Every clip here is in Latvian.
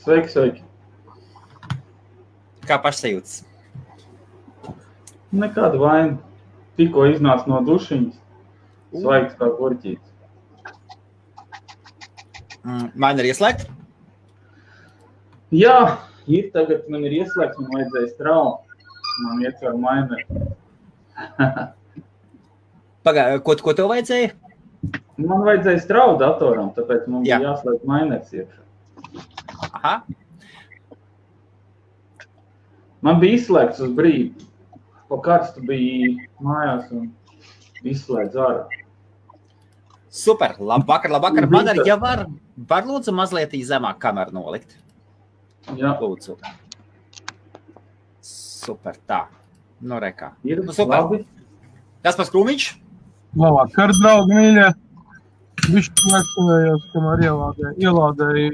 Sveiki. Kā pašsajūtas? Nekāda vaina. Tikko iznāca no dušiņas. Svaigs kā gurķītis. Maina ir ieslēgta? Jā, ir tagad man ir ieslēgts, man vajadzēja straumu. Man ietver maineri. Ko tev vajadzēja? Man vajadzēja straumu datoram, tāpēc man bija jāslēgt mainers iekšā. Aha. Man bija izslēgts uz brīdi. Pa karstu bija mājās un izslēdz ārā. Super, labvakar. Madara, ja var lūdzu mazliet zemāk kameru nolikt? Jā. Lūdzu. Super, tā. Nu, rekā. Ir super. Labi. Kaspars Krūmiņš? Labvakar, draugi mīļie. Bišķi aizstāvējos, kamēr ielādēju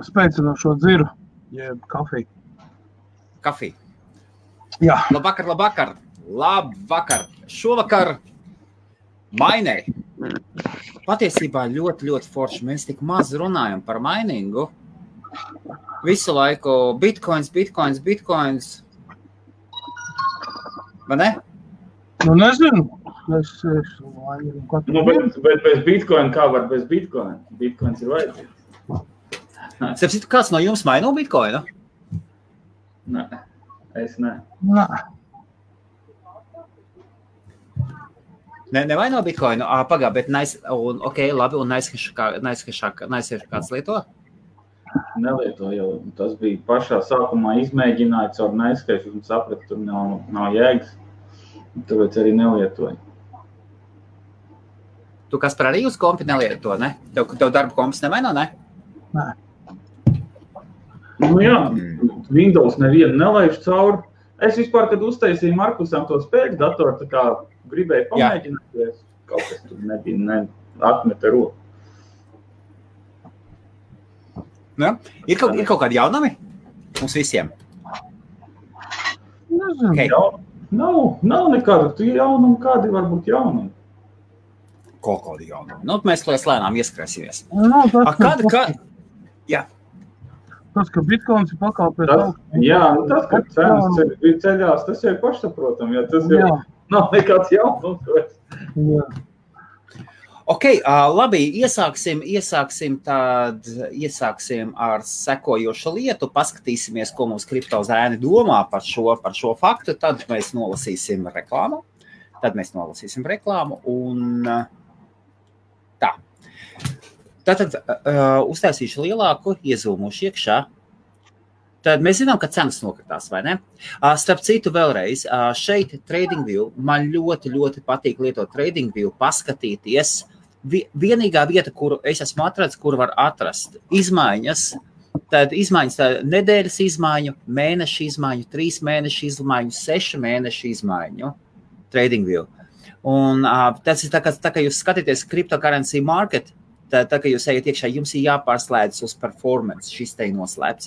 spēcinošo dziru, jeb kafiju. Kafiju. Jā. Labvakar. Šovakar maineri. Patiesībā ļoti forši. Mēs tik maz runājam par mainingu. Visu laiku bitcoins. Vai ne? Nu, nezinu. Bet bez bitcoina kā var bez bitcoina? Bitcoins ir vajadzīgs. Sapsitu, kāds no jums maino bitcoinu? Nē, es ne. Nē. Nevaino bitcoinu? Pagā, bet labi, un naizskešāk kāds lieto? Nelieto jau. Tas bija pašā sākumā izmēģināts ar naizskešu un sapratu, tur nav jēgas. Tāpēc arī nelietoju. Tu, Kaspar, arī uz kompi nelieto, ne? Tev darba kompis nevaino, ne? Nē. Nu jā, Windows nevienu nelaiž cauri. Es vispār, kad uztaisīju Markusam to spēļu datoru, tā kā gribēju pamēģināt, jo kaut kas tur nebija, atmeta roku. Ja? Ir kaut kādi jaunumi? Mums visiem? Nezinu. Okay. Nav nekāda. Tu jaunumi, kādi varbūt jaunumi? Kaut kādi jaunumi. Nu, mēs lēnām ieskrēsimies. Jā. Tas, ka bitcoins ir pakāpēs augstu. Jā, tas, ka cenas ceļās, tas jau ir pašsaprotam, jo tas jau nav nekāds jaunums. Jā. Ok, labi, iesāksim ar sekojošu lietu, paskatīsimies, ko mums kriptozēni domā par šo faktu, tad mēs nolasīsim reklāmu, un tā. Tātad uztaisīšu lielāku, iezūmušu iekšā. Tad mēs zinām, ka cenas nokritās, vai ne? Starp citu vēlreiz, šeit TradingView, man ļoti patīk lietot TradingView, paskatīties. Vienīgā vieta, kuru es esmu atradis, kur var atrast izmaiņas, tad nedēļas izmaiņu, mēneša izmaiņu, 3 mēneša izmaiņu, 6 mēneša izmaiņu TradingView. Un tas ir tā, ka jūs skatīties cryptocurrency market, tā, ka jūs ejat iekšā, jums ir jāpārslēdz uz performance, šis te ir noslēpts.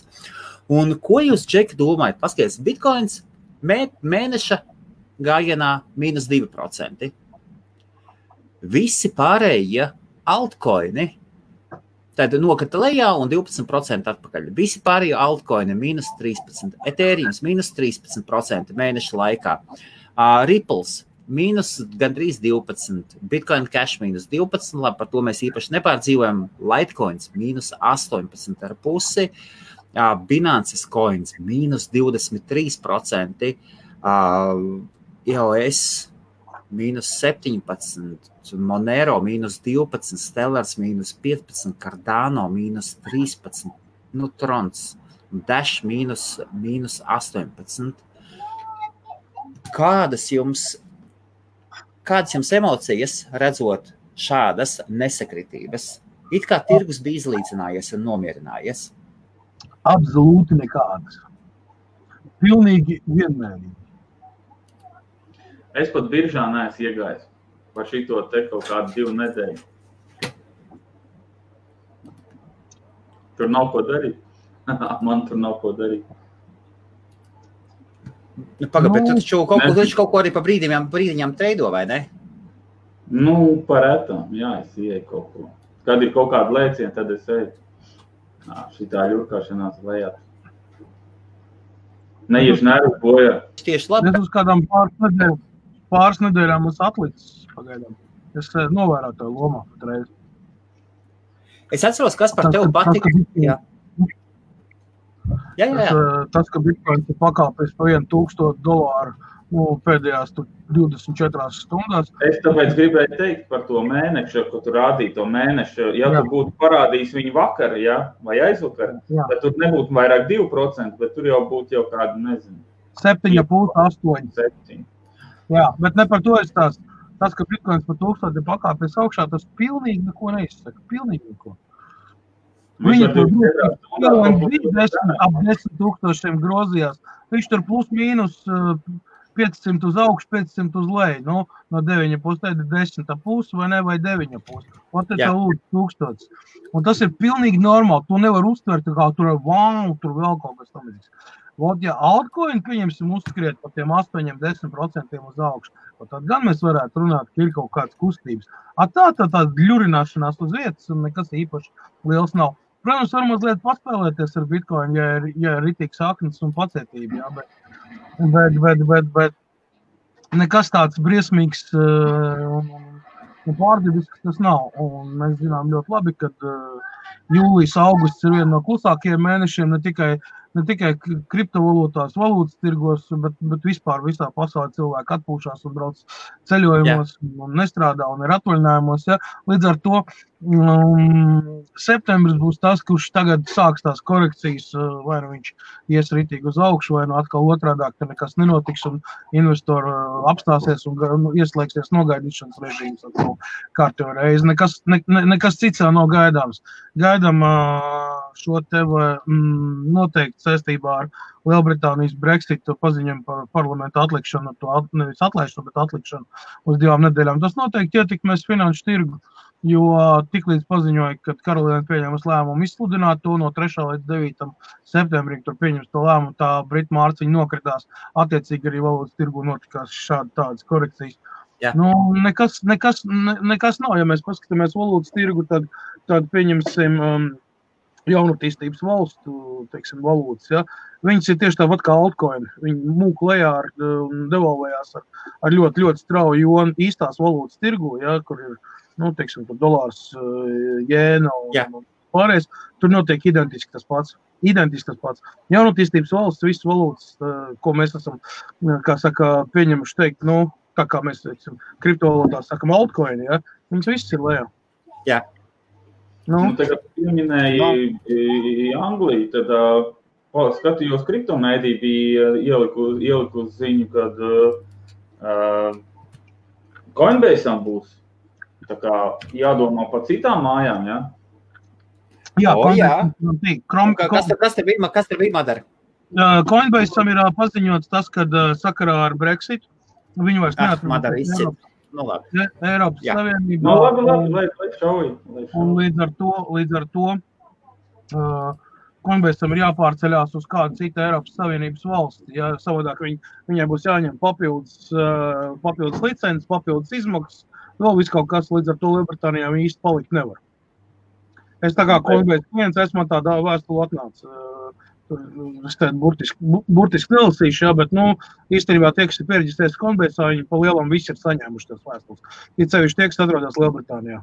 Un ko jūs, Džeki, domājat? Paskaties, bitcoins mēneša gājienā -2%. Visi pārējie altcoini tad nokrita lejā un 12% atpakaļ. Visi pārējie altcoini -13%, Ethereums -13% mēneša laikā, Ripples gandrīz 12%, Bitcoin Cash -12%, labi, par to mēs īpaši nepārdzīvojam, Litecoins -18,5%, Binance's Coins -23%, EOS -17%, Monero -12%, Stellars -15%, Cardano -13%, Trons, Dash -18%. Kādas jums emocijas redzot šādas nesakritības? It kā tirgus bija izlīdzinājies un nomierinājies? Absolūti nekādas. Pilnīgi vienmērīgi. Es pat biržā neesmu iegājis par šito te kaut kādu 2 nedēļu. Tur nav ko darīt. Man tur nav ko darīt. Bet tu taču kaut ko arī pa brīdiņām treido, vai ne? Par etam, jā, es ieeju kaut ko. Kad ir kaut kāda lēciena, tad es eju. Šitā ļurkāšanās lejā. Neieši nervu bojā. Tieši labi. Es uz kādām pāris nedēļām mums atlicis pagaidām. Es novērotāju lomā patreiz. Es atceros, kas par tevi patika. Jā. Tas, ka Bitcoins ir pakāpies pa $1,000 pēdējās 24 stundās. Es tāpēc gribēju teikt par to mēnešu, ko tu rādīji to mēnešu. Ja tu būtu parādījis viņu vakar, vai aizvakar, tad tur nebūtu vairāk 2%, bet tur jau būtu jau kādu, nezinu. 7,5, 8. 7. Jā, bet ne par to es tās. Tas, ka Bitcoins par 1000 ir pakāpies augšā, tas pilnīgi neko neizsaka. Pilnīgi neko. Viņi tur ap 10,000 grozījās. Viņš tur plus mīnus 500 uz augšu, 500 uz leju. No 9,5 tad ir 10,5 vai ne, vai 9,5. Un tad lūdzu 1000. Un tas ir pilnīgi normāli. Tu nevar uztvert, kā tur vēl kaut kas tamīgs. Ja altcoin, pieņemsim, uzskriet par tiem 8-10% uz augšu, tad gan mēs varētu runāt, ka ir kaut kāds kustības. Tā ļurināšanās uz vietas un nekas īpaši liels nav. Protams, var mazliet paspēlēties ar Bitcoin, ja ir ritīgs saknes un pacietība, bet nekas tāds briesmīgs un pārdibisks tas nav. Un mēs zinām ļoti labi, ka jūlijas, augusts ir viena no klusākajiem mēnešiem ne tikai kriptovalūtās, valūtas tirgos, bet vispār visā pasaulē cilvēki atpūšās un brauc ceļojumos un nestrādā un ir atvaļinājumos. Ja? Līdz ar to septembris būs tas, kurš tagad sāks tās korekcijas, vai nu viņš ies ritīgi uz augšu, vai nu atkal otrādāk, ka nekas nenotiks un investori apstāsies un ieslēgsies nogaidīšanas režīms ar to kārtējo reizi. Nekas cits jau nav gaidāms. Gaidām šo tevi noteikti saistībā ar Lielbritānijas Brexit paziņojumu par parlamentu atlikšanu, nevis atlaišanu, bet atlikšanu uz 2 nedēļām. Tas noteikti ietekmēs finanšu tirgu, jo tiklīdz paziņoja, ka Karolīna pieņemas lēmumu izsludināt to no 3. līdz 9. septembrim, tur pieņems to lēmumu, tā Britu mārciņa nokritās, attiecīgi arī valūtas tirgu notikās tādas korekcijas. Nekas nav, ja mēs paskatāmies valūtas tirgu, tad pieņemsim jaunatīstības valstu, teiksim, valūtas, ja. Viņas ir tieši tāpat kā altcoin. Viņi mūk lejā un devalvējās ar ļoti, ļoti strauju, jo īstās valūtas tirgu, ja, kur ir, teiksim, dolārs, jēna un pārējais, tur notiek identiski tas pats. Jaunatīstības valsts, visas valūtas, ko mēs esam, kā saka, pieņemuši teikt, tā kā mēs, teiksim, kriptovalūtās sakam altcoin, ja, viņas viss ir lejā. Jā. Tagad pieminēji Angliju, tad skatījos kriptomēdī bija ieliku ziņu, kad Coinbase'am būs tā kā jādomā par citām mājām, ja? Kas te bija madara? Coinbase'am ir paziņots tas, kad sakarā ar Brexit viņi vairs neatrunās. Eiropas Savienībā. Lai šauj. Un līdz ar to Coinbase'am ir jāpārceļās uz kādu citu Eiropas Savienības valsti. Ja savādāk viņai būs jāņem papildus licences, papildus izmaksas, vēl viss kaut kas, līdz ar to Lielbritānijā viņi īsti palikt nevar. Es tā kā Coinbase klients esmu tādā vēstuli atnāca. Es tādu burtiski nelasīšu, bet, īstenībā tie, kas ir piereģistrējušies Coinbase'ā, viņi pa lielam visi ir saņēmuši tās vēstules. Ir sevišķi tie, kas atrodas Lielbritānijā.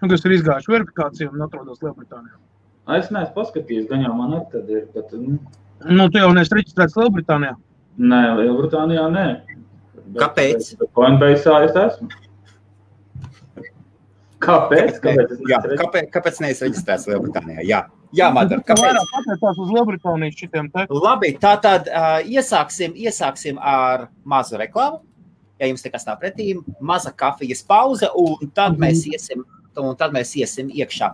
Un kas ir izgājuši verifikāciju un atrodas Lielbritānijā. Es neesmu paskatījies, gan jau man arī tad ir, bet... Tu jau neesi reģistrēts Lielbritānijā? Nē, Lielbritānijā nē. Kāpēc? Coinbase'ā es esmu. Kāpēc? Kāpēc neesi reģistrēts Lielbritānijā? Jā, Madara, kāpēc? Vairāk pateicās uz Lielbritānijas šitiem te. Labi, tātad iesāksim ar mazu reklāmu. Ja jums nekas nav pretī, maza kafijas pauze, un tad mēs iesim iekšā.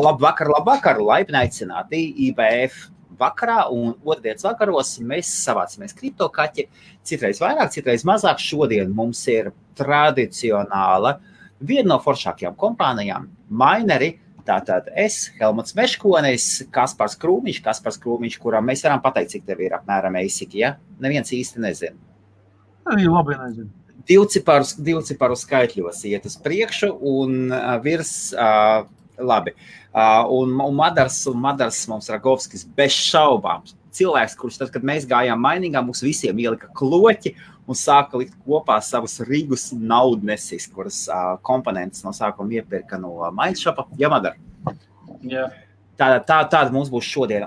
Labvakar, laipni aicināti IBF vakarā, un otrdienas vakaros mēs savācamies kriptokaķi. Citreiz vairāk, citreiz mazāk. Šodien mums ir tradicionāla viena no foršākajām kompānijām, Mineri. Tātad es, Helmuts Meškonis, Kaspars Krūmiņš, kuram mēs varam pateikt, cik tev ir apmēram eisiki, ja? Neviens īsti nezina. Arī labi nezinu. Divciparu skaitļos iet uz priekšu un virs Labi. Un Madars mums Ragovskis bez šaubām. Cilvēks, kurš tad, kad mēs gājām mainīgā, mums visiem ielika kloķi un sāka likt kopā savus Rīgus naudnesis, kuras komponentes no sākuma iepirka no Mindshopa. Jā, Madar? Jā. Tāda mums būs šodien.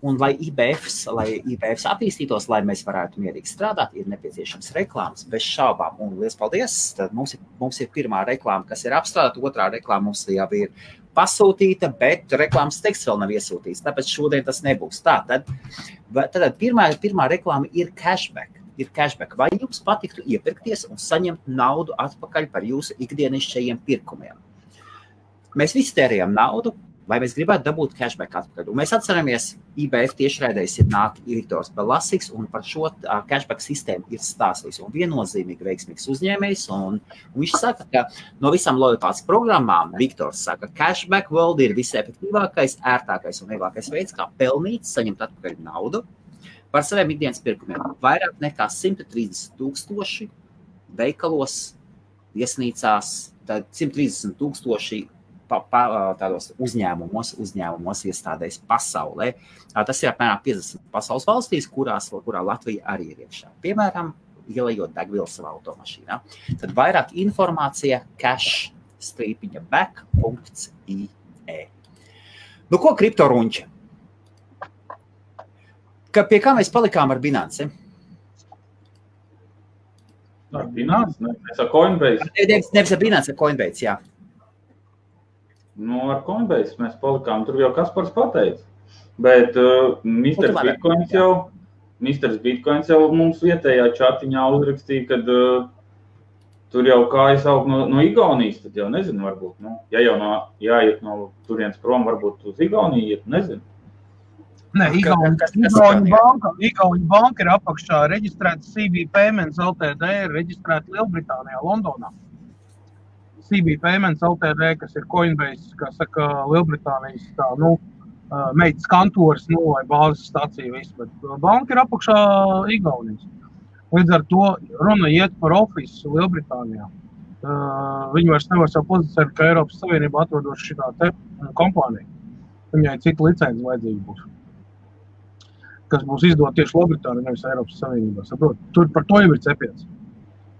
Un lai IBFs attīstītos, lai mēs varētu mierīgi strādāt, ir nepieciešams reklāmas bez šaubām. Un liels paldies! Tad mums ir pirmā reklāma, kas ir apstrādāta, otrā reklāma mums jau ir pasūtīta, bet reklāmas teksts vēl nav iesūtīts, tāpēc šodien tas nebūs. Tātad pirmā reklāma ir cashback. Vai jums patiktu iepirkties un saņemt naudu atpakaļ par jūsu ikdienišķajiem pirkumiem? Mēs visi tērējam naudu, vai mēs gribētu dabūt cashback atpakaļ. Un mēs atceramies, IBF tiešraidēs ir nāk Viktors Belasiks, un par šo cashback sistēmu ir stāstījis. Un viennozīmīgi veiksmīgs uzņēmējs, un viņš saka, ka no visām lojalitātes programmām Viktors saka, cashback world ir visefektīvākais, ērtākais un vieglākais veids, kā pelnīt, saņemt atpakaļ naudu par saviem ikdienas pirkumiem. Vairāk nekā 130,000 veikalos, viesnīcās, tad 130,000 tādos uzņēmumos iestādēs pasaulē. Tas ir apmēram 50 pasaules valstīs, kurā Latvija arī ir iekšā. Piemēram, ielejot degvielu savā automašīnā. Tad vairāk informācija cash-back.ie. Nu, ko kriptorunči? Pie kā mēs palikām ar Binance? Ar Binance? Mēs ar Coinbase. Nevis ar Binance, ar Coinbase, jā. Nu, ar Coinbase mēs palikām, tur jau Kaspars pateica, bet Mr. Bitcoins jau mums vietējā čatiņā uzrakstīja, kad tur jau kājas aug no Igaunijas, tad jau nezinu, varbūt, ja jau jāiet no turienes prom, varbūt uz Igauniju iet, nezinu. Nē, Igauņu banka ir apakšā reģistrēta CB Payments Ltd, ir reģistrēta Lielbritānijā, Londonā. CB Payments Ltd, kas ir Coinbase, kā saka, Lielbritānijas meitas kantoris, vai bāzes stacija visu, bet banka ir apakšā Igaunijas. Līdz ar to runa iet par ofisu Lielbritānijā. Viņi vairs nevar savu pozicionēt, ka Eiropas Savienība atrodoši šitā te kompānija. Viņai cita licenci vajadzīga būs, kas būs izdot tieši Lielbritānijā, nevis Eiropas Savienībā. Saprot, tur par to jau ir cepiens.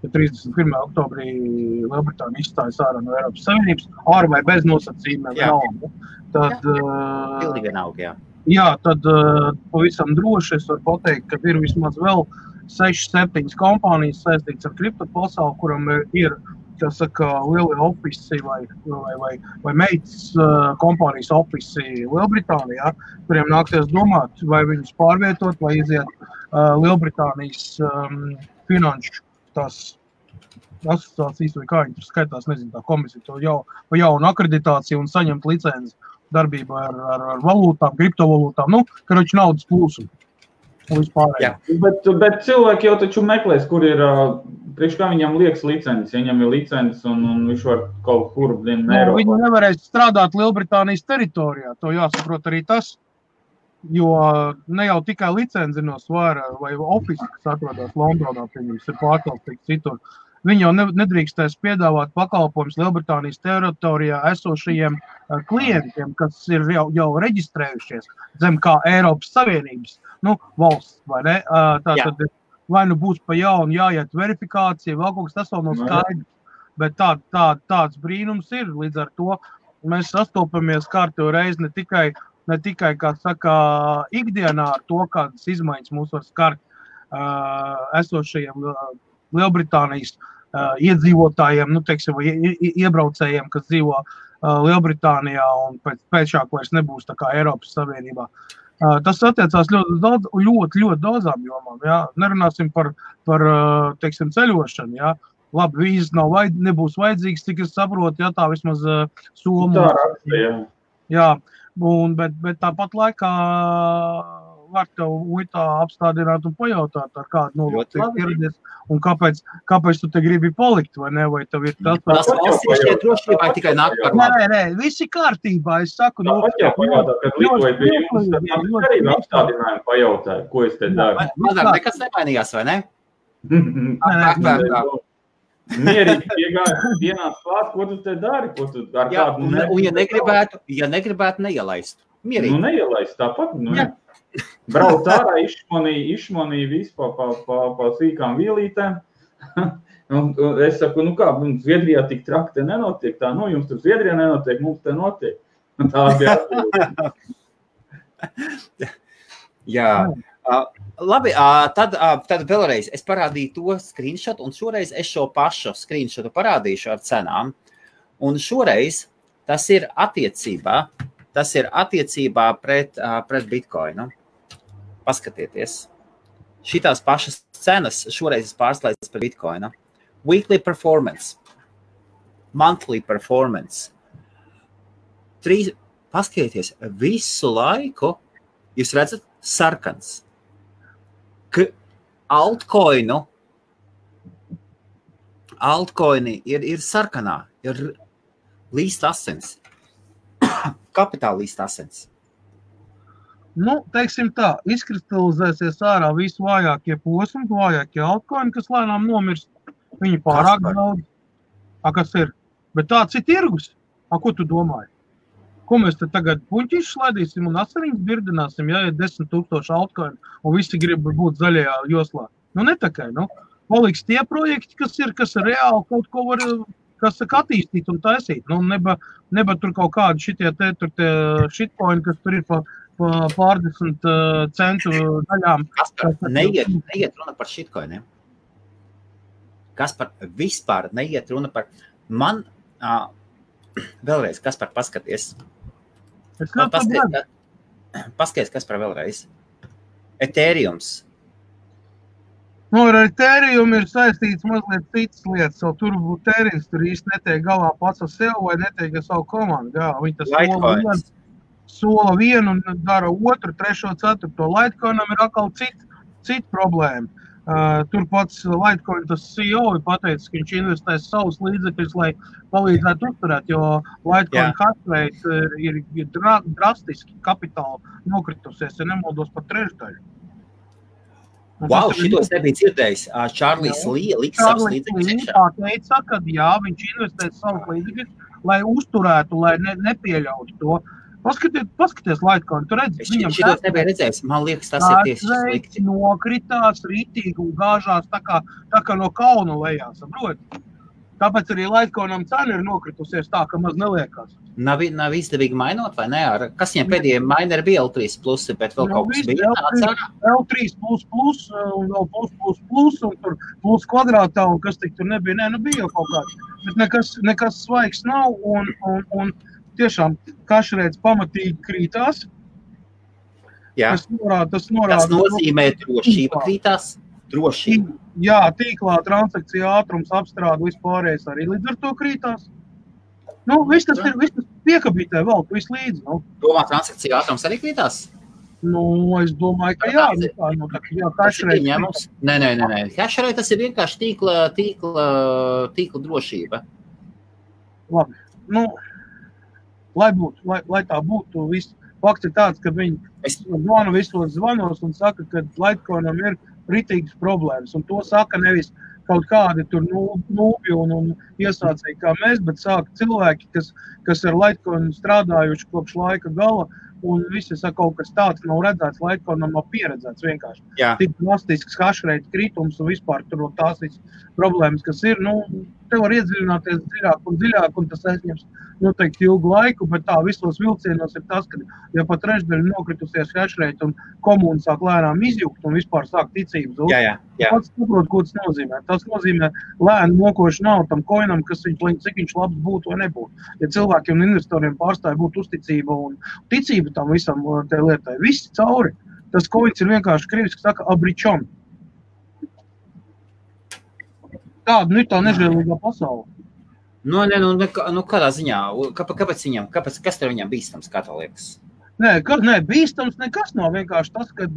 Ja 31. oktobrī Lielbritānija izstājas ārā no Eiropas Savienības, ar vai bez nosacījumiem vienalga, tad pilnīgi vienalga, jā. Jā, tad pavisam droši es varu pateikt, ka ir vismaz vēl 6-7 kompānijas saistītas ar kripto pasauli, kuram ir, kā saka, lielie ofisi vai meitas kompānijas ofisi Lielbritānijā, kuriem nāksies domāt, vai viņus pārvietot, vai iziet Lielbritānijas finanšu tās asociācijas, vai kā viņi tur skaitās, nezinu, tā komisija, to jaunu akreditāciju un saņemt licenci darbību ar valūtām, kriptovalūtām, karoči naudas plūsumu. Bet cilvēki jau taču meklēs, kur ir, priekš kā viņam liekas licences, ja viņam ir licences un viņš var kaut kur Eiropā. Viņi nevarēs strādāt Lielbritānijas teritorijā, to jāsaprot arī tas, jo ne jau tikai licenci no svara vai ofisi, kas atrodas Londonā, pieņems, ir pārkalstīgs citur. Viņi jau nedrīkstēs piedāvāt pakalpojumus Lielbritānijas teritorijā esošajiem klientiem, kas ir jau reģistrējušies zem kā Eiropas Savienības valsts, vai ne? Tātad vai būs pa jaunu jāiet verifikācija, vēl kaut kas tas vēl nav skaidrs, bet tāds brīnums ir. Līdz ar to mēs sastopamies kārtējo reizi ne tikai, kā saka, ikdienā ar to, kādas izmaiņas mūs var skart esošajiem Lielbritānijas iedzīvotājiem, teiksim, vai iebraucējiem, kas dzīvo Lielbritānijā un pēcāk vairs nebūs tā kā Eiropas Savienībā. Tas attiecās ļoti daudzām jomām. Jā. Nerunāsim par teiksim, ceļošanu. Jā. Labi, vīzes nebūs vajadzīgs, cik es saprotu, ja tā vismaz Somu. Jā, bet tāpat laikā var tev muitā apstādināt un pajautāt, ar kādu nolūku ieradies un kāpēc tu te gribi palikt, vai ne, vai tev ir tas... Tas valsts ir šķiet drošībā tikai nāk par labu. Nē, visi kārtībā, es saku... Tāpat jau pajautāt, kad līdzoju pie jums, tad arī apstādinājumu pajautāju, ko es te daru. Mazāk nekas nemainījās, vai ne? Mierīgi iegāja dienās klāt, ko tu te dari, ko tu ar kādu... Un ja negribētu, neielaistu. Mierīgi. Nu, neielaist tāpat, nu, brauc ārā, išmanīja visu pa sīkām vielītēm. Un es saku, nu kā, Zviedrijā tik traki te nenotiek, tā, nu, jums tur Zviedrijā nenotiek, mums te notiek. Tā bija atbildība. Jā. Labi, tad vēlreiz es parādīju to screenshot, un šoreiz es šo pašu screenshotu parādīšu ar cenām. Un šoreiz tas ir attiecībā pret Bitcoinu. Paskatieties. Šitās pašas cenas šoreiz pārslēdzas par Bitcoinu. Weekly performance, monthly performance. Paskatieties, visu laiku jūs redzat sarkans. Altcoini ir sarkanā, ir līst asins. Kapitāla līst asins. Nu, teiksim tā, izkristalizēsies ārā visu vājākie posmi, vājākie altcoini, kas lēnām nomirst. Viņi pārāk daudz. Kas ir? Bet tāds ir tirgus. Ko tu domāji? Ko mēs te tagad puņķīši slaidīsim un asariņas birdināsim, ja ir 10 000 altcoini un visi grib būt zaļajā joslā? Nu, netakai, nu. Paliks tie projekti, kas ir reāli kaut ko var, kas attīstīt un taisīt. Nu, neba tur kaut kādi šitie shitcoini, kas tur ir pārdesmit centu daļām. Neiet runa par shitcoiniem. Vispār neiet runa par... Man, vēlreiz, Kaspar, paskaties. Paskaties, Kaspar, vēlreiz. Ethereums. Nu, ar Ethereum ir saistīts mazliet citas lietas, jo tur Ethereums tur īsti netiek galā pats ar sev vai netiek ar savu komandu. Jā, viņi tas sola vienu un dara otru, trešo, ceturto. Litecoinam ir atkal cita problēma. Tur pats Litecoin, tas CEO ir pateicis, ka viņš investēs savus līdzekļus, lai palīdzētu uzturēt, jo Litecoin hash rate ir drastiski kapitāli nokritusies, ja nemaldos par trešdaļu. Wow, šitos nebija dzirdējis. Čārlis liks savus līdzekļus. Tā teica, ka jā, viņš investēs savus līdzekļus, lai uzturētu, lai nepieļautu to. Paskaties Litecoin, tu redzi, viņam šitos nebija redzējis, man liekas, tas ir tieši slikti. Nokritās rītīgi un gāžās tā kā no kauna lejā, saproti? Tāpēc arī Litecoinam cena ir nokritusies tā, ka maz neliekās. Nav izdevīgi mainot, vai ne? Kas viņam pēdējiem maineri bija L3+, bet vēl kaut kas bija tāds ārā? L3+, un vēl plus, un tur plus kvadrātā, un kas tik tur nebija, nu bija jau kaut kāds. Bet nekas svaigs nav, un tiešām kašreiz pamatīgi krītās. Jā. Tas nozīmē drošība krītās? Drošība. Jā, tīklā transakcija ātrums apstrāda vispārējais arī līdz ar to krītās. Nu, viss tas piekabītē vēl, viss līdzi. Nu. Domā, transakcija ātrums arī krītās? Nu, es domāju, ka jā. Nē. Hashrate tas ir vienkārši tīkla drošība. Labi. Nu, lai tā būtu, viss. Fakts ir tāds, ka viņi zvana visos zvanos un saka, ka Litecoinam ir ritīgas problēmas. Un to saka nevis kaut kādi tur nūbi un iesācēji kā mēs, bet saka cilvēki, kas ar Litecoinu strādājuši kopš laika gala, un visi saka, kaut kas tāds nav redzēts, Litecoinam nav pieredzēts vienkārši. Jā. Tik drastisks hashrate kritums un vispār tur tās visas problēmas, kas ir, nu, te var iedziļināties dziļāk, un tas aizņems noteikti ilgu laiku, bet tā visos vilcienos ir tas, ka ja pat trešdaļa nokritusies hashrate un komūna sāk lēnām izjukt un vispār sāk ticības zūt. Jā. Pats saprot, ko tas nozīmē. Tas nozīmē lēnu mokošu nav tam koinam, kas cik viņš labs būtu vai nebūtu. Ja cilvēkiem un investoriem pārstāja būt uzticība un ticība tam visam te lietai, viss cauri. Tas koins ir vienkārši krieviski saka abričon. Tāda ir tā nežēlīgā pasaule. Nu, kādā ziņā? Kas tev viņam bīstams, kā tā liekas? Nē, bīstams nekas nav vienkārši tas, kad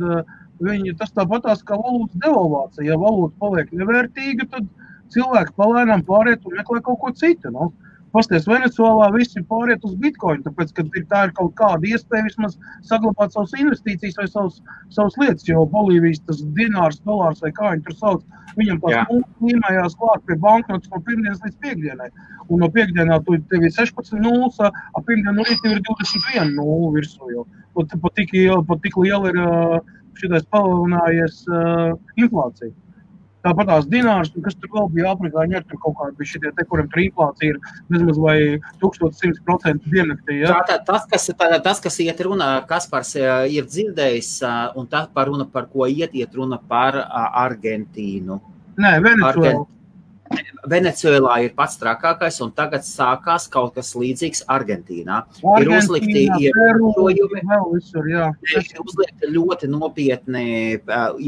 tas tāpatās kā valūtas devalvācija. Ja valūta paliek nevērtīga, tad cilvēki palēnām pāriet un meklē kaut ko citu. Nu. pasties, Venecuēlā visi pāriet uz Bitcoin, tāpēc, ka tā ir kaut kāda iespēja vismaz saglabāt savas investīcijas vai savas lietas, jo Bolīvijas tas dinārs, dolārs vai kā viņi tur sauc, viņam tās līmējās klāt pie banknotes no pirmdienas līdz piekdienai. Un no piekdienā tev ir 16 nulles, a pirmdien no rīta ir 21 nullu virsū, jo pat tik liela ir šitais palielinājies inflācija. Tāpat tās dinārs, kas tur vēl bija Afrikāņi, tur kaut kādi bija šitie te, kuriem tur inflācija ir nezmaz vai 1100% diennaktī. Ja? Tas, kas iet runa, Kaspars ir dzirdējis, un tā par runa, par ko iet runa par Argentīnu. Nē, Venecuēlā. Venecuēlā ir pats trakākais, un tagad sākās kaut kas līdzīgs Argentīnā. Ir uzlikti ierobežojumi, uzlikti ļoti nopietni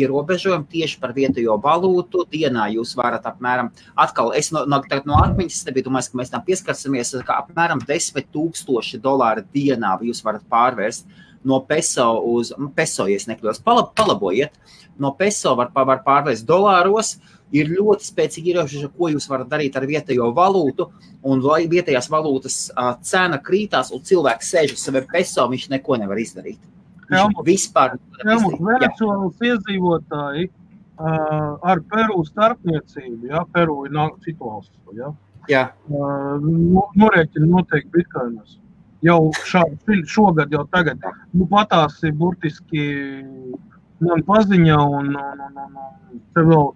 ierobežojumi tieši par vietējo valūtu. Dienā jūs varat apmēram, atkal es no atmiņas nebiju domājis, ka mēs tam pieskarsimies, ka apmēram $10,000 dienā jūs varat pārvērst no peso uz peso, ja es nekļūdos. Palabojiet, no peso var pārvērst dolāros. Ir ļoti spēcīgi ierobežojumi, ko jūs varat darīt ar vietējo valūtu, un vietējās valūtas cena krītās, un cilvēks sēž uz saviem peso, viņš neko nevar izdarīt. Venecuēlas iedzīvotāji ar Peru starpniecību, ja, Peru ir citu valstu, ja, norēķina noteikti bitcoinos. Jau šogad, jau tagad. Patās ir burtiski man paziņa, un te vēl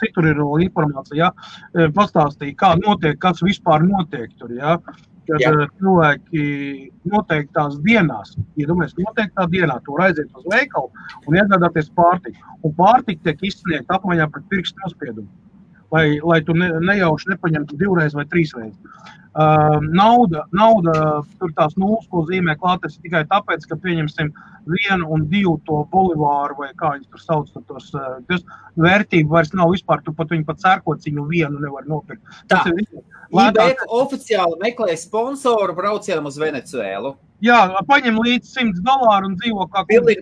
citur ir informācija, pastāstīja, kā notiek, kas vispār notiek tur, kad cilvēki noteiktās dienās, noteiktā dienā tur aiziet uz veikalu un iegādāties pārtiku. Un pārtika tiek izsniegta apmaiņā pret pirkstu nospiedumu, lai tu nejauši nepaņemtu 2 vai 3 reizes. Nauda, tur tās nulles, ko zīmē klātes tikai tāpēc, ka pieņemsim 1 un 2 to bolivāru vai kā viņi tur sauc, tos vērtību vairs nav vispār, tu viņi pat sērkociņu 1 nevar nopirkt. Tā, IBEK oficiāli meklē sponsoru braucienam uz Venecuēlu. Jā, paņem līdz $100 un dzīvo kā... Pilnīgi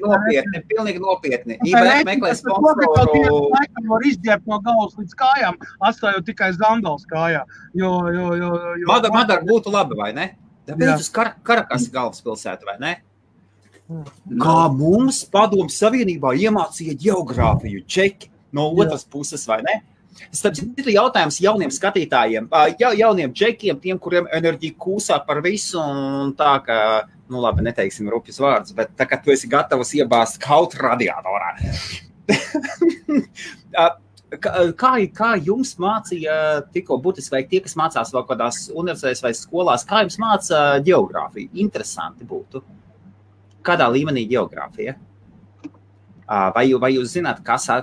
nopietni. IBEK meklē sponsoru... Var izģēbt no galvas līdz kājām, atstājot tikai Zandals kājā. Madara būtu labi, vai ne? Tāpēc uz Karakasi galvaspilsētu, vai ne? Kā mums Padomju Savienībā iemācīja ģeogrāfiju, čeki no otras puses, vai ne? Starp citu jautājums jauniem skatītājiem, jauniem džekiem, tiem, kuriem enerģija kūsā par visu, un tā, ka, labi, neteiksim rupjas vārdus, bet tā, ka tu esi gatavs iebāzt kaut radiatorā. Kā jums mācīja tikko burtiski, vai tie, kas mācās vēl kādās universitātēs vai skolās, kā jums māca ģeogrāfiju? Interesanti būtu. Kādā līmenī ģeogrāfija? Vai jūs zināt,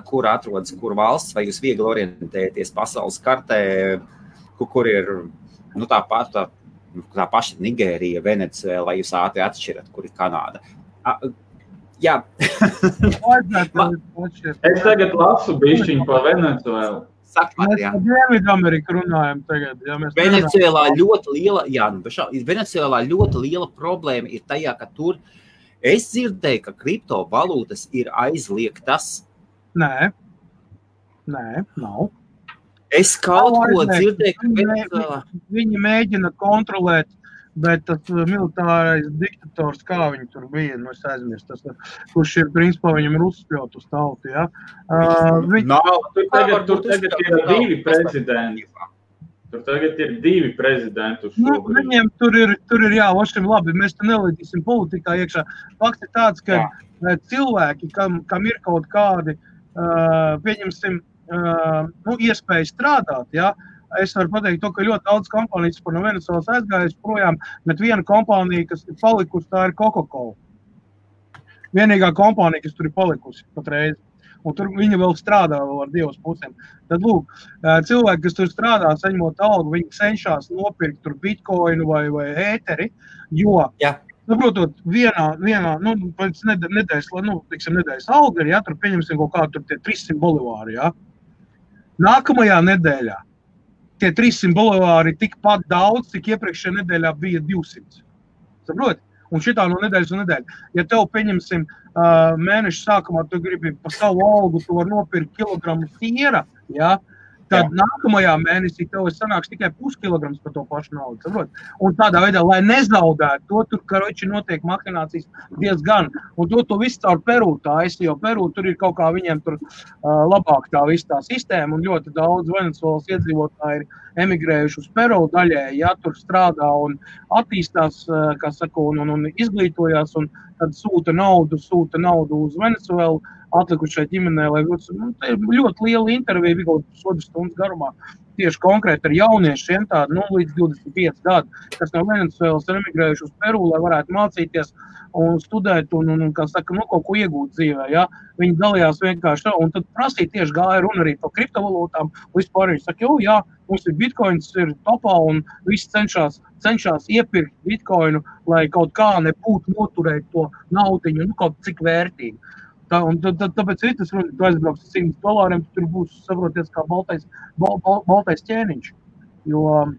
kur atrodas, kur valsts, vai jūs viegli orientēties pasaules kartē, kur ir tā paša Nigērija, Venecuēla, vai jūs ātri atšķirat, kur ir Kanāda? Jā. Es tagad lasu bišķiņu par Venecuēlu. Mēs par Dienvidameriku runājam tagad. Venecuēlā ļoti liela problēma ir tajā, ka tur es dzirdēju, ka kriptovalūtas ir aizliegtas. Nē, nav. Es kaut ko dzirdēju, ka viņi mēģina kontrolēt, bet tas militārais diktators, kā viņi tur bija, es aizmirstu, kurš ir, principā, viņam ir uzspļaut uz tautu, ja? Tur tagad ir 2 prezidenti. Tur tagad ir 2 prezidenti uz šobrīd. Viņiem tur ir vašiem labi, mēs te nelīdīsim politikā iekšā. Fakts ir tāds, ka cilvēki, kam ir kaut kādi, pieņemsim, iespēja strādāt, ja? Es varu pateikt to, ka ļoti daudz kompānijas par no Venecuēlas aizgājas projām, bet viena kompānija, kas ir palikusi, tā ir Coca-Cola. Vienīgā kompānija, kas tur ir palikusi patreiz. Un tur viņa vēl strādā ar 2 pusēm. Tad, lūk, cilvēki, kas tur strādā, saņemot algu, viņi cenšas nopirkt tur bitcoinu vai ēteri, jo, saprotot, vienā pēc nedēļas alga ir, tur pieņemsim kaut kādu tur tie 300 bolivāri, Nākamajā nedēļā tie 300 bolivāri ir tikpat daudz, cik iepriekšējā nedēļā bija 200. Saprot? Un šitā no nedēļas un nedēļa. Ja tev, pieņemsim, mēneša sākumā tu gribi pa savu algu, tu var nopirkt kilogramu siera, Tad nākamajā mēnesī tev sanāks tikai puskilograms par to pašu naudu. Saprot? Un tādā veidā, lai nezaudētu to, tur, karoči, notiek makinācijas diezgan. Un to visu caur Peru taisa, jo Peru tur ir kaut kā viņiem tur labāk tā visa tā sistēma, un ļoti daudz Venecuēlas iedzīvotāji ir emigrējuši uz Peru daļēji, ja tur strādā un attīstās, kā saka, un izglītojās, un tad sūta naudu uz Venecuēlu, atlikušai ģimenei, lai tā ir ļoti liela intervija, kaut kādas stundas garumā, tieši konkrēti ar jauniešiem, tādu līdz 25 gadu, kas no Venecuēlas ir emigrējuši uz Peru, lai varētu mācīties un studēt un kā saka, kaut ko iegūt dzīvē, ja? Viņi dalījās vienkārši, un tad prasīja tieši gāja runa arī par kriptovalūtām, vispār viņi saka, jā, mums ir bitcoins, ir topā, un visi cenšas iepirkt bitcoinu, lai kaut kā nebūtu noturēt to naudiņu, kaut cik vērtīgi. Tāpēc ir tas runa, tu aizbrauks $100, tur būs, saproties, kā baltais ķēniņš. Jo...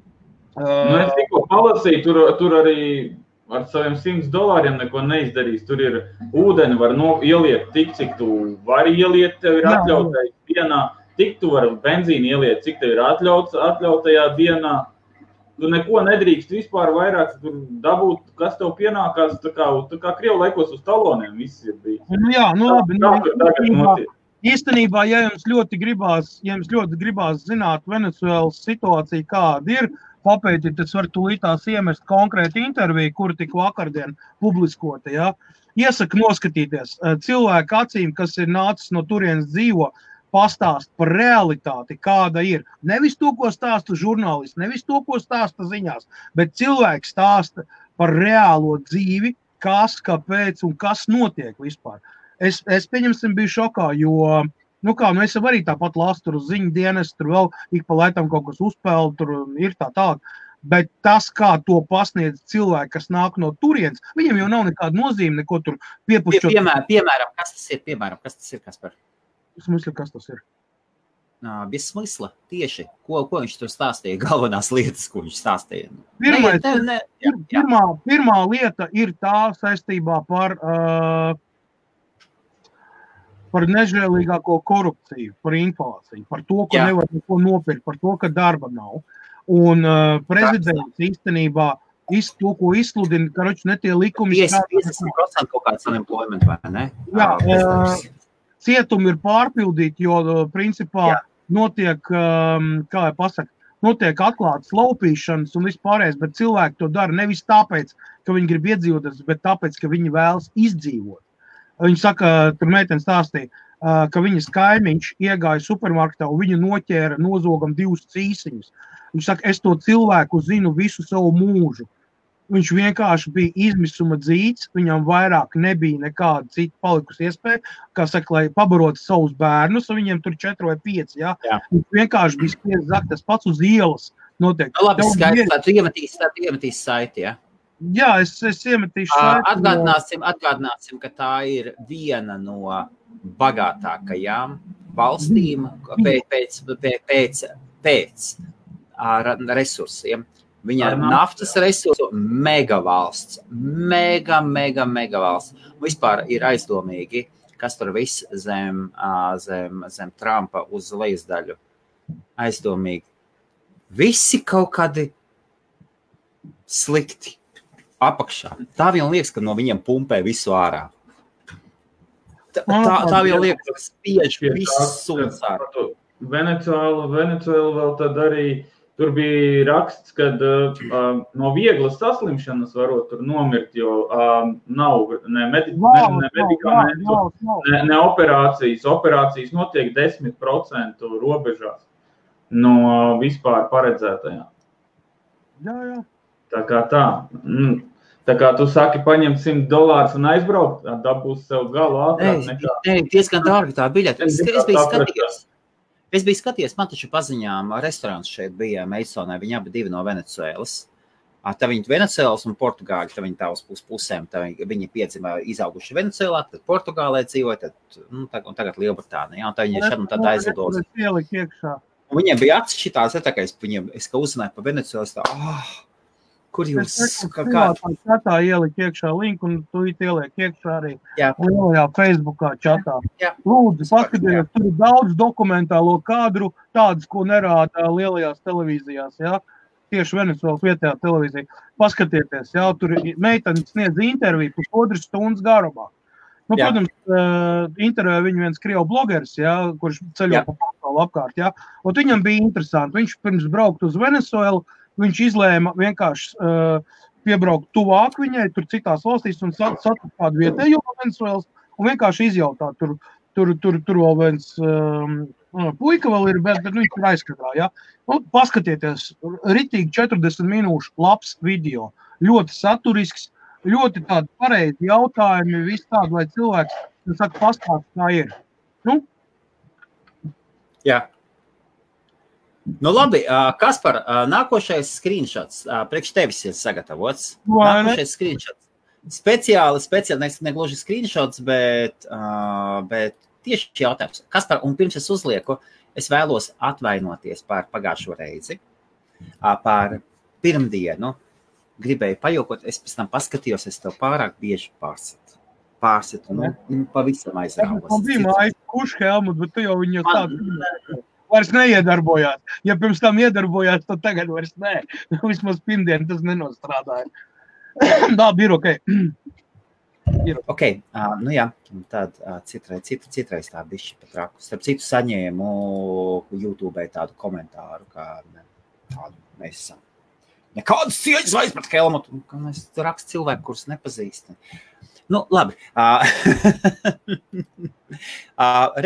Es tikko palasīju, tur arī ar saviem $100 neko neizdarīs. Tur ir ūdeni, var ieliet tik, cik tu vari ieliet, tev ir atļautais dienā. Tik tu vari benzīnu ieliet, cik tev ir atļautajā dienā. Tu neko nedrīkst vispār vairāk dabūt, kas tev pienākās, tā kā Krievu laikos uz taloniem viss ir bijis. Jā, labi. Īstenībā, ja jums ļoti gribās zināt Venecuēlas situāciju, kāda ir, papētīt, tas var tūlītās iemest konkrēti interviju, kura tik vakardien publiskota, ja? Iesaku noskatīties cilvēku acīm, kas ir nācis no turienes dzīvo, pastāst par realitāti, kāda ir. Nevis to, ko stāsta žurnālisti, nevis to, ko stāsta ziņās, bet cilvēks stāsta par reālo dzīvi, kas, kāpēc un kas notiek vispār. Es pieņemsim, biju šokā, jo, es arī tāpat lasu tur uz ziņu dienas, tur vēl ik pa lētam kaut kas uzpēl, tur ir tā. Bet tas, kā to pasniedz cilvēki, kas nāk no turienes, viņiem jau nav nekāda nozīme, neko tur piepušķot. Piemēram, kas tas ir, Kaspar? Smysli, kas tas ir? Bez smysla, tieši. Ko viņš tur stāstīja, galvenās lietas, ko viņš stāstīja? Pirmā lieta ir tā saistībā par nežēlīgāko korupciju, par inflāciju, par to, ka nevar neko nopirkt, par to, ka darba nav. Un prezidents īstenībā to, ko izsludina, karoči ne tie likumi... 50% kaut kāds unemployment, vai ne? Jā, cietumi ir pārpildīti, jo principā notiek, notiek atklātas laupīšanas un vispārējais, bet cilvēki to dara nevis tāpēc, ka viņi grib iedzīvoties, bet tāpēc, ka viņi vēlas izdzīvot. Viņi saka, tur meitene stāstīja, ka viņas kaimiņš iegāja supermarketā un viņa noķēra nozogam 2 cīsiņus. Viņš saka, es to cilvēku zinu visu savu mūžu. Viņš vienkārši bija izmisuma dzīts, viņam vairāk nebija nekāda cita palikusi iespēja, kā saka, lai pabarotu savus bērnus, un viņiem tur 4 vai 5, jā. Viņš vienkārši bija spiest zakt, tas pats uz ielas notiek. Labi, skaidrs, tā tu iemetīs saiti, jā? Jā, es iemetīšu saiti. Atgādināsim, ka tā ir viena no bagātākajām valstīm pēc resursiem. Viņa ir naftas resursu megavalsts. Mega valsts. Vispār ir aizdomīgi, kas tur viss zem Trumpa uz lejasdaļu. Aizdomīgi. Visi kaut kādi slikti apakšā. Tā vien liekas, ka no viņiem pumpē visu ārā. Tā vien liekas, ka spiež visu suns ārā. Venecuēla vēl tad arī tur bija raksts, kad no vieglas saslimšanas varot tur nomirt, jo nav ne medikamentu, ne operācijas. Operācijas notiek 10% robežās no vispār paredzētajām. Jā. Tā kā tā. Tā kā tu saki, paņemt $100 un aizbraukt, dabūs sev galu ātrāk nekā. Nē, diezgan dārgi tā biļete. Es biju skatījies, man taču paziņām restorāns šeit bija Meisonē, viņi abi divi no Venecuēlas. Tā viņi Venecuēlas un Portugāļi, tā viņi tā uz pusēm, tā viņi piedzimā izauguši Venecuēlā, tad Portugālē dzīvoja, un tagad Lielbritānijā, un tā viņi šad un tad aizlidos. Viņiem bija acis šitās, es kā uzzināju pa Venecuēlas, Kur jūs? Čatā ielikt iekšā linku, un tu ieliek iekšā arī lielajā Facebookā čatā. Lūdzu, paskatieties, tur ir daudz dokumentālo kadru, tādas, ko nerāda lielajās televīzijās, jā. Tieši Venecuēlas vietējā televīzija. Paskatieties, jā, tur meiteni sniedz interviju 1,5 stundas garumā. Nu, protams, intervējā viņu viens krievu blogeris, jā, kurš ceļo pa pasauli apkārt, jā. Un viņam bija interesanti. Viņš pirms braukt uz Venecuēlu, viņš izlēma vienkārši piebraukt tuvāk viņai, tur citās valstīs un satikt kādu vietējo Venecuēlas un vienkārši izjautāt. Tur vēl viens puika vēl ir, bet viņš ir aizskatā, jā. Nu, paskatieties, ritīgi 40 minūšu labs video, ļoti saturisks, ļoti tādi pareizi jautājumi, viss tādi, lai cilvēks, saka, pastāst, kā ir. Nu? Jā. Nu labi, Kaspar, nākošais screenshots priekš tevis ir sagatavots. Nākošais screenshots. Speciāli, ne gluži screenshots, bet tieši jautājums. Kaspar, un pirms es uzlieku, es vēlos atvainoties par pagājušo reizi, par pirmdienu. Gribēju pajokot, es pēc tam paskatījos, es tev pārāk bieži pārsitu, pavisam aizrāvos. Man bija mājas kuši, Helmut, bet tu jau viņu tādu vairs neiedarbojās. Ja pirms tam iedarbojās, tad tagad vairs nē. Vismaz pirmdien tas nenostrādāja. Tā, ir ok. Ok, nu jā, tad citreiz tā bišķi pat raku. Starp citu saņēmu YouTube tādu komentāru, kā tādu mēs esam. Nekādas cieņas vairs pret Helmutu. Es rakstu cilvēku, kurus nepazīst. Nu, labi.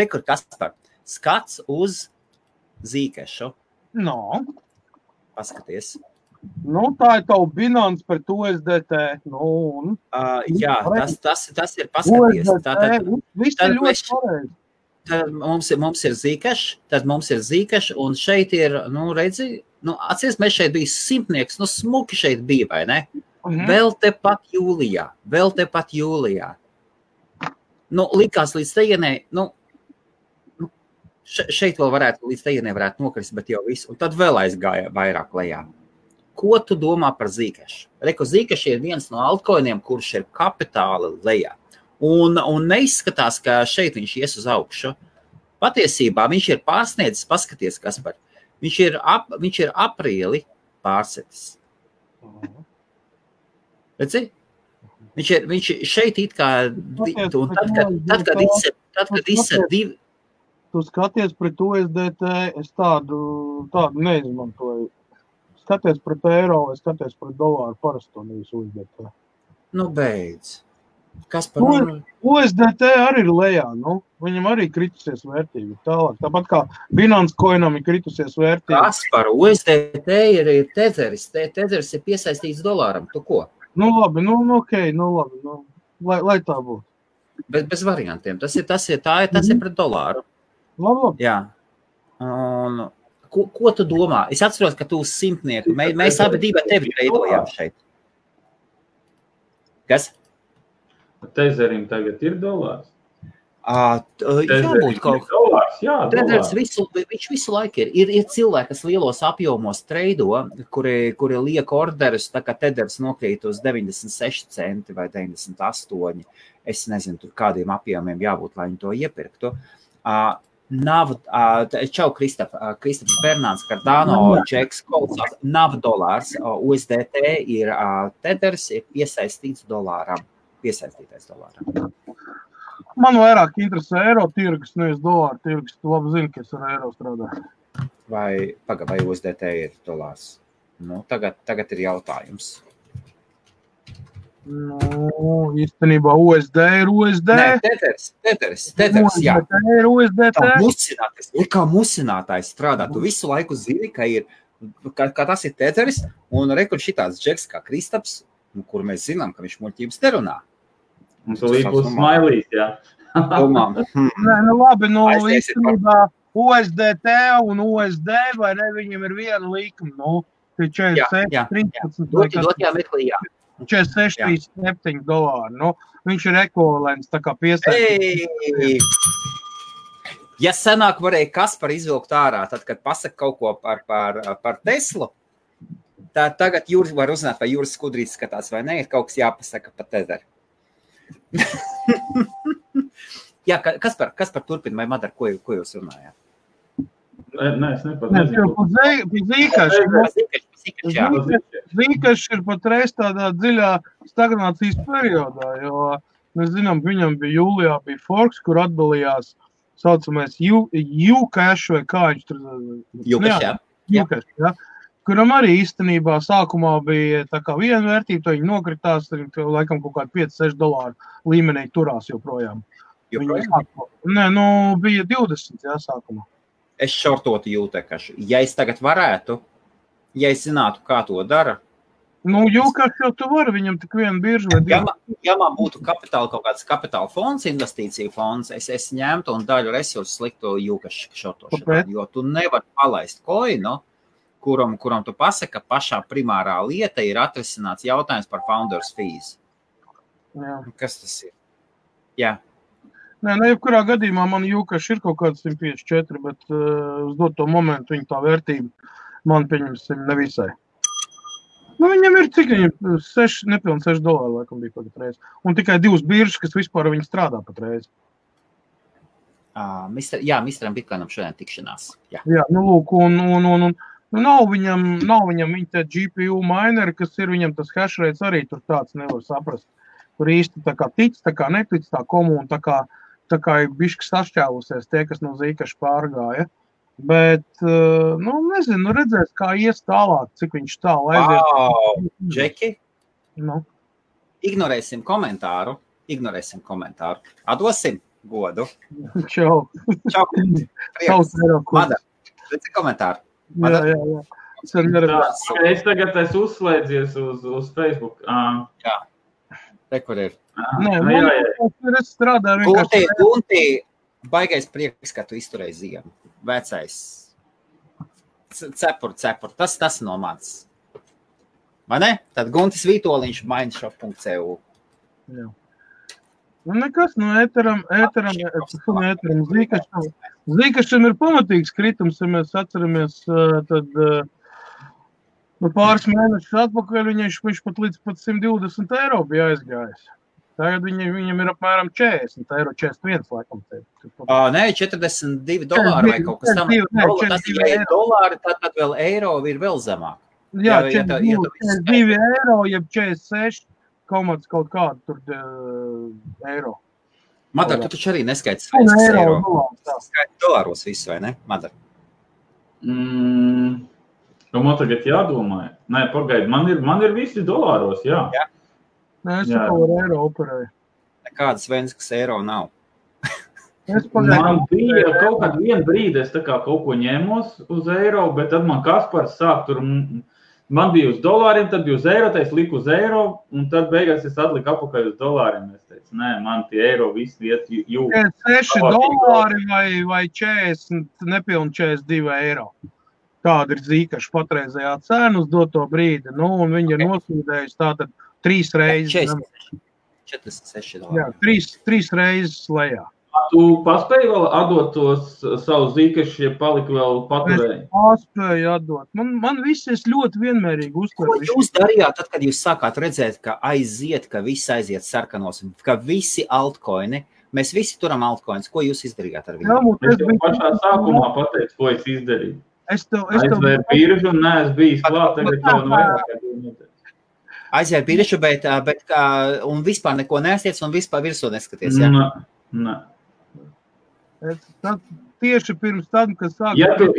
Rekur Kaspar, skats uz Zīkešu. No. Paskaties. Nu, tā ir tavu Binance pret USDT. Nu, jā, tas ir paskaties. Viss ir ļoti pareizi. Tad mums ir Zīkeš, un šeit ir, redzi, atcies, mēs šeit bija simtnieks, smuki šeit bija, vai ne? Vēl tepat jūlijā. Likās līdz tejienē, šeit vēl līdz tejienē varētu nokrist, bet jau visu, un tad vēl aizgāja vairāk lejā. Ko tu domā par Zīkešu? Reku, Zīkeš ir viens no altcoiniem, kurš ir kapitāli lejā. Un neizskatās, ka šeit viņš ies uz augšu. Patiesībā viņš ir pārsniedzis, paskaties, Kaspar. Viņš ir aprīli pārsetis. Redzi? Viņš šeit it kā, un tad, kad izsēd divi. Tu skaties pret USDT, es tādu neizmantoju. Skaties pret eiro, es skaties pret dolāru parasto nevis USDT. Nu, beidz. Kaspar, USDT arī ir lejā, viņam arī kritusies vērtība tālāk. Tāpat kā Binance coinam ir kritusies vērtība. Kaspar, USDT ir tetheris, tetheris ir piesaistīts dolāram, tu ko? Nu labi, lai tā būtu. Bet bez variantiem, tas ir pret dolāru. Labi. Jā. Un, ko tu domā? Es atceros, ka tu uz simtnieku, mēs abi divi tevi veidojām šeit. Kas? Tezerim tagad ir dolārs. Jābūt kaut dolārs, Tethers viņš visu laiku ir. Ir cilvēki, kas lielos apjomos treido, kuri liek orderus, tā kā Tethers nokrīt uz 96 centi vai 98. Es nezinu, tur kādiem apjomiem jābūt, lai viņi to iepirktu. Čau, Kristaps Bernāns, Cardano, Džeks, Kolsās, nav dolārs, USDT ir Tethers, ir piesaistītais dolāram. Man vairāk interesē eiro tirgus, nevis dolāru tirgus. Tu labi zini, ka es ar eiro strādāju. Vai USDT ir dolārs? Tagad ir jautājums. Īstenībā USD ir USD. Nē, Tethers, jā. USDT ir USDT. Kā musinātājs strādā. Tu visu laiku zini, ka tas ir Tethers, un rekur šitāds džeks kā Kristaps, kur mēs zinām, ka viņš muļķības nerunā. Un tu līdz būs smailīs, jā. Domām. Nē, labi, īstenībā USDT un USD, vai ne, viņam ir viena līkuma, tie 46, 46,37 dolāri, viņš ir ekvivalents, tā kā piesaistīt. Ja senāk varēja Kaspar izvilkt ārā, tad, kad pasaka kaut ko par Teslu, Tā tagad Jūras var uzzināt, vai Jūras skudrīs skatās, vai ne, ir kaut kas jāpasaka pa tezeri. Jā, kas par turpina, vai Madara, ko jūs runājāt? Nē, es nepateicu. Zīkašs ir patreiz tādā dziļā stagnācijas periodā, jo mēs zinām, viņam bija jūlijā bija Forks, kur atdalījās saucamais Ucash vai kā viņš tur... Ucash, jā. Kuram arī īstenībā sākumā bija tā kā viena vērtība, to viņi nokritās, laikam kaut kādi $5-6 līmenī turās joprojām. Nē, bija 20, jā, sākumā. Es šortotu Ucash. Ja es tagad varētu, ja es zinātu, kā to dara. Ucash jau tu vari, viņam tik viena birža vai divi. Ja man būtu kaut kāds kapitāla fonds, investīcija fonds, es ņemtu un daļu resursu sliktu Ucash šortošanā, jo tu nevari palaist koinu, kuram tu pasaka, pašā primārā lieta ir atrisināts jautājums par founders fees. Jā. Kas tas ir? Jā. Nē, jebkurā gadījumā man Ucash ir kaut kāds 154, bet uz doto momentu viņa tā vērtība man pieņemsim nevisai. Viņam ir cik viņam nepilni $6 laikam bija patreiz. Un tikai 2 biržas, kas vispār viņi strādā patreiz. Misteram Bitcoinam šodien tikšanās. Jā, lūk, un nav viņam viņa te GPU mineri, kas ir viņam tas hash rates arī tur tāds nevar saprast. Tur īsti tā kā tic, tā kā netic, tā komuna, tā kā ir bišķi sašķēlusies tie, kas no Zīkaša pārgāja. Bet, nezinu, redzēs, kā ies tālāk, cik viņš tālu aizies. Džeki, ignorēsim komentāru. Atdosim godu. Čau. Madara, redzi komentāru. Jā. Es tagad uzslēdzies uz Facebook. Jā. Kur ir? Es strādāju vienkārši. Gunti, baigais prieks, ka tu izturēji ziemu. Vecais. Cepur. Tas no mans. Vai ne? Tad Guntis Vītoliņš mindshop.cu. Jā. Nekas, ēteram Zīkašam ir pamatīgs kritums, ja mēs atceramies, tad pāris mēnešus atpakaļ viņš pat līdz pat €120 bija aizgājis. Tagad viņam ir apmēram €40, 41 laikam. Nē, $42 vai kaut kas tam. Tas ir $2, tad vēl eiro ir vēl zemāk. Jā, €42, jeb 46. Kaut kādu tur eiro. Madara, tu taču arī neskaiti skaidrs eiro. Skaiti dolāros visu, vai ne, Madara? Man tagad jādomā. Nē, pagaidi, man ir visi dolāros, jā. Nē, es kaut ar eiro operēju. Nekādas Venskas eiro nav. Man bija kaut kādu vienu brīdi, es tā kā kaut ko ņēmos uz eiro, bet tad man Kaspars sāk tur... Man bija uz dolāriem, tad bija uz eiro, tad es liku uz eiro, un tad beigās es atliku apakaļ uz dolāriem. Es teicu, nē, man tie eiro visi iet jūg. $6 vai 40, nepilni 42 eiro. Tāda ir Zīkaša patreizējā cena uz doto brīdi. Un viņi ir nosūdējusi tātad 3 reizes. 46 Jā, 3 reizes lejā. Tu paspēji vēl atdot tos savus Zīkašus, ja palika vēl paturēji? Es paspēju atdot. Man viss es ļoti vienmērīgi uztveru. Ko jūs darījāt, tad, kad jūs sākāt redzēt, ka viss aiziet sarkanos, ka visi altcoini, mēs visi turam altcoins, ko jūs izdarījāt ar viņu? Es jau pašā sākumā pateicu, ko es izdarīju. Aizvēru biržu un neesmu bijis klāt, tagad jau vairāk. Aizvēru biržu, bet un vispār neko neestiec un vispār virsū neskaties, jā? Nē. Tieši pirms tam, kad sāk... Ja tev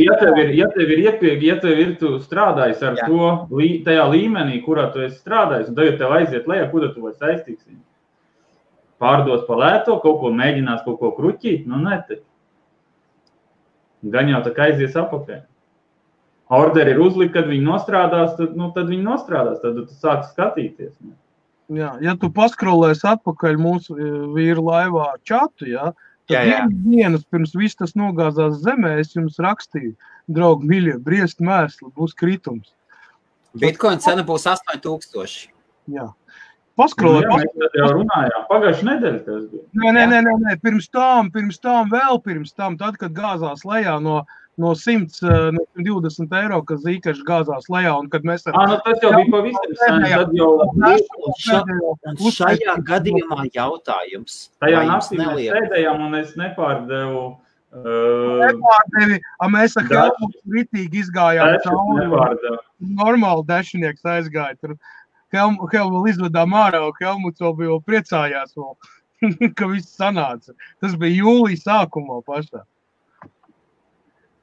ir tu strādājis ar to tajā līmenī, kurā tu esi strādājis, un tagad tev aiziet lejā, kur tu vai saistīks viņu? Pārdos pa lēto, kaut ko mēģinās, kaut ko kruķīt, nē. Gan jau tā kā aizies apakaļ. Orderi ir uzlikt, kad viņi nostrādās, tad viņi nostrādās, tad tu sāc skatīties. Jā, ja tu paskrolēsi atpakaļ mūsu vīru laivā čatu, tad dienas pirms viss tas nogāzās zemē, es jums rakstīju, draugi miļie, briest mērsli, būs kritums. Bitcoin cena būs 8000. Jā. Paskrolēt. Mēs jau runājām, pagājuši nedēļa tas bija. Nē, pirms tam, tad, kad gāzās lejā no no 120 eiro, kas Zikašs gāzās lejā, un kad mēs tas jau bija pavisam sen, tad jau... Un šajā gadījumā jautājums. Tajā naktī mēs sēdējām, un es nepārdevu... Mēs ar Helmutu ritīgi izgājām cauri. Normāli dešinieks aizgāja. Tur Helmu izvedām ārā, un Helmuts vēl priecājās, ka viss sanāca. Tas bija jūlija sākumā pašā.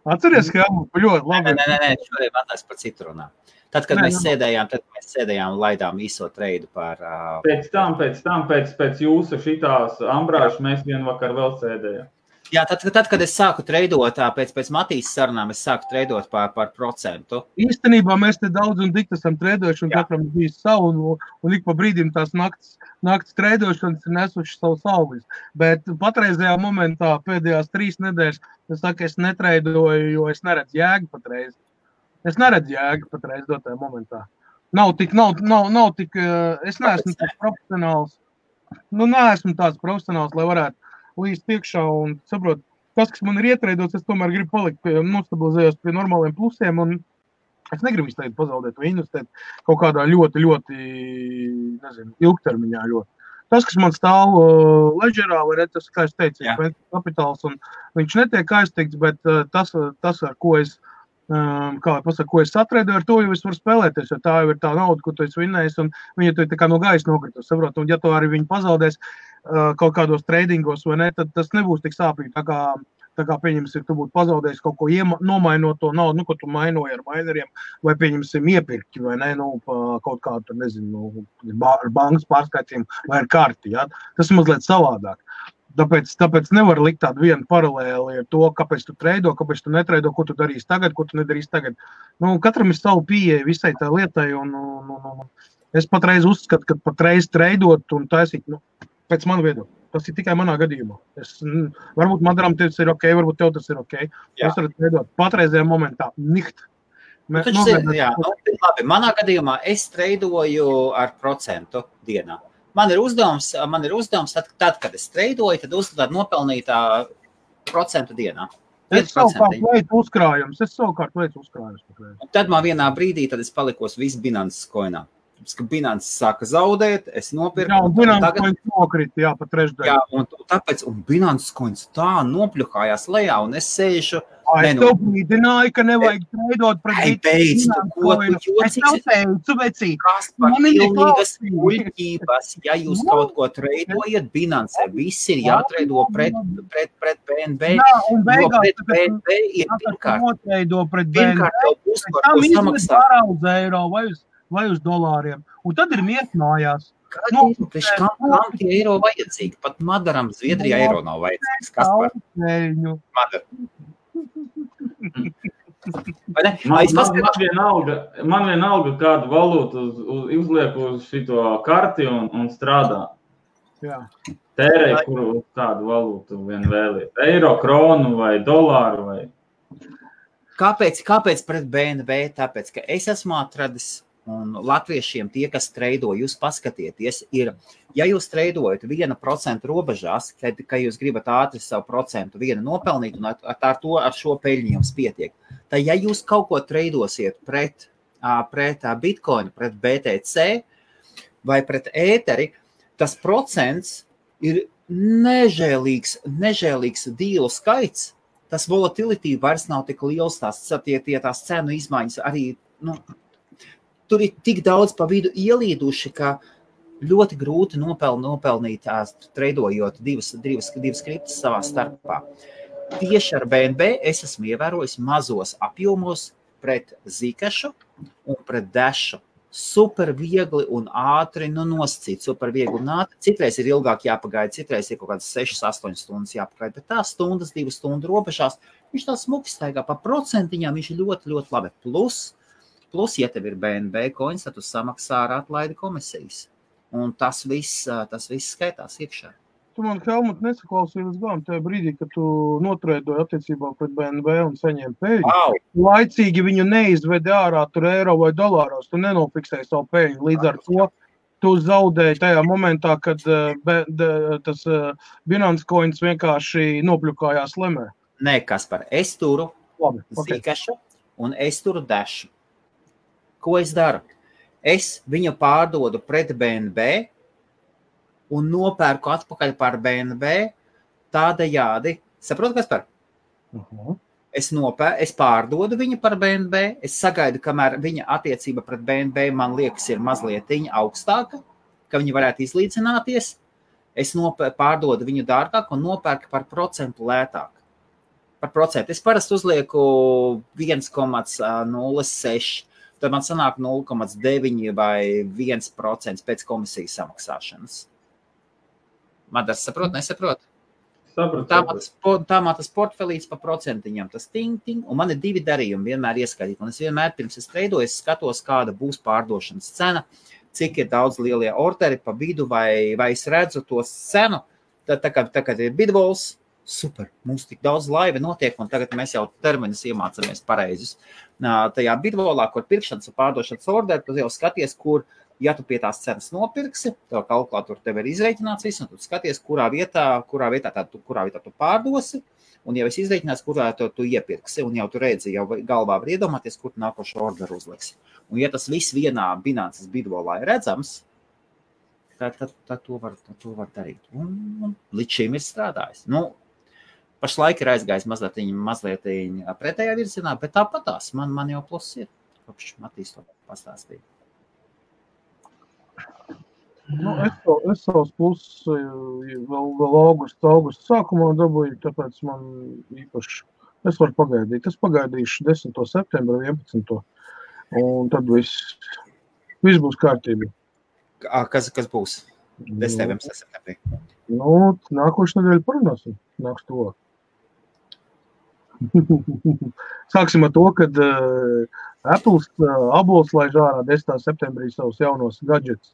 Atceries, Helmutu, ļoti labi. Nē, šodien vēlēs par citu runā. Tad, kad mēs sēdējām un laidām īso treidu par... Pēc tam, pēc jūsu šitās Ambrāžas, mēs vienvakar vēl sēdējām. Jā, tad, kad es sāku treidot, pēc Matīs sarunām, es sāku treidot par procentu. Īstenībā mēs te daudz un dikti esam treidojuši, un katram bija savu, un ik pa brīdim tās nakts treidošanas ir nesuši savu salvis. Bet patreizajā momentā, pēdējās 3 nedēļas, es netreidoju, jo es neredzu jēgu patreiz. Es neredzu jēgu patreiz dotajā momentā. Nav tik, es neesmu tāds profesionāls. Neesmu tāds profesionāls, lai varētu līdz tiekšā un saprot, tas, kas man ir ietreidots, es tomēr gribu palikt nostabilizējos pie normāliem plusiem un es negribu visu tagad pazaudēt vai investēt kaut kādā ļoti, ilgtermiņā ļoti. Tas, kas man stāv ledžerā, vai tas, kā es teicu, kapitāls un viņš netiek aiztikts, bet tas ar ko es ko es satreidoju, ar to jau es varu spēlēties, jo tā jau ir tā nauda, ko tu esi vinnējis, un viņa tu ir tā kā no gaisa nokritus, saprot, un ja tu arī viņu pazaudēs kaut kādos treidingos, vai ne, tad tas nebūs tik sāpīgi, tā kā pieņemsim, tu būtu pazaudējis kaut ko nomainot to naudu, ko tu mainoji ar maineriem, vai pieņemsim iepirki, vai ne, kaut kādu, nezinu, ar bankas pārskaitiem, vai ar karti, ja? Tas ir mazliet savādāk. Tāpēc nevar likt tādu vienu paralēli ar to, kāpēc tu treido, kāpēc tu netreido, ko tu darīsi tagad, ko tu nedarīsi tagad. Katram ir savu pieeja visai tā lietai, un es patreiz uzskatu, ka patreiz treidot un taisīt, pēc manu viedokļu. Tas ir tikai manā gadījumā. Varbūt Madaram tas ir ok, varbūt tev tas ir ok. Es varu treidot patreizajā momentā. Niht. Labi, manā gadījumā es treidoju ar procentu dienā. Man ir uzdevums, tad, kad es treidoju, tad uzdevāt nopelnīt procentu dienā. Es savukārt veicu uzkrājums. Tad man vienā brīdī, tad es palikos visu Binances koinā. Ka Binances sāka zaudēt, es nopirku. Jā, un Binances koins nokrita, pa trešdaļu. Jā, un Binances koins tā nopļuhājās lejā, un es sēžu. Es tev brīdināju, ka nevajag treidot pret Binances koinu. Es tev teicu, vecī. Kas par pilnīgas muļķības, ja jūs kaut ko treidojat Binance, viss ir jātreido pret BNB. Jā, un beigās, pret BNB ir pirmkārt. Pirmkārt jau būs par to samaksāt. Eiro vai uz dolāriem. Un tad ir miet mājās. Kam tie eiro vajadzīgi? Pat Madaram Zviedrijā eiro nav vajadzīgs. Kas par? Madar. Man vienalga kādu valūtu uzliek uz šito karti un strādā. Jā. Tērēj, kuru kādu valūtu vien vēliet. Eiro, kronu vai dolāru vai... Kāpēc pret BNB? Tāpēc, ka es esmu atradis un latviešiem tie, kas treido, jūs paskatieties, ir, ja jūs treidojat 1% robežās, ka jūs gribat ātri savu procentu vienu nopelnīt un ar šo peļņu jums pietiek, tad ja jūs kaut ko treidosiet pret Bitcoin, pret BTC vai pret ēteri, tas procents ir nežēlīgs dīlu skaits, tas volatility vairs nav tik liels, tās cenu izmaiņas arī, tur ir tik daudz pa vidu ielīduši, ka ļoti grūti nopelnīt treidojot divas kriptas savā starpā. Tieši ar BNB es esmu ievērojis mazos apjomos pret Zikašu un pret Dashu. Super viegli un ātri nosacīt, super viegli un ātri. Citreiz ir ilgāk jāpagaida, citreiz ir kaut kādas 6-8 stundas jāpagaida, bet tās 2 stundu robežās, viņš tā smuki staigā pa procentiņām, viņš ir ļoti, ļoti labi. Plus, ja tev ir BNB koins, tad tu samaksā ar atlaidi komisijas. Un tas viss skaitās iekšā. Tu man, Helmut, nesaklausīji līdz galam tajā brīdī, kad tu notreidoji attiecībā pret BNB un saņēmi peļņu. Wow. Laicīgi viņu neizvedi ārā tur eiro vai dolāros, tu nenofiksēji savu peļņu. Līdz ar to tu zaudēji tajā momentā, kad tas Binance coins vienkārši nopļukājās lemē. Nē, Kaspar, es turu Zikašu, un es turu dešu. Ko es daru? Es viņu pārdodu pret BNB un nopērku atpakaļ par BNB tādējādi. Saprotu, kas par? Es pārdodu viņu par BNB, es sagaidu, kamēr viņa attiecība pret BNB man liekas ir mazliet augstāka, ka viņi varētu izlīdzināties. Es pārdodu viņu dārgāk un nopērku par procentu lētāk. Par procentu. Es parasti uzlieku 1,06, tad man sanāk 0,9 vai 1% pēc komisijas samaksāšanas. Madars saprot, nesaprot? Tā man tas portfelīts pa procentiņam, tas ting, un man ir 2 darījumi vienmēr ieskaitīt. Un es vienmēr pirms es treidoju, es skatos, kāda būs pārdošanas cena, cik ir daudz lielie orderi pa vidu, vai es redzu to cenu, tad kad ir bidvols, super, mums tik daudz laiva notiek, un tagad mēs jau terminus iemācamies pareizus. Tajā bidvolā, kur pirkšanas un pārdošanas orderi, tu jau skaties, kur, ja tu pie tās cenas nopirksi, tev kalkulātori tev ir izreikināts viss, un tu skaties, kurā vietā tu pārdosi, un jau es izreikinās, kurā tu iepirksi, un jau tu redzi, jau galvā var iedomāties, kur tu nākošo orderu uzliksi. Un ja tas viss vienā Binances bidvolā ir redzams, tad to var darīt. Un līdz šim ir strādājis. Pašlaik ir aizgājis mazliet pretējā virzienā, bet tāpatās man jau plus ir, kopš Matīs to pastāstīja. Es savus plusus vēl augusta sākumā dabūju, tāpēc man īpaši, es varu pagaidīt. Es pagaidīšu 10. septembra, 11. Un tad viss būs kārtībā. Kas būs? 10. septembrī. Nākošu nedēļu parunāsim. Nāks to. Sāksim ar to, kad Apples laiž ārā 10. septembrī savus jaunos gadžets.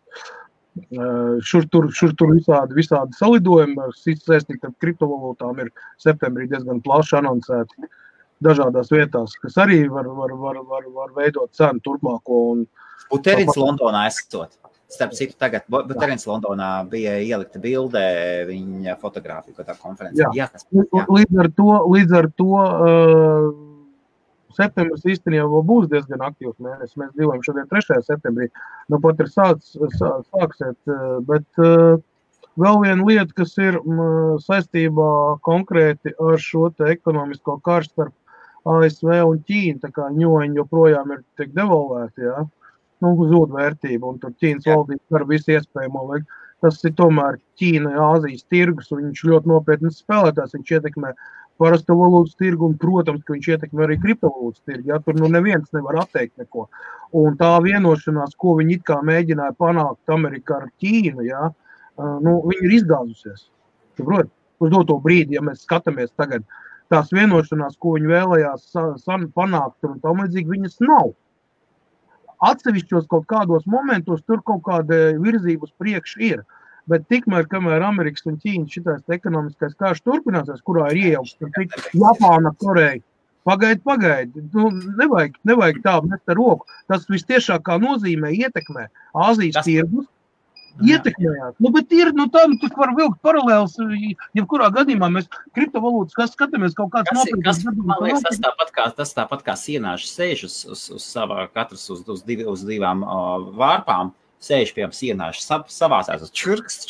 Šur tur visādi salidojumi, saistīti ar kriptovalūtām ir septembrī diezgan plaši anoncēti dažādās vietās, kas arī var veidot cenu turpmāko. Buterins Londonā esot. Starp citu tagad, Buterins Londonā bija ielikta bildē viņa fotogrāfija, ko tā konferencē. Jā, līdz ar to septembris īstenībā būs diezgan aktīvs mēnesis. Mēs dzīvojam šodien 3. septembrī. Pat ir sāksiet, bet vēl viena lieta, kas ir saistībā konkrēti ar šo te ekonomisko karš starp ASV un Ķīnu, tā kā ņoņi joprojām ir tiek devalvēti, jā. Zūd vērtība, un tur Ķīnas valdība var visu iespējamo. Tas ir tomēr Ķīna, Āzijas tirgus, un viņš ļoti nopietnas spēlētājs, viņš ietekmē parasto valūtas tirgu, un, protams, ka viņš ietekmē arī kriptovalūtas tirgu, ja tur neviens nevar atteikt neko. Un tā vienošanās, ko viņi it kā mēģināja panākt Amerikā ar Ķīnu, ja, viņi ir izgāzusies. Saprot? Uz doto brīdi, ja mēs skatāmies tagad, tās vienošanās, ko viņi vēlējās panākt, un tam līdzīgi viņas nav. Atsevišķos kaut kādos momentos tur kaut kāda virzība uz priekšu ir. Bet tikmēr, kamēr Amerikas un Ķīnas šitais ekonomiskais karš turpināsies, kurā ir iejaukts Japāna, Koreja, pagaidi. Nevajag tā mest ar roku. Tas vistiešākā nozīmē ietekmē Āzijas tirgus. Ietekmējās. Bet ir, tas var vilkt paralēls, jebkurā gadījumā mēs kriptovalūtas, kas skatāmies kaut kāds nopietnas. Man liekas, tas tāpat kā sienāši sēž uz savā, katrs uz divām vārpām, sēž pie sienāši savācās uz čurks.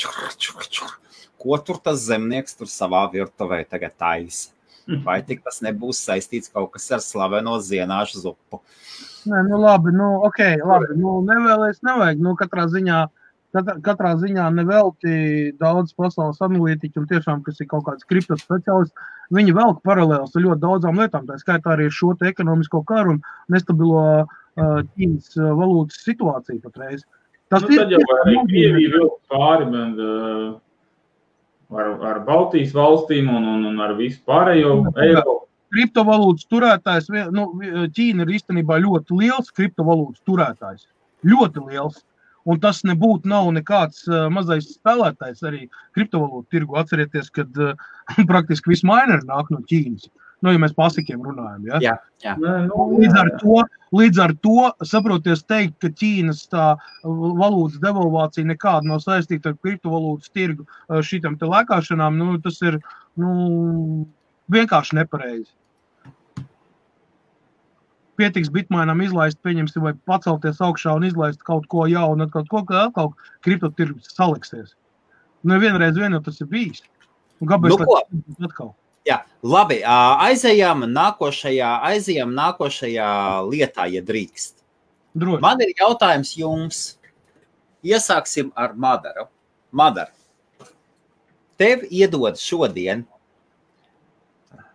Ko tur tas zemnieks tur savā virtuvē tagad taisa? Vai tik tas nebūs saistīts kaut kas ar slaveno zienāšu zupu? Nē, labi, nevajag, katrā ziņā nevelti daudz pasaules analītiķi un tiešām, kas ir kaut kāds kripto speciālists, viņi velk paralēls ar ļoti daudzām lietām, tā skaitā arī šo te ekonomisko karu un nestabilo Ķīnas valūtas situāciju patreiz. Tas tad jau arī Krievija vilk pāri ar Baltijas valstīm un ar visu pārējo Eiropu. Kriptovalūtas turētājs, Ķīna ir īstenībā ļoti liels kriptovalūtas turētājs. Ļoti liels. Un tas nav nekāds mazais spēlētājs arī kriptovalūtu tirgu. Atcerieties, kad praktiski visi mineri nāk no Ķīnas. Ja mēs pasikiem runājam, ja? Jā. Līdz ar to, saproties teikt, ka Ķīnas tā valūtas devalvācija nekāda nav saistīta ar kriptovalūtas tirgu šitam te lēkāšanām, tas ir vienkārši nepareizi. pietiks bitmainam izlaist, pieņemsim, vai pacelties augšā un izlaist kaut ko jaunu, atkal kriptotirgus saliksies. Vienreiz vien jau tas ir bijis. Un kāpēc atkal? Jā, labi, aizejām nākošajā lietā, ja drīkst. Droši. Man ir jautājums jums. Iesāksim ar Madaru. Madar, tev iedod šodien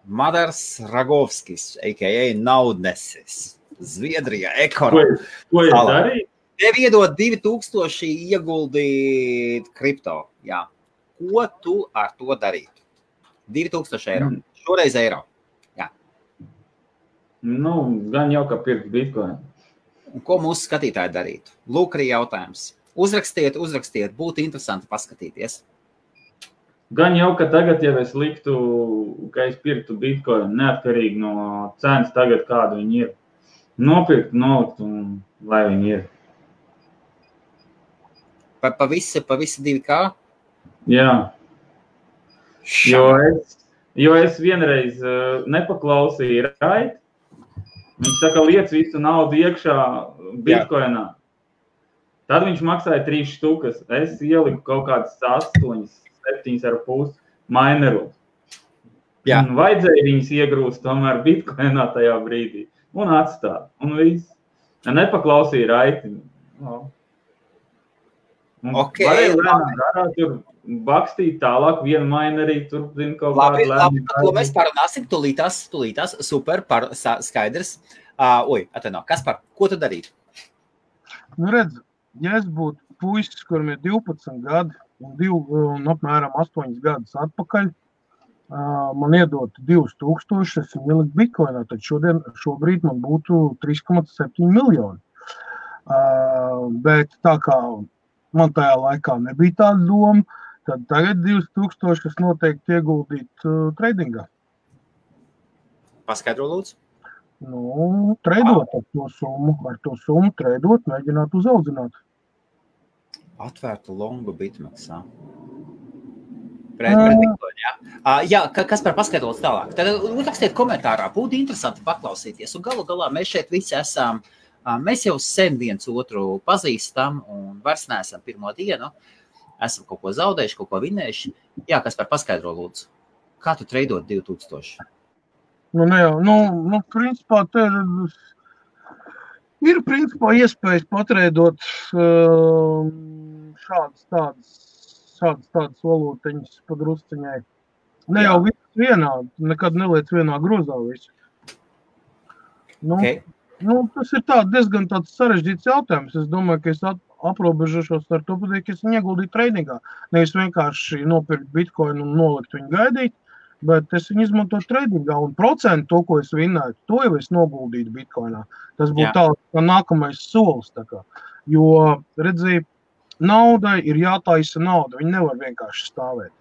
Madars Ragovskis, a.k.a. Naudnesis, Zviedrijā, ekonomika. Ko es darīju? Tev iedod 2000 ieguldīt kripto. Jā. Ko tu ar to darītu? 2000 eiro. Šoreiz eiro. Jā. Gan jau, ka pirkt bitcoin. Un ko mūsu skatītāji darītu? Lūk, arī jautājums. Uzrakstiet, būtu interesanti paskatīties. Gan jau, ka tagad, ja es liktu, ka es pirktu bitcoin, neatkarīgi no cenas tagad, kāda viņi ir, nopirkt, nolikt un lai viņi ir. Pa visi 2K? Jā. Jo es vienreiz nepaklausīju Rait. Viņš saka, liec visu naudu iekšā bitcoinā. Tad viņš maksāja 3 štukas. Es ieliku kaut kādas 7,5 mineru. Jā. Un vajadzēja viņas iegrūst tomēr bitcoinā tajā brīdī. Un atstāt. Un viss. Nepaklausīja Raiti. Okay, varēja lēnām darāt, tur bakstīt tālāk, vienu mainerī, tur zin kaut kādu lēnām. Labi, par to mēs parunāsim, tūlītās, super, skaidrs. Kaspar, ko tu darītu? Redz, ja es būtu puisis, kuram ir 12 gadi un apmēram 8 gadus atpakaļ, man iedot 2000, es viņu ieliku bitcoinā, tad šobrīd man būtu 3,7 miljoni. Bet tā kā man tajā laikā nebija tāda doma, tad tagad 2000 es noteikti ieguldītu tradingā. Paskaidro, lūdzu. Treidot ar to summu treidot, mēģināt uzaudzināt. Atvērtu longu bitmaksā. Jā, kas par paskaidrots tālāk? Tad rakstiet komentārā, būtu interesanti paklausīties. Un galu galā mēs šeit visi esam, mēs jau sen viens otru pazīstam un vairs neesam pirmo dienu. Esam kaut ko zaudējuši, kaut ko vinējuši. Jā, kas par paskaidro lūdzu. Kā tu treidot 2000? Principā te ir principā iespējas patreidot šādas tādas valūtiņas padrusciņai. Ne jau viss vienādi, nekad neliec vienā grozā visu. Tas ir diezgan tāds sarežģīts jautājums. Es domāju, ka es aprobežošos ar to, ka es viņu ieguldīju tradingā. Nevis vienkārši nopirkt bitcoin un nolikt viņu gaidīt, bet es viņu izmantoju tradingā un procentu to, ko es vinnētu, to jau es noguldītu bitcoinā. Tas būtu tā nākamais solis. Jo, redzēji, naudai ir jātaisa nauda, viņi nevar vienkārši stāvēt.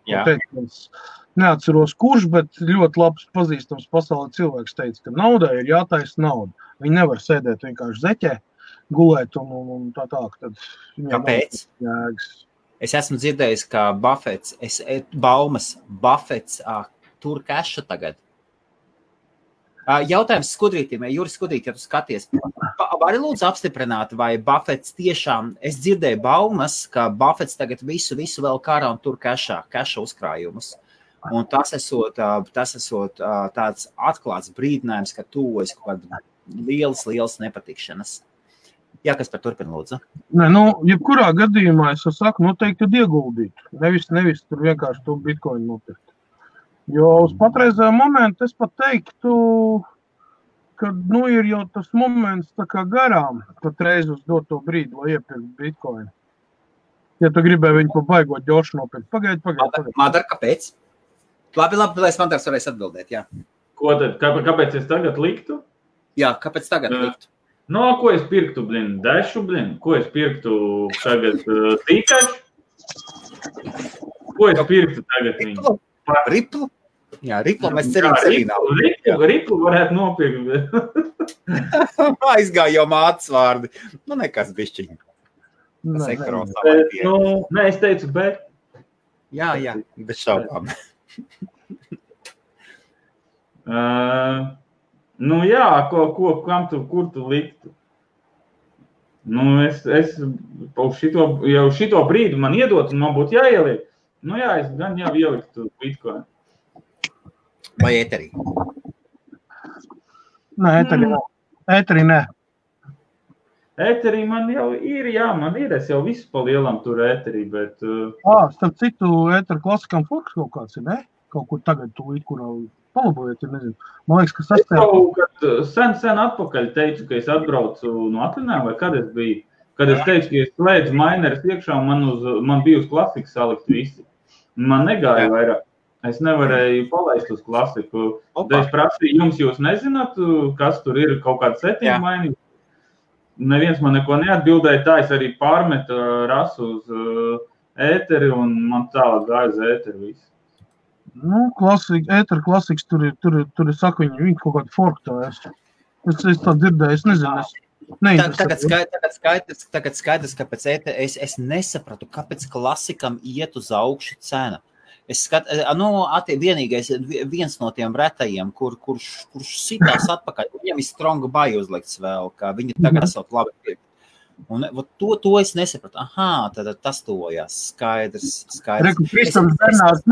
Es neatceros kurš, bet ļoti labs pazīstams pasaulē cilvēks teica, ka naudai ir jātaisa nauda. Viņi nevar sēdēt vienkārši zeķē, gulēt un tā. Kāpēc? Es esmu dzirdējis, ka Buffets tur keša tagad. Jautājums Skudrītim, Juris Skudrīt, ja tu skaties, vari lūdzu apstiprināt, vai Buffets tiešām, es dzirdēju baumas, ka Buffets tagad visu vēl kārā un tur keša uzkrājumus. Un tas esot tāds atklāts brīdinājums, ka tuvojas kaut kāda lielas nepatikšanas. Jā, kas par turpina, lūdzu? Jebkurā gadījumā es saku, noteikti ieguldīt. Nevis tur vienkārši to bitcoin nopirkt. Jo uz patreizējo momentu es pat teiktu, ka ir jau tas moments tā kā garām patreiz uz doto brīdi, lai iepirkt bitcoin. Ja tu gribēji viņu pa baigot ģošu nopirkt. Pagaid. Madar, kāpēc? Labi, lai Madars varēs atbildēt, jā. Ko tad? Kāpēc es tagad liktu? Jā, kāpēc tagad liktu? Ko es pirktu, Dešu, Ko es pirktu tagad Tīkašu? Ko es pirktu tagad viņu? Riplu? Jā, Riplu mēs cerīgi cerīnām. Riplu varētu nopirkt. Aizgāja jau mātes vārdi. Nekas bišķiņ. Es teicu, bet. Jā, bez šaubām. Nu jā, kur tu liktu? Nu, es jau šito brīdi man iedot, un man būtu jāieliek. Nu jā, es gan jau ieliktu Bitcoin. Vai ēterī? Nē, ēterī nē. Ēterī man jau ir, es jau visu pa lielam tur ēterī, bet... Starp citu, ētera klasikam forks kaut kāds ir, ne? Kaut kur tagad tūlīt, kurā palabojiet, nezinu. Man liekas, ka Es kaut kad sen atpakaļ teicu, ka es atbraucu no atvinājuma, vai kad es biju. Kad es teicu, ka es slēdzu mineris iekšā, man bija uz klasiku salikt visi. Man negāja vairāk. Es nevarēju palaist uz klasiku. Tad es prasīju, jūs nezināt, kas tur ir, kaut kāda settinga mainīga. Neviens man neko neatbildēja, tā es arī pārmetu rasu uz ēteri, un man tālāk gāja uz ēteri visu. Nu, ētera klasiks, tur ir saka, viņi kaut kādu forku tā es tā dzirdēju, es nezinu, Tagad skaidrs, kāpēc es nesapratu, kāpēc klasikam iet uz augšu cena. Vienīgais, viens no tiem retajiem, kurš sitās atpakaļ, viņam ir strong buy uzlikts vēl, ka viņi tagad esot labi pirkt. Un to es nesapratu. Tad tas tojās. Skaidrs. Reku, Kristofs Bernārs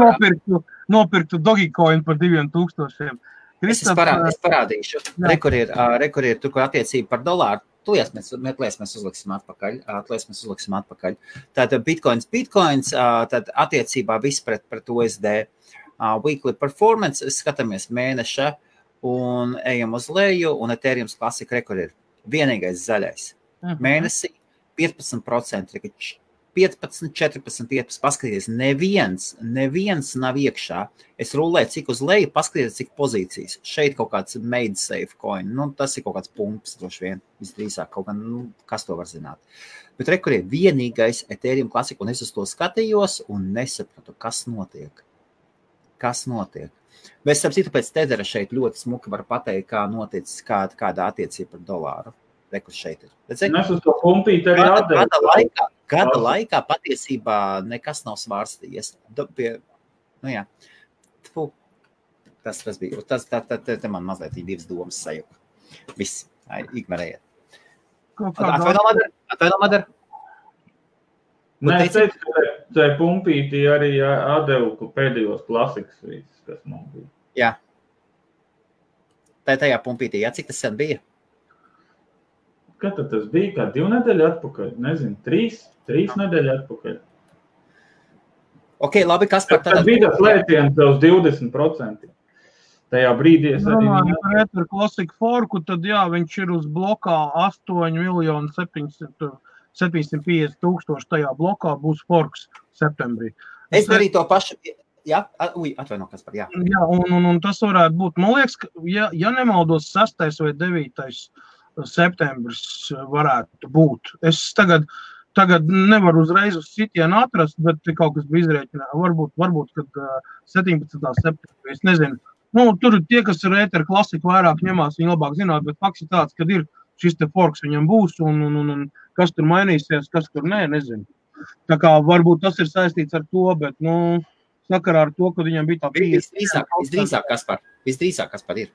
nopirktu Dogecoin par 2000. Es parādīšu. Rekur ir tur, kur attiecība par dolāru. Mēs uzliksim atpakaļ. Tātad Bitcoins, tad attiecībā viss pret USD. Weekly performance, skatāmies mēneša un ejam uz leju, un Ethereum klasika rekur ir vienīgais zaļais. Mēnesī 15%, 15, 14, 15, paskaties, neviens nav iekšā. Es rulēju, cik uz leju, paskaties, cik pozīcijas. Šeit kaut kāds made safe coin, tas ir kaut kāds pumps, droši vien, visdrīzāk kaut kā, kas to var zināt. Bet rekur ir vienīgais Ethereum klasika, un es uz to skatījos un nesapratu, kas notiek. Bet starp citu pēc Tethera šeit ļoti smuki var pateikt, kā noticis, kāda attiecība par dolāru. Rekur šeit ir. Mēs uz to pumpīti arī atdevu. Gada laikā patiesībā nekas nav svārstījies. Jā. Tas bija. Te man mazliet ir divas domas sajūta. Viss. Ignorējiet. Atvaino, Madara. Nē, es teicu, ka tai pumpīti arī atdevu pēdējos klasikas visus, kas man bija. Jā. Tajā pumpītī, cik tas sen bija? Kad tas bija? Kā 2 nedēļu atpakaļ? Nezinu, 3 nedēļu atpakaļ. Ok, labi, kas par tad bija tas lēciens uz 20%. Tajā brīdī es arī... Par Ether Classic Forku, tad viņš ir uz blokā 8,750,000 tajā blokā būs forks septembrī. Es darīju to pašu... Jā, atvaino, kas par jā. Jā, un tas varētu būt, man liekas, ja nemaldos 6. vai 9. septembris varētu būt. Es tagad nevaru uzreiz uz sitienu atrast, bet kaut kas bija izrēķinā. Varbūt, kad 17. septembrī, es nezinu. Tur tie, kas ir Ether Classic vairāk ņemās, viņi labāk zināt, bet fakts ir tāds, kad ir šis te forks viņam būs, un kas tur mainīsies, kas tur nezinu. Tā kā varbūt tas ir saistīts ar to, bet, sakarā ar to, kad viņam bija tā 50. Visdrīzāk, kas par ir.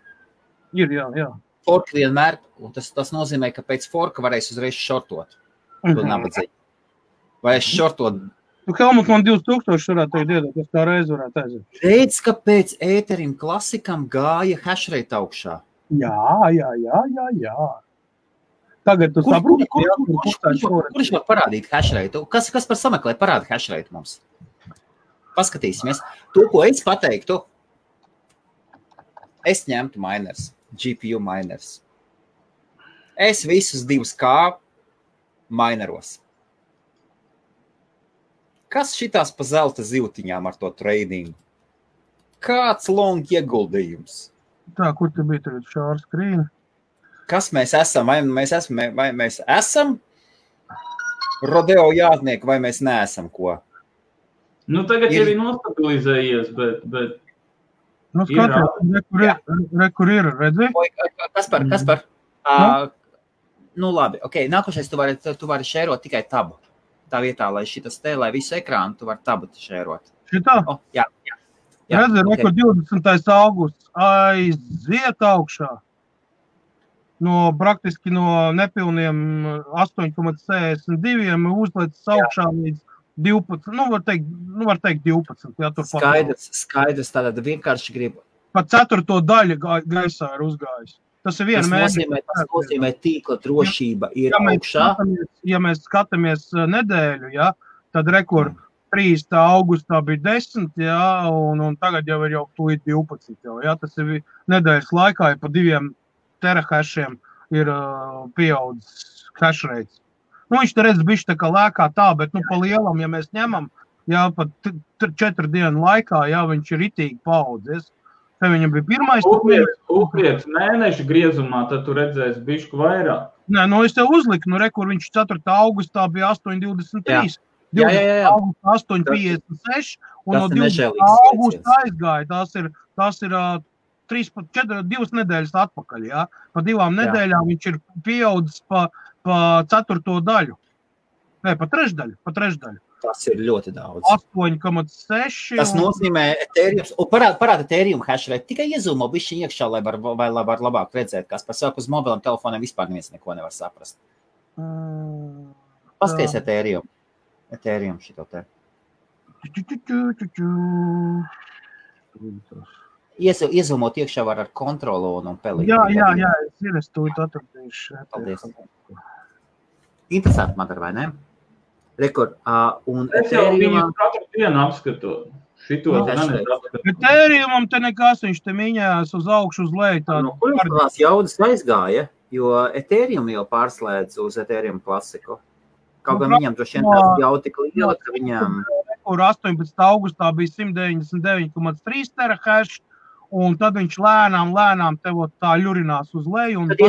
Ir, jā. Fork vienmēr, un tas nozīmē, ka pēc forka varēs uzreiz šortot. Vai es šortot? Helmut, man 2000 varētu iedot, es tā reiz varētu aiziet. Redz, ka pēc Ethereum klasikam gāja hashrate augšā. Jā. Tagad tu saproti, kurš var parādīt hashrate? Kas par sameklē parāda hashrate mums? Paskatīsimies. To, ko es pateiktu, es ņemtu miners. GPU miners. Es visus 2K mineros. Kas šitās pa zelta zivtiņām ar to tradingu? Kāds long ieguldījums? Tā, kur tu bija tagad šāra skrīna? Kas mēs esam? Vai mēs esam rodeo jātnieki, vai mēs neesam ko? Tagad jau ir nostabilizējies, bet... Kur ir, redzi? Kaspar? Labi, ok. Nākošais tu vari šērot tikai tabu. Tā vietā, lai lai visu ekrānu, tu vari tabu šērot. Šitā? Jā. Redzi, okay. 20. augusts aiziet augšā. praktiski no nepilniem 8,62 uzlicis augšā līdz 12, var teikt 12. Jā, Skaidrs, tātad vienkārši gribu. Pat 4. daļa gaisā ir uzgājis. Tas ir viena mēneša. Tas nozīmē tīkla drošība ir augšā. Ja mēs skatāmies nedēļu, jā, tad rekur 3. augustā bija 10, jā, un tagad jau ir jau 12. Jā, tas ir nedēļas laikā, ja pa 2 terahešiem ir pieaudzis hash rates. Viņš te redz bišķi tā kā lēkā tā, bet pa lielam, ja mēs ņemam, jā, pat 4 dienu laikā, jā, viņš ir ritīgi paaudzies. Te viņam bija pirmais. Upiec mēneša griezumā, tad tu redzēsi bišku vairāk. Nē, es tev uzliku, rekur viņš 4. augustā bija 8,23. Jā. 8,56 un no 20. augusta aizgāja. Tās ir 2 nedēļas atpakaļ, jā. Pa 2 nedēļām viņš ir pieaudzis pa 4. daļu. Nē, pa trešdaļu. Tas ir ļoti daudz. 8,6. Tas nozīmē Ethereum, parāda Ethereum hash rate, tikai iezūmo bišķi iekšā, lai var labāk redzēt, kas par savu uz mobiliem telefoniem vispār neviens neko nevar saprast. Paskaties Ethereum šito te. Iezūmot iekšā var ar kontrolu un pelīt. Jā, es to atradīšu. Paldies. Interesanti, Madara, vai ne? Rekord, un es jau viņu katru dienu apskatu. Šito apskatu. Ethereumam te nekas, viņš te miņās uz augšu, uz leju. Kur tās jaudas aizgāja, jo Ethereum jau pārslēdz uz Ethereum klasiku. Kaut gan viņam droši vien tās jau tik liela, ka viņam... Kur 18. augustā bija 199,3 terahash, un tad viņš lēnām tev tā ļurinās uz leju. Tad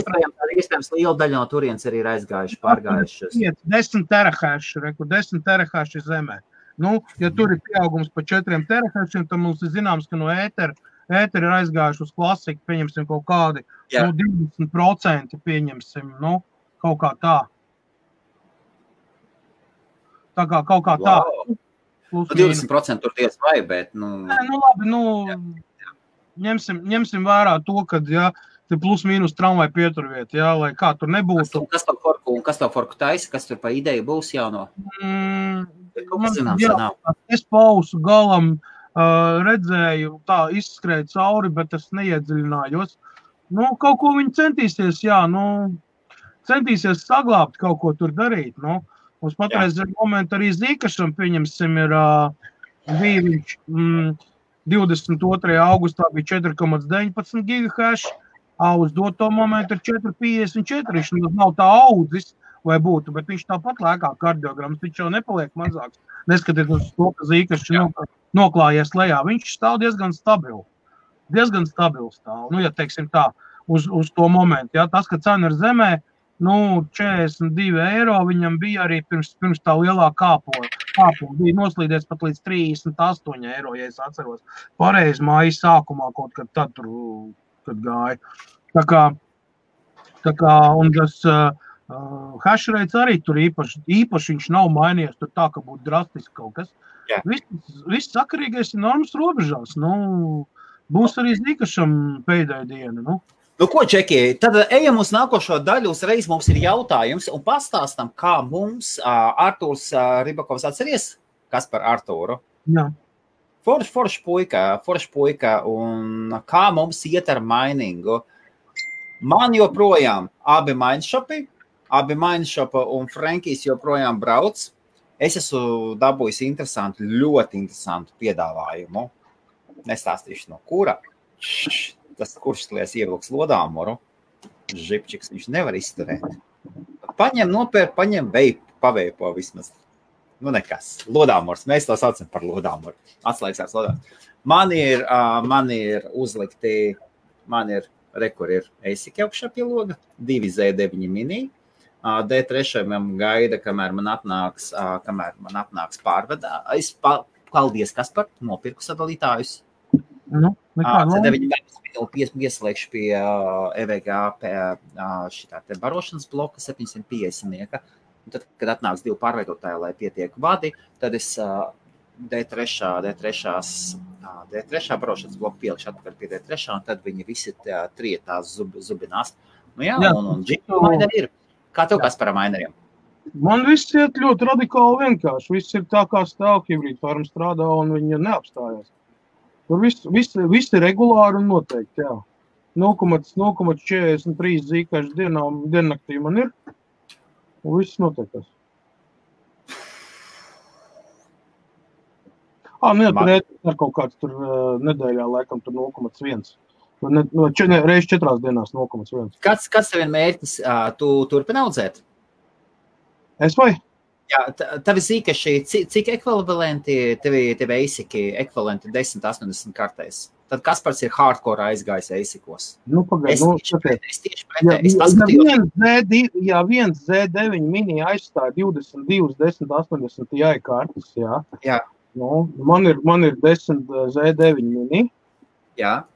iespējams liela daļa no turienes arī ir aizgājuši, pārgājušas. 10 terahash, 10 terahash ir zemē. Ja tur ir pieaugums pa 4 terahashiem, tad mums ir zināms, ka no ētera ir aizgājuši uz klasiku, pieņemsim kaut kādi 20% pieņemsim, kaut kā tā. Tā kā kaut kā tā. 20% tur diez vai, bet, labi, ņemsim vērā to, kad, jā, te plus mīnus tramvai pieturviet, jā, lai kā tur nebūtu. Kas tev forku taisa, kas tur pa ideju būs jauno? Es pausu galam redzēju, tā izskrēja cauri, bet es neiedziļinājos. Kaut ko viņi centīsies, jā, centīsies saglābt, kaut ko tur darīt, Mums patreiz momentu arī Zīkašam, pieņemsim, ir viņš 22. augustā bija 4,19 gigahash, uz doto momentu ir 4,54, viņš nav tā audzis, vai būtu, bet viņš tāpat lēkā kardiograms, viņš jau nepaliek mazāks. Neskatiet uz to, ka Zīkašs noklājies lejā, viņš stāv diezgan stabils stāv, ja teiksim tā, uz to momentu, jā, tas, ka cena ir zemē, 42 eiro viņam bija arī pirms tā lielā kāpuma. Bija noslīdies pat līdz 38 eiro, ja es atceros. Pareizi mājas sākumā kaut kad tad tur, kad gāja. Tā kā un tas hash rates arī tur īpaši viņš nav mainījies, tur tā, ka būtu drastiski kaut kas. Viss sakarīgais ir normas robežās. Būs arī Zīkašam pēdējā diena, Ko, Čeki, tad ejam uz nākošo daļu, uzreiz mums ir jautājums un pastāstam, kā mums Artūrs Ribakovs atceries, kas par Artūru? Jā. Forš puika, un kā mums iet ar mainingu? Man joprojām abi mainshopi un Frankijs joprojām brauc. Es esmu dabūjis ļoti interesantu piedāvājumu. Nestāstīšu no kura. Tas kuršslies ievilks lodāmoru, žipčiks viņš nevar izturēt. Paņem veipu, paveipo vismaz. Nekas. Lodāmors, mēs to saucam par lodāmoru. Atslēgsās lodāmors. Man ir uzlikti, kur ir ASIC augšā pie loga, 2Z9 mini. D3 gaida, kamēr man atnāks pārvedā. Paldies, Kaspar, nopirku sadalītājus. Ieslēgšu pie EVG šitā te barošanas bloka 750. Un tad, kad atnāks 2 pārveidotāji, lai pietiek vadi, tad es D3 barošanas bloku pielikšu atpakaļ pie D3, un tad viņi visi tās zubinās. Nu jā, un jingle mineri ir. Kā tev, Kaspar, ar mineriem? Man viss iet ļoti radikāli vienkārši. Viss ir tā, kā stāv hibrīda farma strādā, un viņa neapstājās. Tur viss ir regulāri un noteikti, jā. 0,43 zīkaši diennaktī man ir, un viss noteiktas. Tur ar kaut kāds tur nedēļā laikam tur 0,1. Reiz 4 dienās 0,1. Kāds tev ir mērķis? Tu turpini audzēt? Es vai? Jā, tavi zīkaši, cik ekvivalenti tev eisiki ekvivalenti 10-80 kartēs? Tad Kaspars ir hardcore aizgājis eisikos. Pagaid, es tieši pretēji. Es paskatījos. Ja viens Z9 mini aizstāja 22, 10-80 Ti kartes, jā. Jā. Man ir 10 Z9 mini. Jā.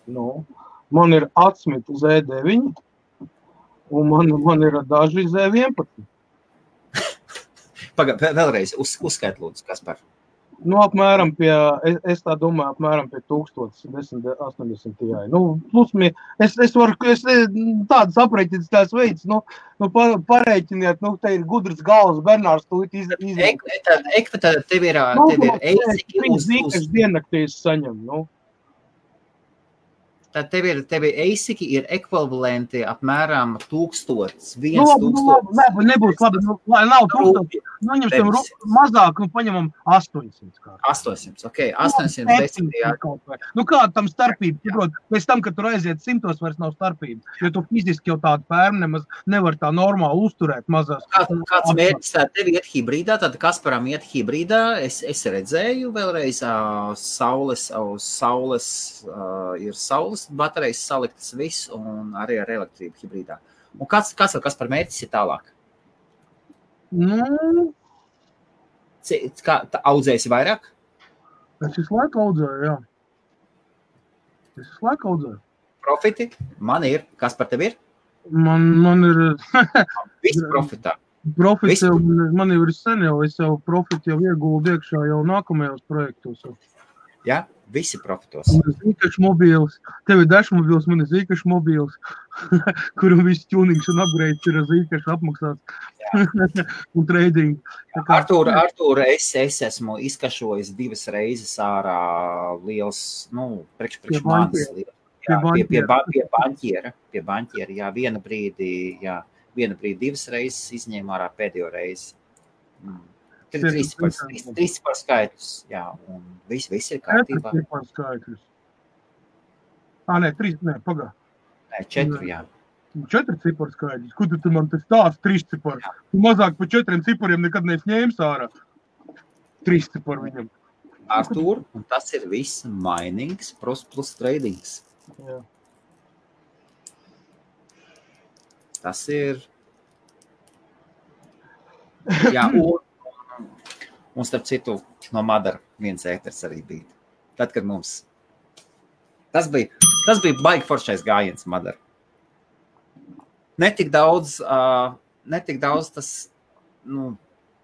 Man ir 8 Z9 un man ir daži Z11. Vēlreiz uzskait lūdzu, Kaspar. Apmēram es tā domāju, apmēram pie 1080 Ti. Es varu tādas aprēķinas tās veids, pareiķiniet, te ir gudrs galvas, Bernārs tūlīt izvēl. Tad tev ir eisiki uz diennaktīs saņem, Tad tev ir eisiki ir ekvivalenti apmēram 1000, 1000. Nebūs labi, lai nav 1000. Ņemsim mazāk, paņemam 800. 800, ok, 810. Kāda tam starpība? Pēc tam, kad tur aiziet 100, vairs nav starpība. Jo tu fiziski jau tādu pērmu nemaz nevar tā normāli uzturēt mazās. Kāds mērķis tev iet hibrīdā? Tad Kasparam iet hibrīdā. Es redzēju vēlreiz uz saules ir saules baterijas saliktas viss un arī ar elektrību hibrīdā. Un kas par mērķis ir tālāk? Audzēsi vairāk? Es visu laiku audzēju, jā. Es visu laiku audzēju. Profiti? Man ir. Kas par tevi ir? Man ir... Viss profitā. Profits jau, man jau ir sen jau, es jau profiti jau ieguldu iekšā jau nākamajos projektos. Jā? Visi profitos. Man ir zīkaši mobīls, tev ir dažs mobīls, man ir zīkaši mobīls, kuram viss tunings un upgrades ir zīkaši apmaksāts un trading. Artūr, es esmu izkašojis 2 reizes ārā liels, priekš manis liels. Pie baņķiera, jā, viena brīdi 2 reizes izņēma ārā pēdējo reizi. 3 cipar skaitļus, jā, un viss ir kārtībā. 4 cipar skaitļus. 3, Nē, 4, jā. 4 cipar skaitļus. Kur tu man tas tāds 3 cipar? Tu mazāk pa 4 cipariem nekad neesi ņēmis ārā. 3 cipar viņam. Artūr, un tas ir viss minings plus tradings. Jā. Tas ir... Jā, un starp citu, no Madara viens ēters arī bija. Tad, kad mums... Tas bija baigi foršais gājiens Madara. Netik daudz tas...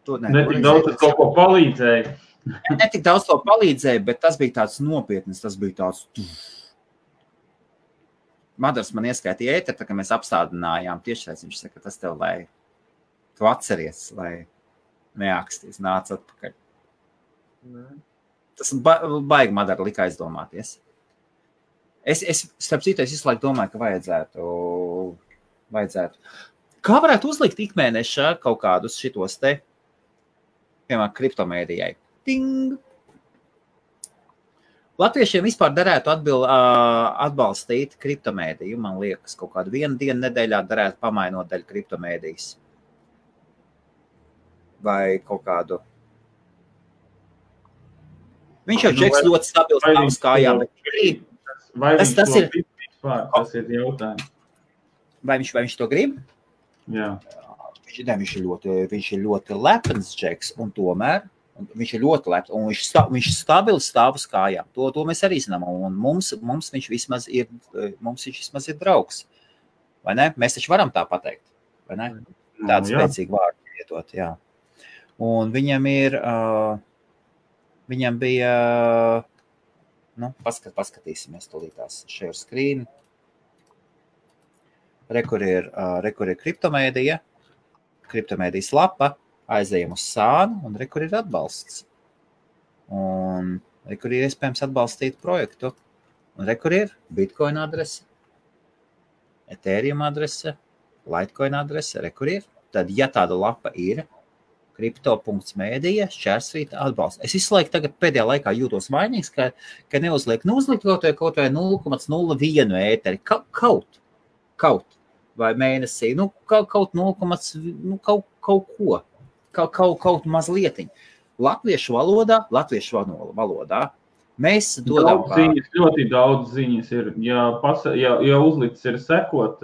Netik daudz tas kaut ko palīdzēja. Netik daudz to palīdzēja, bet tas bija tāds nopietnis, tas bija tāds... Madars man ieskaitīja ēteru, tā kā mēs apstādinājām tiešais, viņš saka, tas tev, lai tu atceries, lai neāksties, nāc atpakaļ. Tas baigi Madara lika aizdomāties. Starp citu, es visu laiku domāju, ka vajadzētu. Kā varētu uzlikt ikmēneša kaut kādus šitos te, piemēram, kriptomēdijai? Ting! Latviešiem vispār derētu atbalstīt kriptomēdiju. Man liekas, kaut kādu 1 dienu nedēļā derētu pamainot daļu kriptomēdijas. Vai kaut kādu. Viņš jau džeks ļoti stabils tavas kājām. Vai viņš to grib vispār? Tas ir jautājums. Vai viņš to grib? Jā. Viņš ir ļoti lepns džeks, un tomēr viņš ir ļoti lepns, un viņš stabili stāv uz kājām. To mēs arī zinām, un mums viņš vismaz ir draugs. Vai ne? Mēs taču varam tā pateikt, vai ne? Tādu spēcīgu vārdu lietot, jā. Un viņam bija, paskatīsimies tūlītās share screen. Rekur ir kriptomēdija, kriptomēdijas lapa, aizējam uz sānu, un rekur ir atbalsts. Un rekur ir iespējams atbalstīt projektu. Un rekur ir Bitcoin adrese, Ethereum adrese, Litecoin adrese, rekur ir. Tad, ja tāda lapa ir, kripto.mēdija, šķērsvīta atbalsts. Es visu laiku tagad pēdējā laikā jūtos vainīgs, ka neuzliek kaut vai 0,01 ēteri. Kaut vai mēnesī, kaut 0, kaut ko, kaut mazlietiņ. Latviešu valodā mēs dodam ļoti daudz ziņas ir, ja uzlicis ir sekot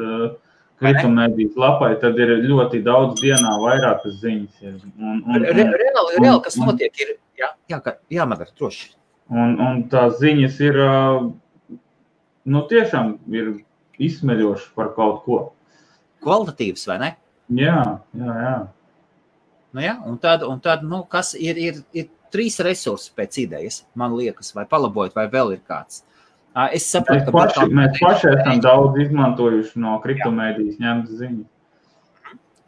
kriptomēdijas lapai, tad ir ļoti daudz dienā vairākas ziņas. Reāli, kas notiek, ir, jā, Madara, droši. Un tās ziņas ir, tiešām ir izsmeļoši par kaut ko. Kvalitatīvs, vai ne? Jā. Un tad kas ir 3 resursi pēc idejas, man liekas, vai palabojot, vai vēl ir kāds. Es saprotu, mēs paši esam daudz izmantojuši no kriptomēdijas ņemtas ziņas.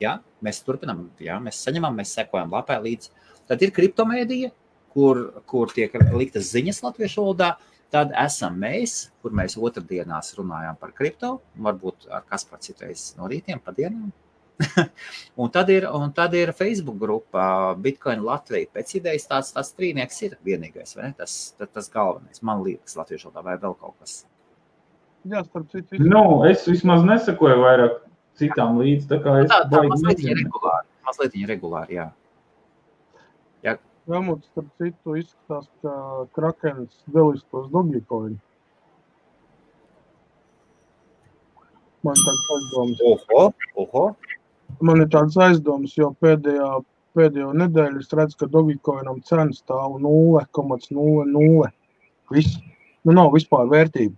Jā, mēs turpinām, mēs saņemam, mēs sekojam lapai līdzi. Tad ir kriptomēdija, kur tiek liktas ziņas latviešu valodā. Tad esam mēs, kur mēs otrdienās runājām par kripto, varbūt ar Kaspar citreiz no rītiem pa dienām. un tad ir Facebook grupa Bitcoin Latvija. Pēc idejas tāds trīnieks ir vienīgais, vai ne? Tas galvenais, man liekas, latviešu valodā vai vēl kaut kas. Jā, starp citu. Es vismaz nesakoju vairāk citām līdz, tā kā es mazlietiņa regulāri, jā. Vēmot, starp citu, izskatās, ka Krakens delistos Dogecoin. Man tāds aizdomas. Man ir tāds aizdomas, jo pēdējo nedēļu es redzu, ka Dogecoinam cena stāv 0,00. Viss. Nav vispār vērtība,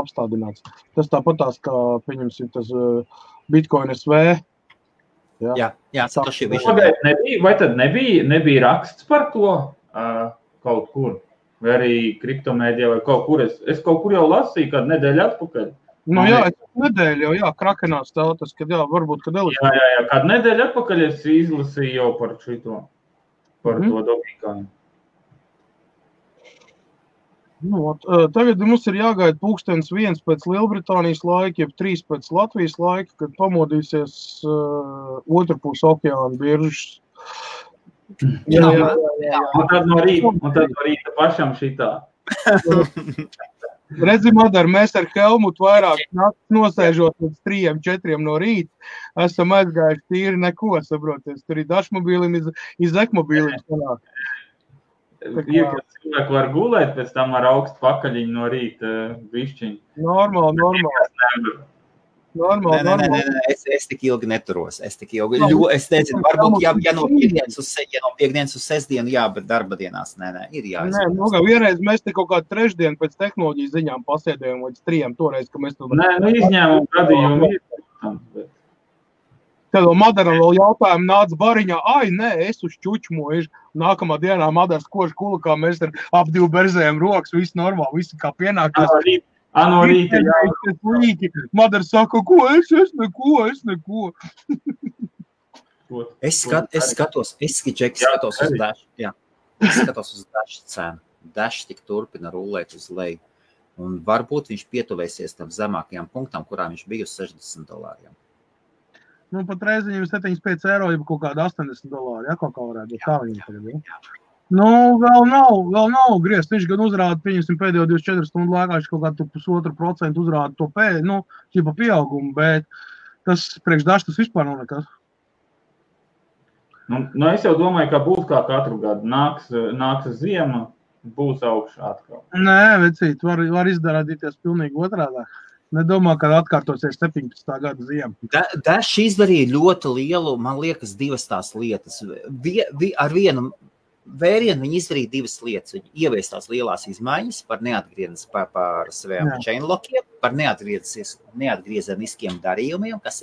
apstādināts. Tas tāpatās, kā, pieņemsim, tas Bitcoin SV. Jā, vai tad nebija raksts par to kaut kur? Vai arī kriptomēdijā vai kaut kur? Es kaut kur jau lasīju kādu nedēļu atpakaļ. Nedēļu jau, Krakenā stāv tas, kad varbūt, kad Elis. Jā, kādu nedēļu atpakaļ es izlasīju jau par šito, par to Dogecoin. Tagad mums ir jāgaida 1:00 pēc Lielbritānijas laika, jeb 3 pēc Latvijas laika, kad pamodīsies otrpus okeāna biržas. Jā. Un tad no rīta pašam šitā. Redzi, Madara, mēs ar Helmutu vairāk nosēžot līdz 3-4 no rīta, esam aizgājuši tīri neko, saproties. Tur ir dažmobīlim, iz ekmobīlim sanāk. Cilvēki var gulēt, pēc tam ar augstu pakaļiņu no rīta višķiņu. Normāli. Es tik ilgi neturos. Es nezinu, varbūt, ja no piekdienas uz sestdienu, bet darba dienās, ir jāizvēlas. Vienreiz mēs te kaut kādu trešdienu pēc tehnoloģijas ziņām pasēdējām līdz 3, toreiz, ka mēs to... izņēmumu gadījumu ir. Tad Madaram vēl jautājumu nāca bariņā, es uz čučmoju. Nākamā dienā Madars kož kulakā, mēs ar ap 2 berzējam rokas, viss normāli, viss kā pienākās. No rīta, jā. Madars saka, ko es neko. Es skatos uz Dash, jā. Es skatos uz Dash cenu. Dash tik turpina rullēt uz leju. Un varbūt viņš pietuvēsies tam zemākajām punktām, kurā viņš bija uz $60. Pat reizi viņam 75 eiro, ja kaut kāda $80, kaut kā varētu būt. Kā viņam tagad ir? Vēl nav griezt. Viņš gan uzrāda, pieņemsim, pēdējo 24 stundu laikā, viņš kaut kādu 1,5% uzrāda to pieaugumu, bet tas priekš Dash tas vispār nav nekas. Es jau domāju, ka būs kā katru gadu. Nāks ziema, būs augšā atkal. Nē, vecīt, var izdarādīties pilnīgi otrādā. Nedomā, ka atkārtosies 17. gada ziema. Dash izdarīja ļoti lielu, man liekas, 2 tās lietas. Ar vienu vērienu viņi izdarīja 2 lietas. Viņi ievies tās lielās izmaiņas par neatgriezes par saviem chainlockiem, par neatgriezeniskiem darījumiem, kas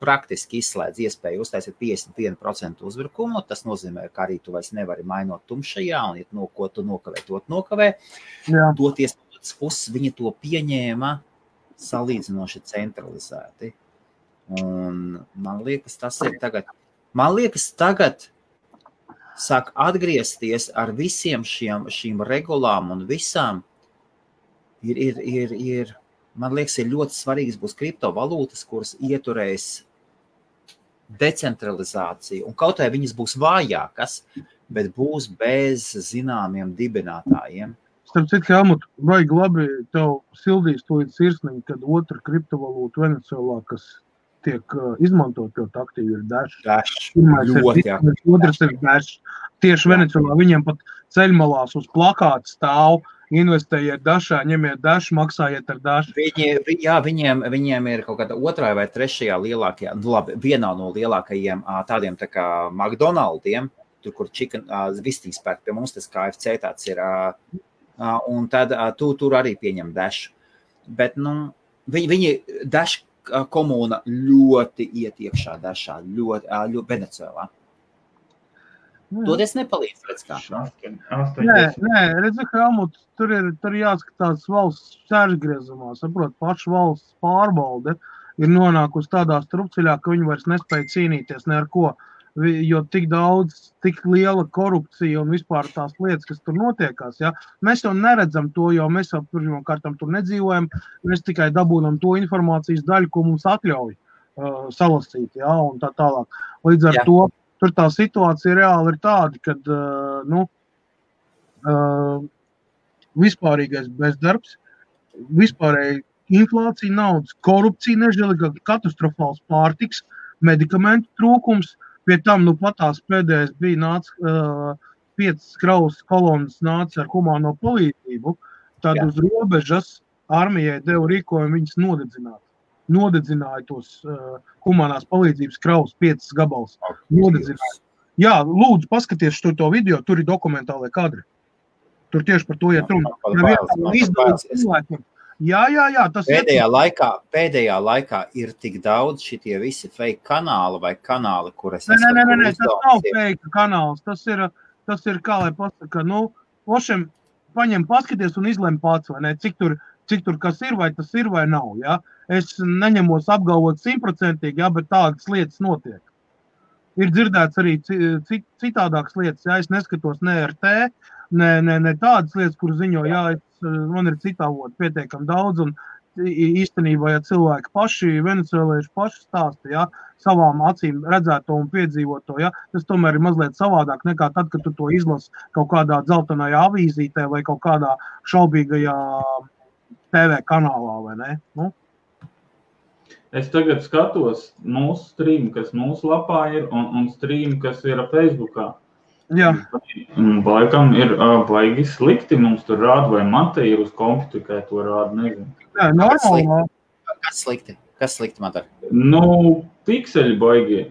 praktiski izslēdz iespēju uztaisīt 51% uzbrukumu. Tas nozīmē, ka arī tu vairs nevari mainot tumšajā, un ja ko tu nokavē, to nokavē. Toties puses viņi to pieņēma salīdzinoši centralizēti. Un man liekas, tas ir tagad sāk atgriezties ar visiem šīm regulām un visām. Man liekas, ir ļoti svarīgs būs kriptovalūtas, kuras ieturēs decentralizāciju. Un kaut vai viņas būs vājākas, bet būs bez zināmiem dibinātājiem. Starp citu, Helmut, vajag labi tev sildīs to sirsniņu, kad otra kriptovalūta Venecuēlā, kas tiek izmantot ļoti aktīvi, ir Dash. Ļoti aktīvi. Otrs ir Dash. Tieši Venecuēlā viņiem pat ceļmalās uz plakāta stāv, investējiet Dashā, ņemiet Dash, maksājiet ar Dash. Viņiem ir kaut kāda otrā vai trešajā lielākajā, vienā no lielākajiem tādiem tā kā McDonaldiem, tur, kur vistīs pērk pie mums, tas KFC tāds ir, un tad tur arī pieņem Dash. Bet, viņi Dash komūna ļoti iet iekšā Dashā, ļoti Venecuēlā. To es nepalīdzu, redz kā. Nē, redzi, Helmut, tur jāskatās valsts sēržgriezumā, saprot, paša valsts pārbalde ir nonākusi tādā strupceļā, ka viņi vairs nespēja cīnīties ne ar ko, jo tik daudz, tik liela korupcija un vispār tās lietas, kas tur notiekās, ja? Mēs jau neredzam to, jo mēs jau pirmkārtam tur nedzīvojam, mēs tikai dabūnam to informācijas daļu, ko mums atļauj salasīt, ja? Un tā tālāk. Līdz ar to, tur tā situācija reāli ir tāda, kad, vispārīgais bezdarbs, vispārēji inflācija, naudas, korupcija, nežēlīga, katastrofāls pārtiks, medikamentu trūkums. Pie tam, patās pēdējais bija nāca 5 kravas kolonas nāca ar humāno palīdzību, tad uz robežas armijai deva rīkojumu viņas nodedzināt. Nodedzināja tos humānās palīdzības kravas 5 gabals. Nodedzināja. Jā, lūdzu, paskaties to video, tur ir dokumentālai kadri. Tur tieši par to iet runa. Jā, tas pēdējā laikā ir tik daudz šitie visi fake kanāli vai kanāli, kuras Nē, tas nav fake kanāls. Tas ir kā lai pasaka, pošiem paņem paskaties un izlem pats, vai ne, cik tur kas ir, vai tas ir, vai nav, ja. Es neņemos apgalvot 100%, ja, bet tādas lietas notiek. Ir dzirdēts arī citādākas lietas, ja, es neskatos ne RT, ne tādas lietas, kur ziņo, jā, man ir citāvot pietiekam daudz, un īstenībā, ja cilvēki paši, venecuēlieši paši stāsta, ja, savām acīm redzēto un piedzīvoto, ja, tas tomēr ir mazliet savādāk nekā tad, kad tu to izlasi kaut kādā dzeltenajā avīzītē vai kaut kādā šaubīgajā TV kanālā, vai ne? Es tagad skatos mūsu streamu, kas mūsu lapā ir, un streamu, kas ir Facebookā. Jā. Laikam ir baigi slikti mums tur rāda, vai man te ir uz kompu tikai to rāda, nezinu. Jā, normāli. Kas slikti? Kas slikti, man dar? Pikseļi baigi.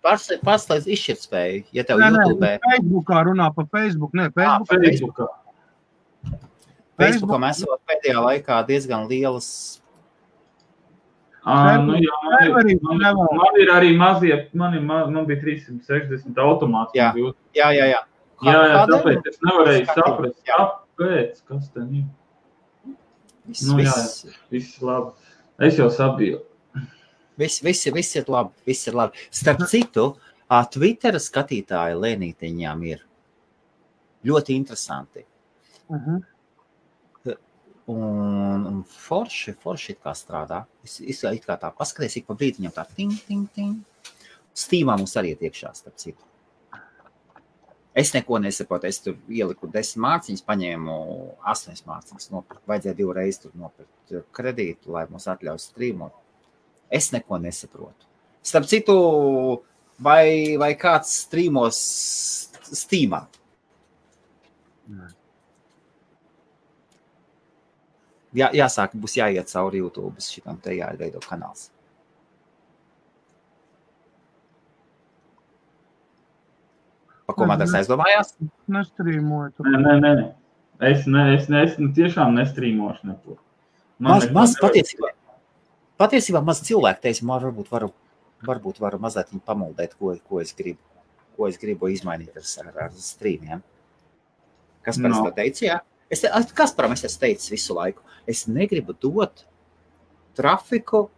Pārslēdz izšķirtspēju, ja tev YouTube. Facebookā runā pa Facebook, Facebookā. Facebookā mēs esam pēdējā laikā diezgan lielas. Man ir arī mazie, man bija 360 automāts. Jā. Jā, tāpēc es nevarēju saprast, kāpēc, kas ten ir. Viss labi. Es jau sabiju. Viss ir labi. Starp citu, Twittera skatītāji lēnītiņām ir ļoti interesanti. Un forši it kā strādā. Es it kā tā paskaties, ik pa brītiņam tā ting. Steamā mums arī iet iekšā, starp citu. Es neko nesaprotu, es tur ieliku 10 mārciņas, paņēmu 8 mārciņas, vajadzēja 2 reizes tur nopirkt kredītu, lai mums atļauj streamot. Es neko nesaprotu. Starp citu, vai kāds streamos Steamā? Jāsāk, būs jāiet cauri YouTube, šitam te jāveido kanāls. Pa ko Madars aizdomājās? Nestrīmoju tur. Nē. Es tiešām nestrīmošu neko. Maz patiesībā maz cilvēku teica, varbūt varu mazliet viņu pamuldēt, ko es gribu izmainīt ar streamiem. Kas pēc to teica, jā? Kasparam es esmu teicis visu laiku, es negribu dot trafiku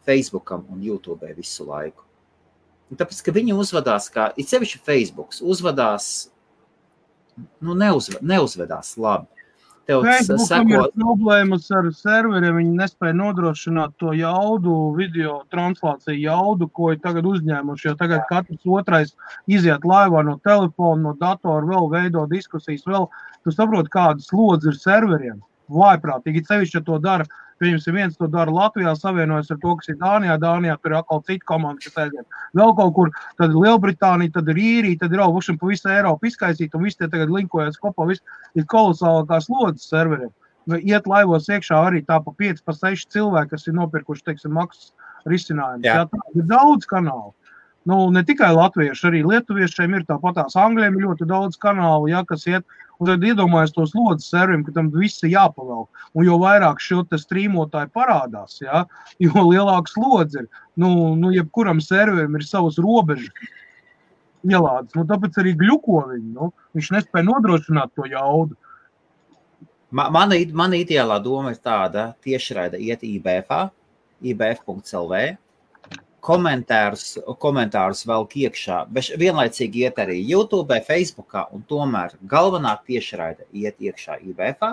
Facebookam un YouTube visu laiku. Un tāpēc, ka viņi uzvedās kā, it sevišķi Facebooks, uzvedās, neuzvedās labi. Facebookam ir problēmas ar serveriem, viņi nespēja nodrošināt to jaudu, video translāciju jaudu, ko ir tagad uzņēmuši, jo tagad katrs otrais iziet laivā no telefona, no datora, vēl veido diskusijas, vēl, tu saproti, kādas slodzi ir serveriem, vājprātīgi, sevišķi, ja to dara, pieņemsim, viens to dara Latvijā, savienojas ar to, kas ir Dānijā tur ir atkal cita komanda, kas aiziet. Vēl kaut kur, tad ir Lielbritānija, tad ir Īrija, tad ir vušam pa visu Eiropu izkaisīt, un visi tie tagad linkojas kopā, viss ir kolosālākās slodzes serveriem. Iet laivos iekšā arī tā pa 5, pa 6 cilvēki, kas ir nopirkuši, teiksim, maksas risinājumus. Jā, tā ir daudz kanālu. Ne tikai latvieši, arī lietuviešiem ir tāpatās, angļiem ir ļoti daudz kanālu, kas iet, un tad iedomājas tos slodzes serveriem, ka tam viss ir jāpavelk. Un jo vairāk šo te strīmotāji parādās, jo lielāks slodzi ir. Jebkuram serverim ir savas robežas ielādes. Tāpēc arī gļuko viņi. Viņš nespēja nodrošināt to jaudu. Mana ideālā doma ir tāda, tiešraida iet IBF.lv, komentārus velk iekšā, bet vienlaicīgi iet arī YouTube, Facebookā, un tomēr galvenā tiešraida iet iekšā IBF.ā,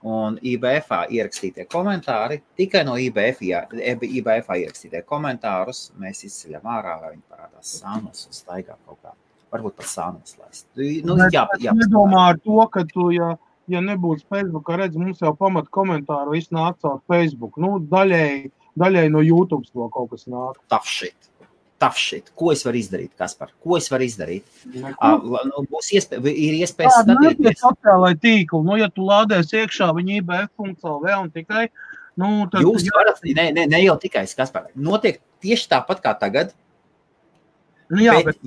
un IBF.ā ierakstītie komentāri, tikai no IBF.ā ierakstītie komentārus mēs izceļam ārā, vai viņi parādās sānos un staigā kaut kā. Varbūt pat sānos laist. Nedomā ar to, ka tu, ja nebūtu Facebookā, redz, mums jau pamat komentāru viss nāk caur Facebook. Daļai no YouTube to kaut kas nāk. Tough shit. Ko es varu izdarīt, Kaspar? Ko es varu izdarīt? Ir iespējas skatīties. Sociālai tīkli. Ja tu lādēs iekšā viņa IBF.lv un tikai, tad... Jūs varat, ne jau tikai, Kaspar. Notiek tieši tāpat kā tagad. Bet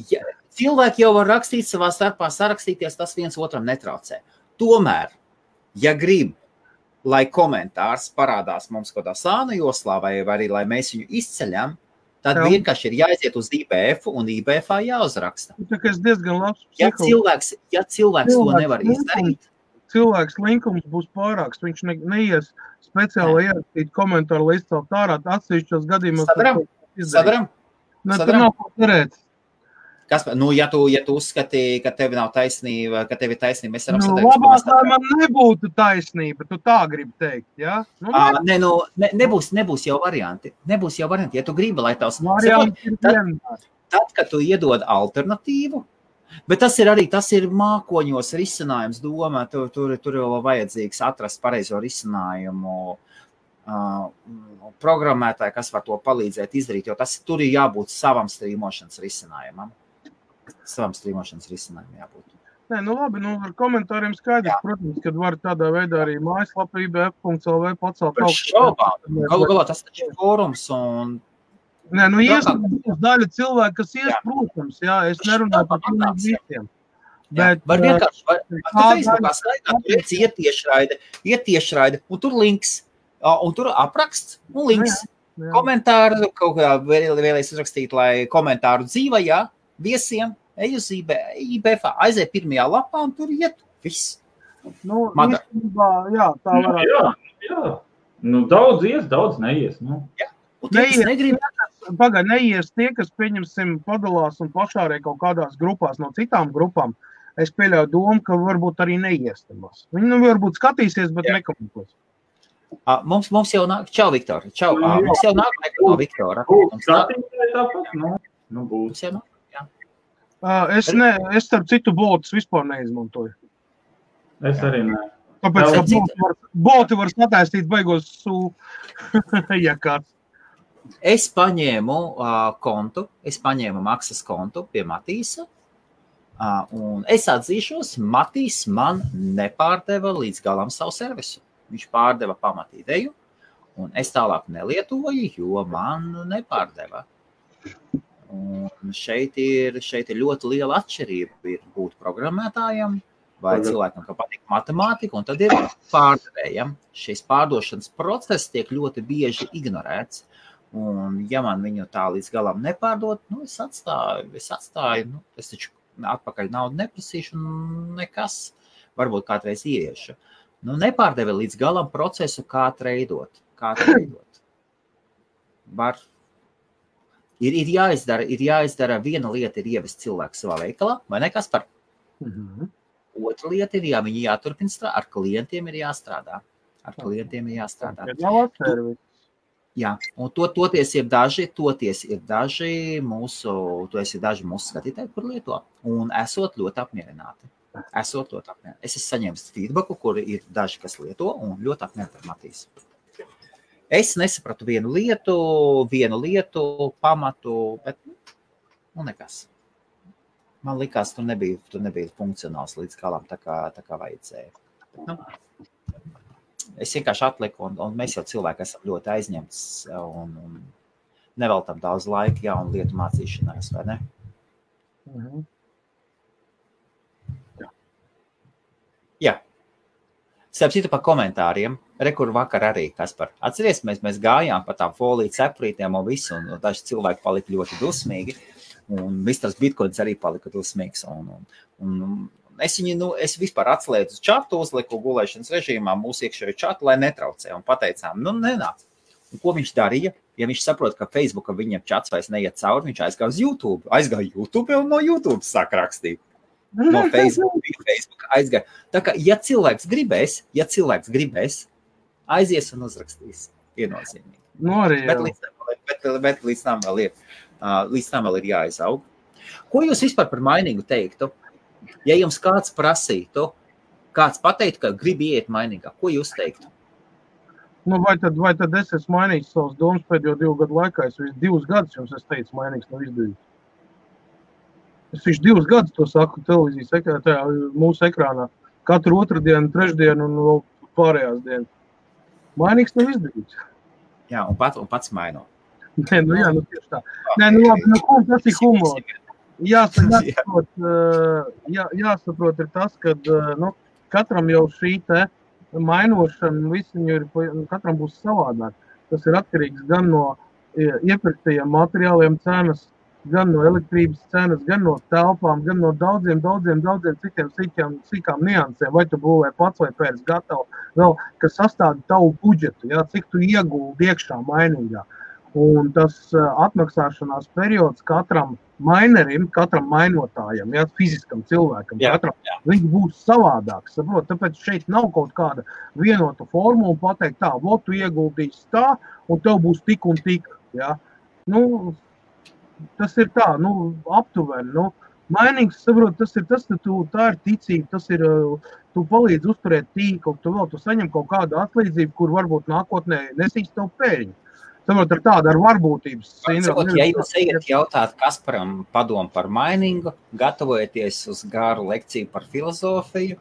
cilvēki jau var rakstīt savā starpā, sarakstīties, tas viens otram netraucē. Tomēr, ja grib, lai komentārs parādās mums kādā sāna joslā, vai arī, lai mēs viņu izceļam, tad vienkārši ir jāiziet uz IBF un IBF.ā jāuzraksta. Tas diezgan labs. Ja cilvēks to nevar izdarīt. Cilvēks linkums būs pārāks, viņš neies speciāli ierakstīt komentāru, lai izcelt ārā, atsevišķos gadījumos. Sadaram. Tur nav ko cerēt. Kaspar, ja tu uzskati, ka tev nav taisnība, ka tev ir taisnība, mēs varam satēkt. Labāk, lai man nebūtu taisnība, tu tā gribi teikt, jā? Nebūs jau varianti. Ja tu gribi, lai tavs... Tad, kad tu iedod alternatīvu, bet tas ir mākoņos risinājums doma, tur jau vajadzīgs atrast pareizo risinājumu programmētāji, kas var to palīdzēt izdarīt, jo tur ir jābūt savam strīmošanas risinājumam. Jābūt. Labi, ar komentāriem skaidrs, protams, kad var tādā veidā arī mājaslapa IBF.lv pacelt augstu. Galu galā tas taču ir fórums un... Daļa cilvēki, kas protams, es nerunāju par visiem. Var vienkārši, Facebookā staigā, tur iet tiešraide, un tur links, un tur apraksts, un links. Komentāru, kaut kā vēlēs uzrakstīt, lai komentāru dzīvajā, viesiem, ej uz IBF.ā, aiziet pirmajā lapā un tur iet viss. Tā varētu. Jā. Daudz ies, daudz neies. Neies tie, kas, pieņemsim, padalās un pašārē kaut kādās grupās no citām grupām. Es pieļauju domu, ka varbūt arī neies tamās. Viņi varbūt skatīsies, bet nekomentos. Mums jau nāk, čau, Viktor, čau, mums jau nāk no Viktora. Būs. Es starp citu botus vispār neizmantoju. Es arī ne. Tāpēc, ka boti var sataistīt baigos ja kāds. Es paņēmu kontu, maksas kontu pie Matīsa, un es atzīšos, Matīs man nepārdeva līdz galam savu servisu. Viņš pārdeva pamatīdeju, un es tālāk nelietoju, jo man nepārdeva. Un šeit ir ļoti liela atšķirība ir būt programmētājam vai cilvēkam, ka patīk matemātika, un tad ir pārdevējam. Šis pārdošanas process tiek ļoti bieži ignorēts. Un ja man viņu tā līdz galam nepārdot, es atstāju, es taču atpakaļ naudu neprasīšu nekas. varbūt kādreiz ieiešu. Nu, nepārdevi līdz galam procesu, kā treidot. Ir jāizdara viena lieta, ir ievest cilvēku savā veikalā, vai ne, Kaspar? Otra lieta ir, viņi jāturpina strādāt, ar klientiem ir jāstrādā. Jā, un toties ir daži mūsu skatītāji, kur lieto, un esot ļoti apmierināti. Es esmu saņēmis feedbacku, kur ir daži, kas lieto, un ļoti apmierināti ar Matīs. Es nesapratu vienu lietu, pamatu, bet nekas. Man likās, tur nebija funkcionāls līdz galam, tā kā vajadzēja. Nu, es vienkārši atliku, un mēs jau cilvēki esam ļoti aizņemts, un neveltam daudz laika jaunu lietu mācīšanās, vai ne? Jā. Starp citu par komentāriem. Rekur vakar arī, Kaspar. Atceries, mēs gājām pa tām foliju cepurītēm un visu, un daži cilvēki palika ļoti dusmīgi, un Misters Bitcoins arī palika dusmīgs, un es vispār atslēdzu čatu, uzliku gulēšanas režīmā mūsu iekšējo čatu, lai netraucē, un pateicām, nenāc. Un ko viņš darīja? Ja viņš saprot, ka Facebooka viņam čats vairs neiet cauri, viņš aizgāja uz YouTube. Aizgāja YouTube un no YouTube sāk rakstīt. No Facebook aizgāja. Tā kā, ja cilvēks gribēs, aizies un uzrakstīs. Viennozīmīgi. Bet līdz tam vēl ir jāizaug. Ko jūs vispār par mainīgu teiktu? Ja jums kāds prasītu, kāds pateiktu, ka grib iet mainīgā, ko jūs teiktu? Nu, vai tad es esmu mainījis savas domas pēdējo 2 gadu laikā? Es 2 gadus jums teicu, mainīgs nav izdarīts. Es 2 gadus to saku televīzijas mūsu ekrānā. Katru otrdienu, trešdienu un vēl pārējās dienas. Mainīgs nav izdarīts. Jā, un pats maino. Nē, tieši tā. Labi, tas ir humors. Jāsaprot ir tas, ka katram jau šī te mainošana, katram būs savādāk. Tas ir atkarīgs gan no iepirktajiem materiāliem cenas, gan no elektrības cenas, gan no telpām, gan no daudziem citiem sīkām niansēm. Vai tu būvē pats vai pēc gatavu, vēl, kas sastāda tavu budžetu, cik tu ieguldi iekšā mainīgā. Un tas atmaksāšanās periods katram mainerim, katram mainotājam, fiziskam cilvēkam, viņš būs savādāks, saprot, tāpēc šeit nav kaut kāda vienota formula pateikt tā, tu ieguldīsi tā, un tev būs tik un tik, tas ir tā, aptuveni, mainīgs, saprot, tā ir ticība, tas ir, tu palīdz uzturēt tīklu, tu saņem kaut kādu atlīdzību, kur varbūt nākotnē nesīs tev pēļņu. Saprot, ar varbūtības sindromu. Ja jūs ejat jautāt Kasparam padomu par mainingu, gatavojieties uz garu lekciju par filozofiju,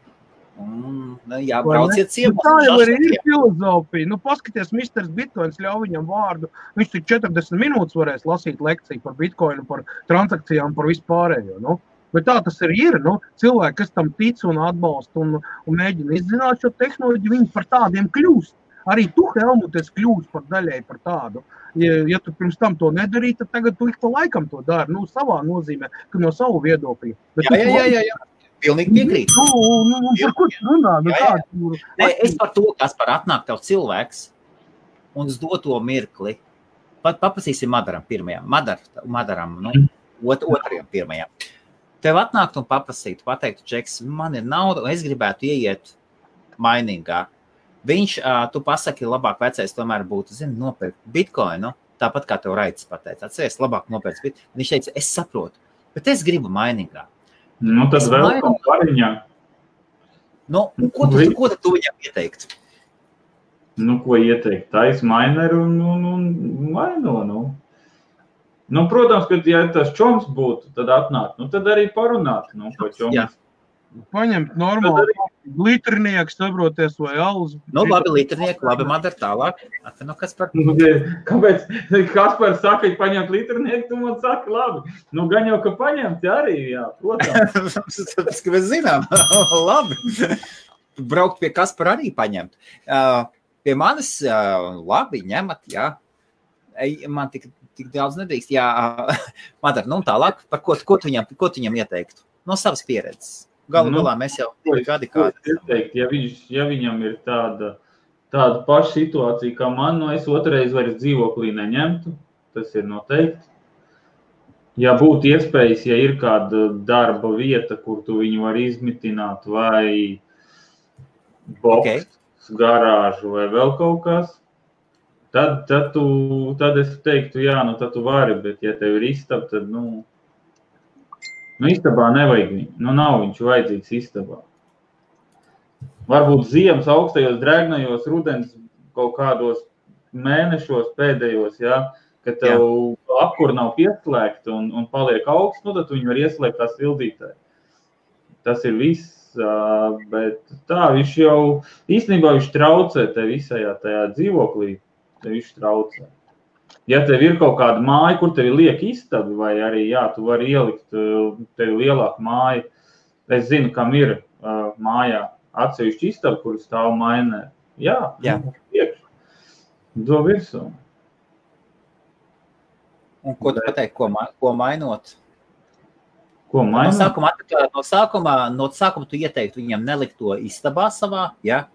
brauciet ciemos. Tā jau arī ir filozofija. Paskaties, Misters Bitcoins ļauj viņam vārdu. Viņš tik 40 minūtes varēs lasīt lekciju par Bitcoinu, par transakcijām, par vispārējo. Bet tā tas arī ir. Cilvēki, kas tam tic un atbalsta un mēģina izzināt šo tehnoloģiju, viņi par tādiem kļūst. Arī tu, Helmut, esi kļūst par daļai par tādu. Ja tu pirms tam to nedarīji, tad tagad tu ik pa laikam to dari. Savā nozīmē, ka no savu viedokļu. Jā. Pilnīgi piekrīt. Par ko tu runā? Es par to, kas par atnāk tev cilvēks un uz doto mirkli. Paprasīsim Madaram pirmajam. Madaram, otrajam pirmajam. Tev atnākt un paprasīt, pateiktu, Džeks, man ir nauda, un es gribētu ieiet mainīgā. Viņš, tu pasaki, labāk vecais tomēr būtu, nopirkt Bitcoinu, tāpat kā tev Raits pateica. Atceries, labāk nopirkt Bitcoinu. Viņš teica, es saprotu, bet es gribu mainīgā. Tas vēl kaut pariņā. Ko tu viņam ieteikt? Ko ieteikt? Tais maineru un maino, protams, ka ja tas čoms būtu, tad atnāk, tad arī parunāt, ko čoms. Jā. Paņemt normāli litrnieku, sabroties vai alus. Labi, litrnieku, labi, Madar, tālāk. Kaspar. Kāpēc Kaspar saka, ka paņemt litrnieku, tu man saki, labi. Gan jau, ka paņemt arī, jā, protams. Tas, ka mēs zinām, labi. Braukt pie Kaspar arī paņemt. Pie manis, labi, ņemat, jā. Man tik daudz nedrīkst, jā. Madar, tālāk, par ko tu viņam ieteiktu? No savas pieredzes. Galu galā mēs jau gadi kādi. Ja viņam ir tāda paša situācija, kā man, es otrais vairs dzīvoklī neņemtu, tas ir noteikti. Ja būtu iespējas, ja ir kāda darba vieta, kur tu viņu var izmitināt, vai boks, garāžu vai vēl kaut kas, tad es teiktu, jā, tad tu vari, bet ja tev ir istaba, tad, istabā nevajag viņu. Nav viņš vajadzīgs istabā. Varbūt ziemas augstajos, drēgnajos, rudens kaut kādos mēnešos pēdējos, jā, ka tev apkur nav pieslēgta un paliek augsts, tad tu viņu var ieslēgt tā sildītāji. Tas ir viss, bet tā, viņš jau, īstenībā viņš traucē te visajā tajā dzīvoklī, te viņš traucē. Ja tev ir kaut kāda māja, kur tev ir lieka istabi, vai arī, jā, tu vari ielikt tev lielāku māju. Es zinu, kam ir mājā atsevišķi istabi, kur stāv mainē. Jā. Priekš. Do virsū. Un ko tu pateikt, ko mainot? Ko mainot? No sākuma tu ieteiktu viņam nelikt to istabā savā, jā?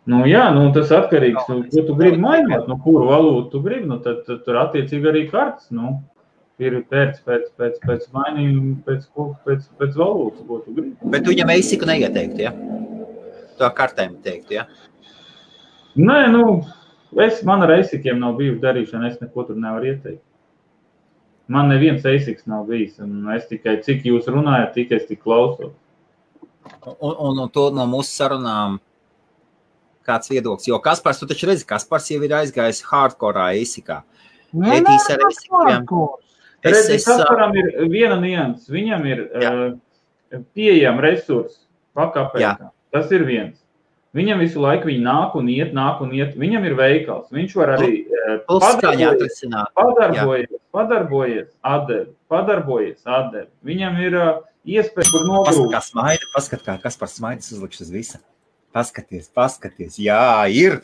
Tas atkarīgs, ko tu gribi mainot, kuru valūtu tu gribi, tad tur attiecīgi arī kartes, ir pēc mainījuma, pēc valūtas, ko tu gribi. Bet tu viņam eisiku neieteiktu, ja? To kartēm teiktu, ja? Nē, man ar eisikiem nav bijuši darīšana, es neko tur nevaru ieteikt. Man neviens eisiks nav bijis, un es tikai, cik jūs runājat, tik es tik klausos. Un to no mūsu sarunām kāds viedoklis, jo Kaspars, tu taču redzi, Kaspars jau ir aizgājis hardcore eisikā. Etīs ar eisikiem. Kasparam ir viena nianses, viņam ir pieejam resursi pakapēkā. Tas ir viens. Viņam visu laiku viņi nāk un iet, viņam ir veikals. Viņš var arī padarbojies, atdevi. Viņam ir iespēja, kur nogrūst. Paskat, kā Kaspars smaidas uzlikš uz visa. Paskaties, jā, ir.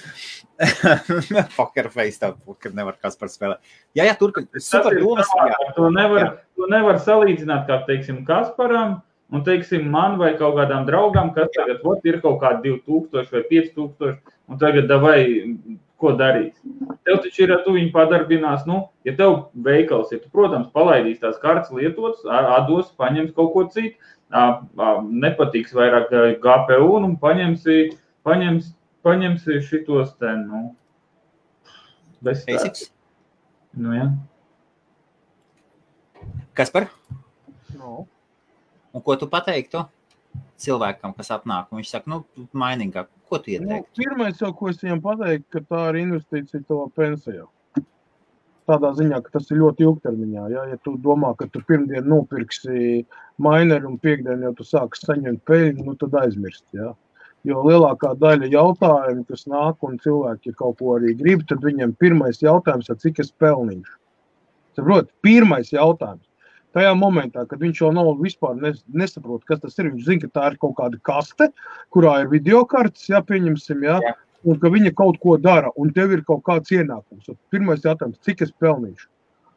Poker face tā, kad nevar Kaspars spēlēt. Jā, turpin, super domas. To nevar salīdzināt, kā, teiksim, Kasparam, un, teiksim, man vai kaut kādām draugām, kas tagad ir kaut kādi 2000 vai 5000, un tagad davai, ko darīs. Tev taču ir, tu viņu padarbinās, ja tev veikals ir, tu, protams, palaidīs tās kartes lietotas, atdos, paņems kaut ko citu, nepatiks vairāk GPU un paņemsi šitos te, bez Basics? Jā. Kaspar? Un ko tu pateiktu cilvēkam, kas atnāk? Un viņš saka, mainīgāk, ko tu ieteiktu? Pirmais jau, ko es viņam pateiktu, ka tā ir investīcija tavā pensijā. Tādā ziņā, ka tas ir ļoti ilgtermiņā. Ja tu domā, ka tu pirmdien nopirksi maineri un piekdien jau tu sāksi saņemt peļņu, tad aizmirst. Ja? Jo lielākā daļa jautājumu, kas nāk un cilvēki kaut ko arī grib, tad viņiem pirmais jautājums ir, cik es pelnīšu. Saprot, pirmais jautājums. Tajā momentā, kad viņš jau nav vispār nesaprot, kas tas ir, viņš zina, ka tā ir kaut kāda kaste, kurā ir videokartes, pieņemsim, un ka viņa kaut ko dara, un tev ir kaut kāds ienākums. Pirmais jautājums, cik es pelnīšu?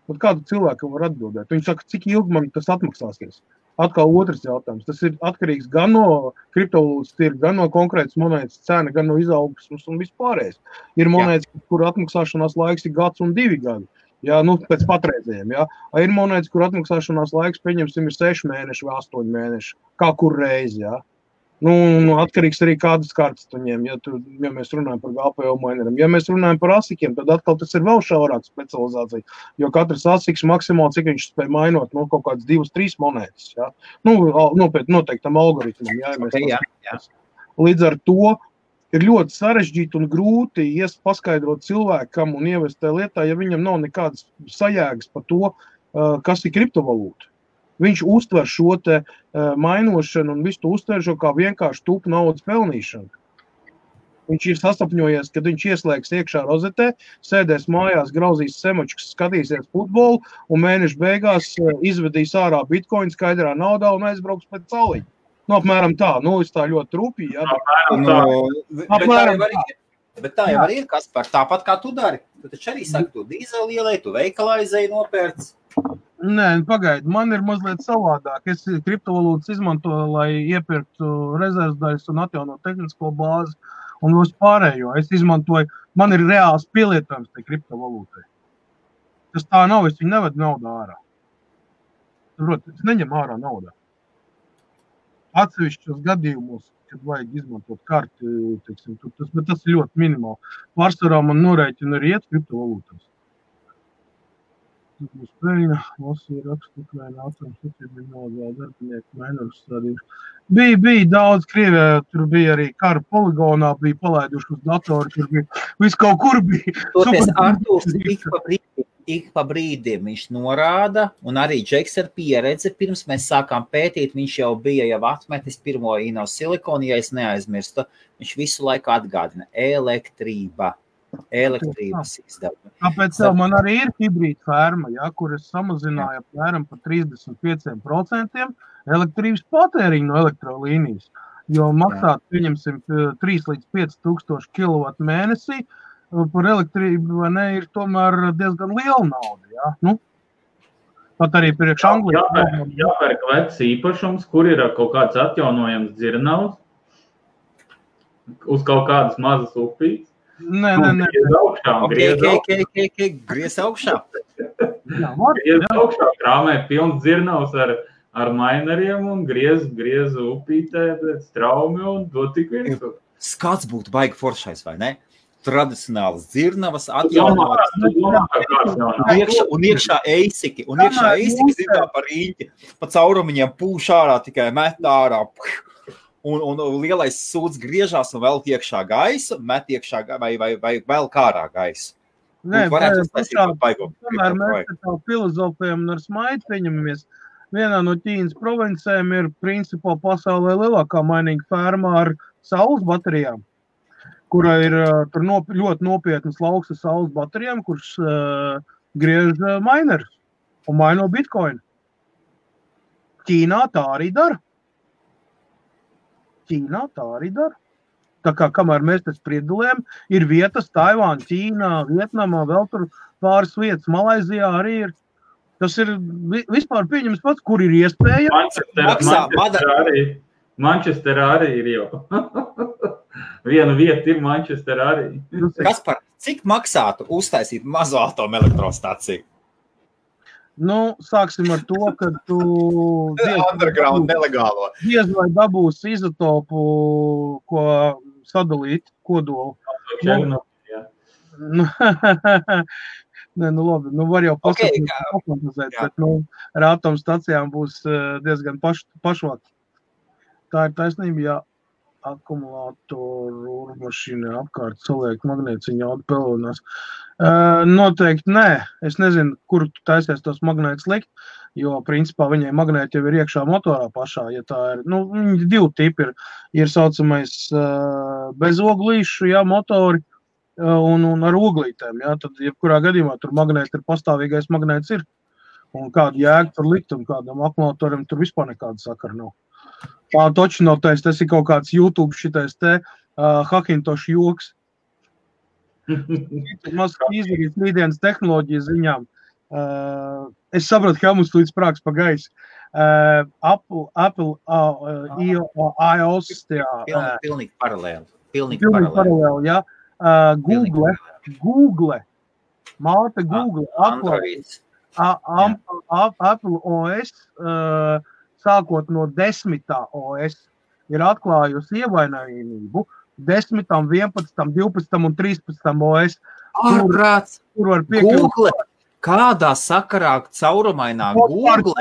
Un kādu cilvēku var atbildēt? Viņš saka, cik ilgi man tas atmaksāsies? Atkal otrs jautājums. Tas ir atkarīgs gan no kriptovalūtas tirga, gan no konkrētas monētas cena, gan no izaugsmes un vispārējais. Ir monētas, kur atmaksāšanās laiks ir gads un 2 gadi. Jā, pēc patreizējiem, jā. Ir monētas, kur atmaksāšanās laiks, pieņemsim, ir 6 mēneši vai 8 mēneši. Kā kur reizi, jā. Atkarīgs arī kādas kartas tu ņem, ja mēs runājam par GPU maineriem. Ja mēs runājam par asikiem, tad atkal tas ir vēl šaurāka specializācija, jo katrs asiks maksimāli, cik viņš spēj mainot, kaut kādas 2-3 monētas, jā. Noteiktam algoritmam, jā. Līdz ar to ir ļoti sarežģīti un grūti paskaidrot cilvēkam un ievest tajā lietā, ja viņam nav nekādas sajēgas par to, kas ir kriptovalūta. Viņš uztver šo te mainošanu un visu to uztver šo kā vienkārši tupu naudas pelnīšanu. Viņš ir sasapņojies, kad viņš ieslēgs iekšā rozetē, sēdēs mājās, grauzīs semočkas, skatīsies futbolu un mēnešu beigās izvedīs ārā bitcoin skaidrā naudā un aizbrauks pēc sauliņa. Apmēram tā, es tā ļoti rūpīgi, jā. Bet tā jau arī ir, Kaspar, tāpat kā tu dari. Tu taču arī saki, tu dīzeli ielēji, tu veikalā izēji nopērts. Nē, pagaidi, man ir mazliet savādāk. Es kriptovalūtas izmantoju, lai iepirktu rezervdaļas un atjaunot tehnisko bāzi un visu pārējo. Es izmantoju, man ir reāls pielietojums tai kriptovalūtai. Tas tā nav, es viņu nevedu naudā ārā. Es neņemu ārā naudā. Atsevišķos gadījumos, kad vajag izmantot karti, teiksim, bet tas ir ļoti minimāli. Pārsvarā man norēķina arī iet kriptovalūtās. Būs peļņa, lasīja rakstu, Ukraina atoms, attiecībā vēl darbinieku mainorus stādījuši. Bija daudz Krievijā, tur bija arī kara poligonā, bija palaiduši uz datoru, tur bija, viss kaut kur bija. Toties Artūrs ik pa brīdim viņš norāda, un arī Džeks ar pieredzi, pirms mēs sākām pētīt, viņš jau bija atmetis pirmo Inosilikonu, ja es neaizmirstu, viņš visu laiku atgādina elektrības izdevumi. Tāpēc man arī ir hibrīda ferma, kur es samazināju apmēram par 35% elektrības patēriņu no elektrolīnijas, jo maksāt, pieņemsim, 3 līdz 5 tūkstoši kilovatu mēnesī, par elektrību ir tomēr diezgan liela nauda. Ja? Nu, pat arī priekš Anglijas. Jāpērk vecs īpašums, kur ir kaut kāds atjaunojams dzirnavs, uz kaut kādas mazas upītes. Nē. Griez augšā. Griez augšā, krāmē pilns dzirnavs ar maineriem un griez upītē pēc traumi un dod tik virsū. Skats būtu baigi foršais, vai ne? Tradicionāls dzirnavas, atjaunotas, un iekšā eisiki, zināmā par rīņķi, pa caurumiņiem pūš ārā, tikai met ārā, un lielais sūds griežās un velk iekšā gaisu, met iekšā vai velk ārā gaisu. Nē, tomēr mēs tā filozofējam un ar smaidu pieņemamies. Vienā no Ķīnas provincēm ir principā pasaulē lielākā mainīga ferma ar saules baterijām, kura ir tur ļoti nopietnas lauks ar saules baterijām, kurš griež mainers un maino bitcoinu. Ķīnā tā arī dara. Tā kā kamēr mēs te spriedulējam, ir vietas Taivāna, Ķīnā, Vietnamā, vēl tur pāris vietas, Malaizijā arī ir. Tas ir vispār pieņems pats, kur ir iespēja. Manchesterā arī ir jau. Viena vieta ir Manchesterā arī. Kaspar, cik maksātu uztaisīt mazo atomelektrostaciju? Nu, sāksim ar to, ka tu underground nelegālo. Diez vai dabūsi izotopu, ko sadalīt kodolu. Labi, var jau pasakīt, bet ar atomstacijām būs diezgan pašvāk. Tā ir taisnība, ja akumulātoru mašīnā apkārt saliek magnētiņu jaudu pelonās. Noteikti nē. Es nezinu, kur tu taisies tos magnētus likt, jo principā viņai magnēti jau ir iekšā motorā pašā. Ja tā ir, viņi divi tipi ir saucamais bezoglīšu, motori un ar oglītēm. Tad, jebkurā gadījumā tur magnēti ir pastāvīgais magnēts ir. Un kādu jēgu tur likt un kādam akumulātoram tur vispār nekāda sakara nav. Tā toči nav tais, tas ir kaut kāds YouTube šitais te Hakintošu joks. Maz izdarīt rītdienas tehnoloģijas ziņām. Es saprotu, ka mums līdz sprāks pa gaisu. Apple iOS. Pilnīgi paralēli. Pilnīgi paralēli, jā. Google. Māte Google. Apple OS. Sākot no 10. OS ir atklājusi ievainojamību 10., 11., 12. un 13. OS. Kur var piekļūt. Google, kādā sakarā caurumainā Google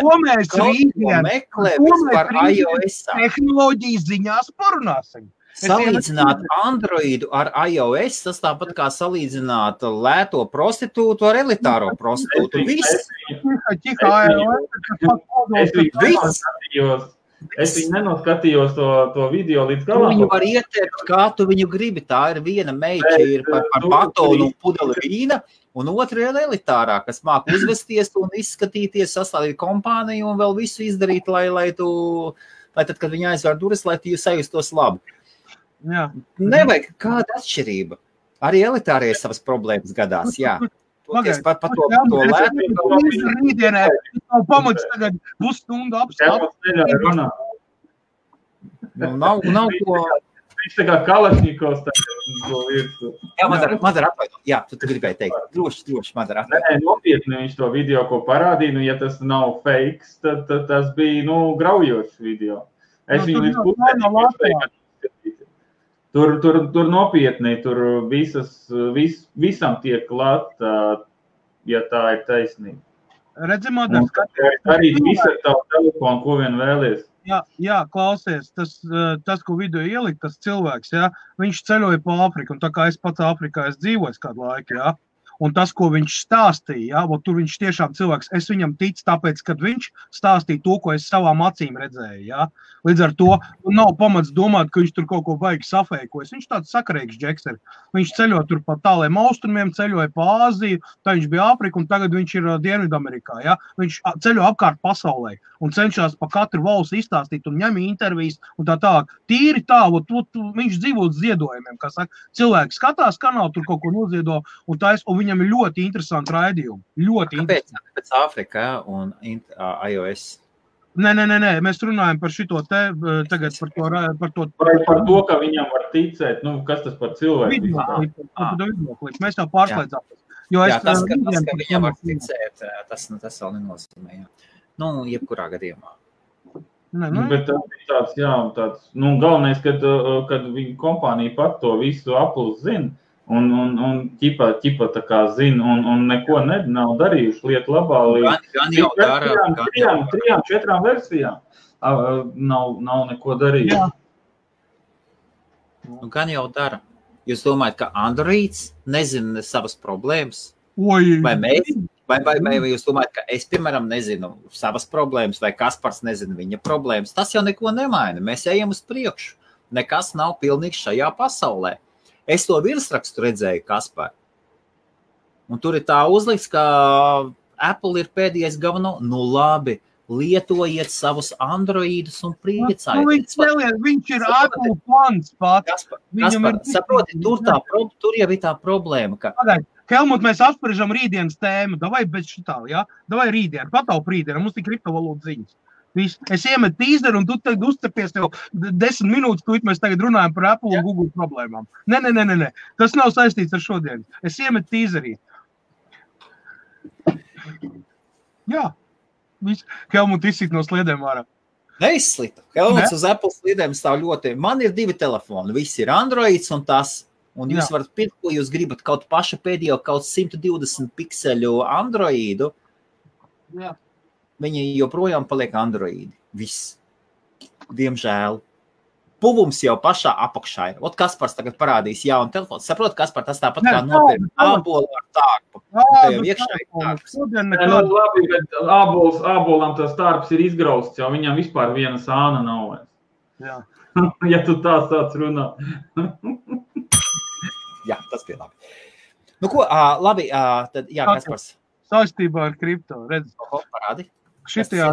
meklē vispār iOS? Tehnoloģijas ziņās parunāsim. Salīdzināt Androidu ar iOS, tas tāpat kā salīdzināt lēto prostitūtu ar elitāro prostitūtu. Viss. Es viņu nenoskatījos to video līdz galam. Tu viņu var ieteikt, kā tu viņu gribi. Tā ir viena meita, ir par batonu un pudeli vīna, un otra ir elitārā, kas māk uzvesties un izskatīties, sastādīt kompāniju un vēl visu izdarīt, lai tad, kad viņa aizvēr durvis, lai tu sajustos labi. Jā. Nevajag kāda atšķirība. Arī elitārie savas problēmas gadās, jā. Pagaid, par to lētu. Rītdienē, nav pamats tagad pusstundu apstāst. Nav ko... Viņš tā kā Kalašņikovs tagad virsū. Jā, Madara atvaino. Jā, tu gribēji teikt. Droši, Madara atvaino. Nē, nopietni viņš to video, ko parādīja, ja tas nav fakes, tad tas bija, graujošs video. Es viņu līdz pusē. Tur nopietni, tur visam tiek klāt, ja tā ir taisnība. Redzi, Madara, skaties. Arī visu ar tavu telefonu, ko vien vēlies. Jā, klausies, tas, ko video ielikt, tas cilvēks, jā, viņš ceļoja pa Āfriku, un tā kā es pats Āfrikā dzīvoju kādu laiku, jā, un tas, ko viņš stāstīja, jā, tur viņš tiešām cilvēks, es viņam ticu, tāpēc, kad viņš stāstīja to, ko es savām acīm redzēju, jā. Līdz ar to nav pamats domāt, ka viņš tur kaut ko baigi safēkojas. Viņš tāds sakarīgs džeks ir. Viņš ceļo tur pa tāliem austrumiem, ceļoja pa Āziju, tā viņš bija Āfrika, un tagad viņš ir Dienvidamerikā, jā. Viņš ceļo apkārt pasaulē un cenšas pa katru valsti izstāstīt un ņem intervijas un tā tālāk. Tīri tā, viņš dzīvo uz ziedojumiem, kā saka. Cilvēki skatās kanālu, tur kaut ko noziedo, un viņam ir ļoti interesanti raidījumi. Kāpēc Āfrika un iOS? Nē, mēs runājam par šito te, tagad par to. Par to, ka viņam var ticēt, kas tas par cilvēku? Videoklips, mēs jau pārslēdzāmies. Jā, tas, ka viņam var ticēt, tas vēl nenozīmē, jā. Jebkurā gadījumā. Bet tas ir tāds, galvenais, kad viņa kompānija pat to visu Apple zina, un ķipa tā kā zina, un neko nav darījuši lietu labā līdz 3-4 versijām nav neko darījuši. Gan jau dara. Jūs domājat, ka Androids nezina savas problēmas? Vai mēs? Vai jūs domājat, ka es, piemēram, nezinu savas problēmas, vai Kaspars nezina viņa problēmas? Tas jau neko nemaina. Mēs ejam uz priekšu. Nekas nav pilnīgs šajā pasaulē. Es to virsrakstu redzēju, Kaspar. Un tur ir tā uzlikts, ka Apple ir pēdējais galveno. Labi, lietojiet savus Androidus un priecājiet. Viņš ir Apple fans pats. Kaspar, saproti, tur jau ir tā problēma, ka... Helmut, mēs apspriežam rītdienas tēmu. Davai bez šitā, jā? Davai rītdienu, pataup rītdienu. Mums ir kriptovalūtas ziņas. Es iemetu tīzeru, un tu tagad uzcepies tev 10 minūtes, ko mēs tagad runājam par Apple un Google problēmām. Nē. Tas nav saistīts ar šodien. Es iemetu tīzerī. Jā. Helmut izsit no sliedēm ārā. Neizslita. Helmuts uz Apple sliedēm stāv ļoti. Man ir 2 telefoni. Viss ir Androids un tas. Un jūs varat pirkt, ko jūs gribat, kaut paša pēdējo, kaut 120 pikseļu Androidu. Jā. Viņi joprojām paliek Androidi. Viss. Diemžēl. Puvums jau pašā apakšā ir. Kaspars tagad parādīs jaunu telefonu. Saprot, Kaspar, tas tāpat kā nopirkt ābolu ar tārpu. Tā jau iekšā ir tārps. Labi, bet ābolam tas tārps ir izgrausts, jau viņam vispār viena sāna nav. Jā. Ja tu tā sāc runāt. Jā, tas bija labi. Ko, labi, tad, jā, Kaspars. Saistībā ar kripto, redz. Parādi. Šitajā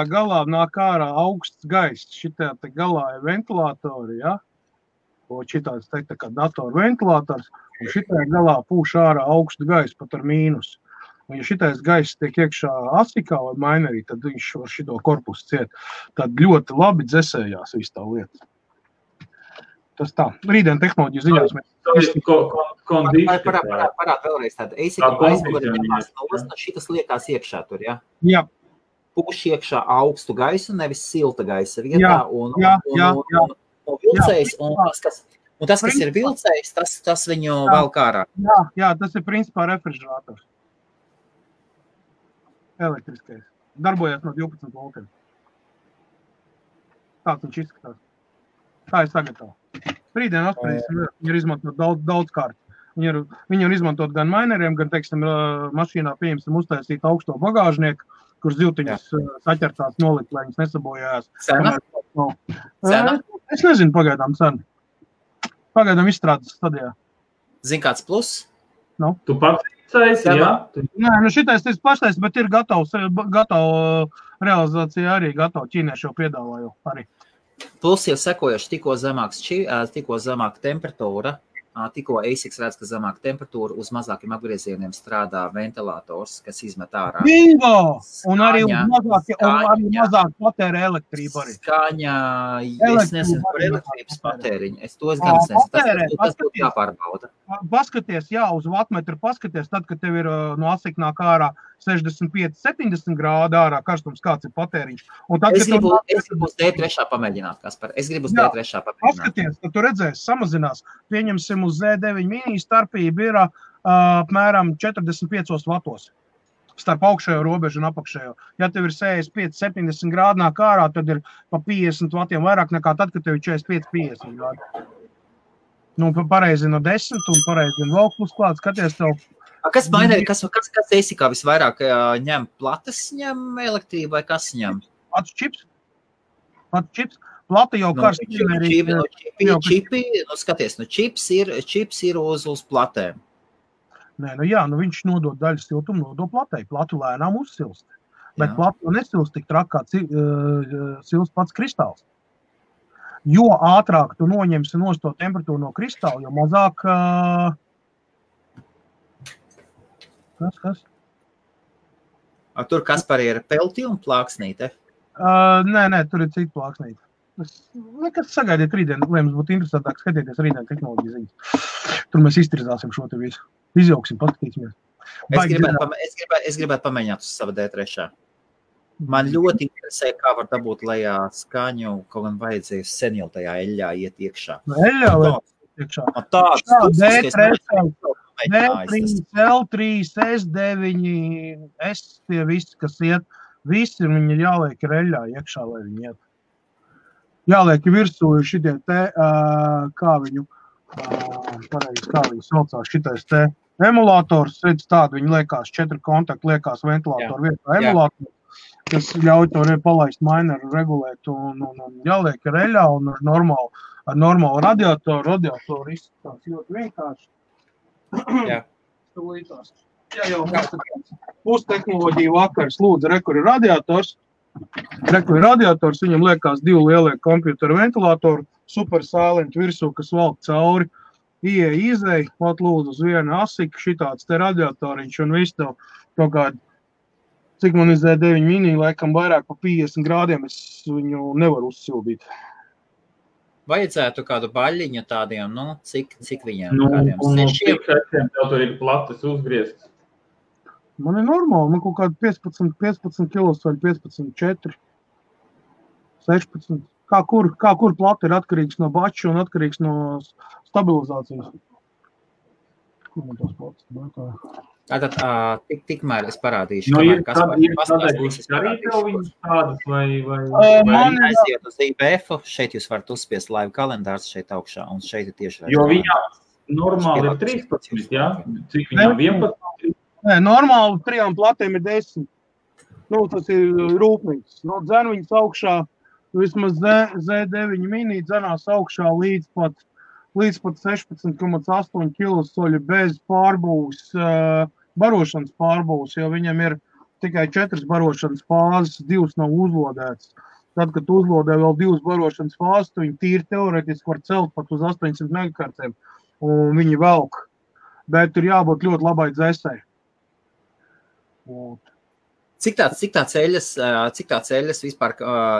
galā nāk ārā augsts gaiss. Šitajā te galā ir ventilātori, ja? Šitāds te kā datoru ventilators. Un šitajā galā pūš ārā augstu gaisu, pat ar mīnus. Un ja šitais gaiss tiek iekšā asikā vai mainerī, tad viņš var šito korpusu ciet. Tad ļoti labi dzesējās visu tā lieta. Tas tā. Rītdien tehnoloģiju ziņās mēs... Parād vēlreiz tādu. Šitas liekās iekšā tur, ja? Jā. Pūš iekšā augstu gaisu, nevis silta gaisa vietā. Un vilcējs, un tas, kas ir vilcējs, tas viņu vēl kārā. Jā, tas ir principā refrižerators. Elektriskais. Darbojas no 12 voltiem. Tāds viņš izskatās. Tā ir sagatava. Rītdien atspērīsim, viņi ir izmantot daudz kārt. Viņi ir izmantot gan maineriem, gan, teiksim, mašīnā pieņemsim uztaisīt augsto bagāžnieku, kur ziltiņas saķertās nolikt, lai viņas nesabojājās. Cena? Es nezinu pagaidām cenu. Pagaidām izstrādes stadijā. Zini, kāds plus? Tu pats izsaisi, jā? Nē, šitais tas paštais, bet ir gatavs realizācija arī gatava. Ķīnieši jau piedāvāju arī. Plus jau sekojuši tikko zemāka temperatūra, tikko ASICS redz, ka zemāk temperatūra uz mazākiem apgriezieniem strādā ventilators, kas izmet ārā. Bingo! Un arī mazāk patērē elektrību arī. Skaņa, es nezinu par elektrības patēriņu. Es to gan nezinu. Tas būtu jāpārbauda. Paskaties, uz vatmetru paskaties, tad, kad tev ir no ASIC nāk ārā 65-70 grādu ārā karstums, kāds ir patēriņš. Es gribu uz D3 pamēģināt, Kaspar. Es gribu uz D3 pamēģināt. Paskaties, tad tu redzēsi, samazinās. Pieņemsim uz Z9 mini starpība ir apmēram 45 vatos. Starp augšējo robežu un apakšējo. Ja tev ir 65-70 grādu nāk ārā, tad ir pa 50 vatiem vairāk nekā tad, kad tev ir 45-50 grādu. Nu, pareizi no 10 un pareizi vēl plus klāt, skaties tev. Kas mainē, kas ASICā visvairāk ņem? Plates ņem elektrību vai kas ņem? Pats čips. Plata jau karsts. Čipi, skaties, čips ir uz platēm. Nē, viņš nodod daļu siltumu, nodod platei. Platu lēnām uzsilst. Bet platu nesilst tik traki, kā silst pats kristāls. Jo ātrāk tu noņemsi nost to temperatūru no kristāla, jo mazāk... Kas? Tur Kaspar ir pelti un plāksnīte? Nē, tur ir cita plāksnīte. Nekas sagaidiet rītdien, lai mums būtu interesantāk skatieties rītdien tehnoloģiju ziņas. Tur mēs iztirzāsim šo te visu. Izjauksim, paskatīsimies. Es gribētu pamēģināt uz sava D3. Man ļoti interesē, kā var dabūt lejā skaņu, kaut gan vajadzēja sen jau tajā eļļā iet iekšā. Eļļā vai iekšā? D3, L3, S9, S tie visi, kas iet, visi viņi jāliek ir eļļā iekšā, lai viņi iet. Jāliek virsū šitie te, kā viņu saucās, šitais te emulators, redz tādu, viņi liekās 4 kontakti, liekās ventilātoru vietā emulators, kas ļauj to palaist mineru regulēt un jāliek ir eļļā un ar normālu radiatoru izskatās ļoti vienkārši. Jā. Jā, jau mūsu tehnoloģija vakars lūdzu, rekur ir radiators, viņam liekās 2 lielie kompjuteru ventilātoru, super silent virsū, kas valk cauri, izēj, pat lūdzu uz vienu ASIC, šitāds te radiatoriņš un viss tev kaut kādu, cik man ir Z9 mini, laikam vairāk pa 50 grādiem, es viņu nevaru uzsildīt. Vajadzētu kādu baļiņu tādiem, cik viņiem? Un cik sešiem tev tur ir plates uzgrieztas? Man ir normāli, man kaut kādi 15 kilos vai 15,4, 16. Kā kur plata ir atkarīgs no bača un atkarīgs no stabilizācijas. Kur man tos platas bēkā? Tātad, tikmēr es parādīšu, ir arī tev viņas tādas vai aiziet uz IBF, šeit jūs varat uzspiest live kalendārs šeit augšā, un šeit ir tieši jo viņā normāli ir 13, jā? Cik viņām 11? Nē, normāli 3 platēm ir 10. Tas ir rūpnīgs. Dzen viņas augšā, vismaz Z9 mini dzenās augšā līdz pat 16,8 kilosoļu bez pārbūves, barošanas pārbūves, jo viņam ir tikai 4 barošanas fāzes, 2 nav uzlodētas. Tad, kad uzlodē vēl 2 barošanas fāzes, tu viņi tīri teoretiski var celt pat uz 800 megahertziem, un viņi velk. Bet tur jābūt ļoti labai dzesai. Cik tāds eļas vispār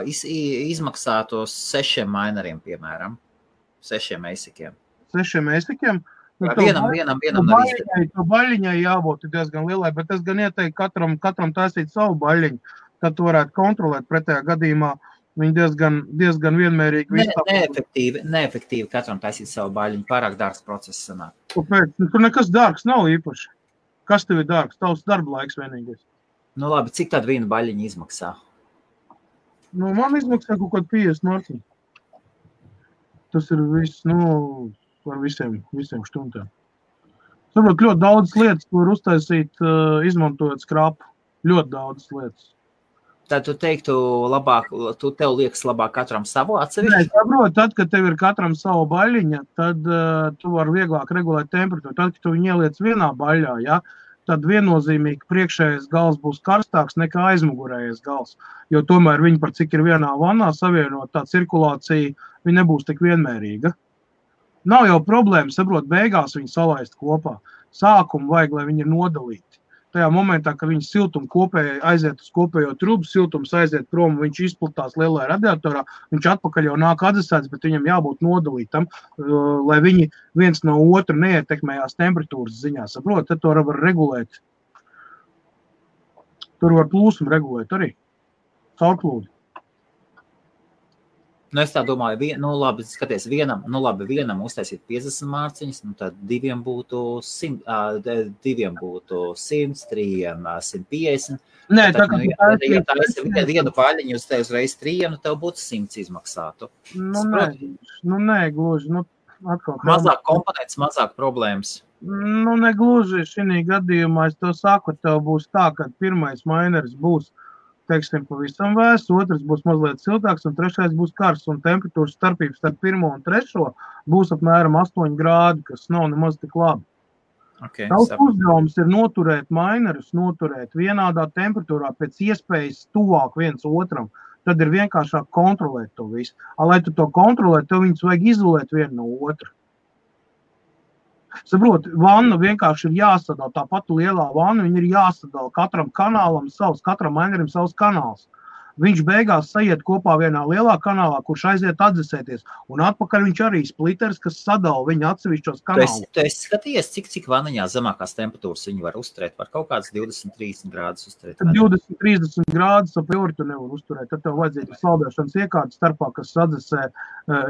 izmaksātos 6 mineriem, piemēram? 6 ASICiem. 6 ASICiem? Vienam to baļiņai jābūt diezgan lielai, bet es gan ieteiktu katram taisīt savu baļiņu, tad tu varētu kontrolēt pretējā gadījumā. Viņi diezgan vienmērīgi neefektīvi katram taisīt savu baļiņu, pārāk dārgs process sanāk. Kāpēc? Tur nekas dārgs nav īpaši. Kas tev ir dārgs? Tavs darba laiks vienīgais. Labi, cik tad viena baļiņa izmaksā? Man izmaksā kaut kāds 50 marciņu. Tas ir viss, par visiem štundām. Saprot, ļoti daudz lietas var uztaisīt, izmantojot skrapu. Ļoti daudz lietas. Tad tu teiktu labāk, tev liekas labāk katram savu atsevišķi? Nē, saprot, tad, kad tev ir katram savu baļiņa, tad tu vari vieglāk regulēt temperatūru. Tad, kad tu viņu ieliec vienā baļļā, ja, tad viennozīmīgi priekšējais gals būs karstāks nekā aizmugurējais gals. Jo tomēr viņi par cik ir vienā vannā savienot, tā cirkulācija, viņa nebūs tik vienmērīga. Nav jau problēma, saprot, beigās viņi salaist kopā. Sākumu vajag, lai viņi ir nodalīti. Tajā momentā, kad viņi siltumu kopēji aiziet uz kopējo trubu, siltums aiziet prom, viņš izplatās lielajā radiatorā, viņš atpakaļ jau nāk atdzesēts, bet viņam jābūt nodalītam, lai viņi viens no otru neietekmējās temperatūras ziņā. Saprot, tad to var regulēt. Tur var plūsmu regulēt arī. Caurplūdi. Nu, es tā domāju, labi, skaties, vienam uztaisīt 50 mārciņas, tad diviem būtu 100, 3, 150. Nē, ja tā esi vienu paļiņu uz tevi uzreiz 3, tev būtu 100 izmaksātu. Nē, gluži. Atkal, mazāk komponents, mazāk problēmas. Negluži šī gadījumā, es to saku, tev būs tā, ka pirmais mainers būs, teiksim, pavisam vēsts, otrs būs mazliet siltāks un trešais būs karsts, un temperatūras starpības starp 1. un 3. būs apmēram 8 grādi, kas nav nemaz tik labi. Okay, Tavs uzdevums ir noturēt mainerus, noturēt vienādā temperatūrā pēc iespējas tuvāk viens otram, tad ir vienkāršāk kontrolēt to visu. Lai tu to kontrolēt, tev viņus vajag izolēt vienu no otra. Saprot, vanna vienkārši ir jāsadala, tā pati lielā vanna, viņa ir jāsadala katram kanālam savs, katram mainerim savs kanāls. Viņš beigās sajiet kopā vienā lielā kanālā, kurš aiziet atdzesēties, un atpakaļ viņš arī spliters, kas sadala viņa atsevišķos kanālus. Tu esi skatījies, cik vaniņā zemākās temperatūras viņi var uzturēt, var kaut kāds 20-30 grādus uzturēt? 20-30 grādus ap jūri tu nevar uzturēt, tad tev vajadzīga saldēšanas iekārta starpā, kas sadzesē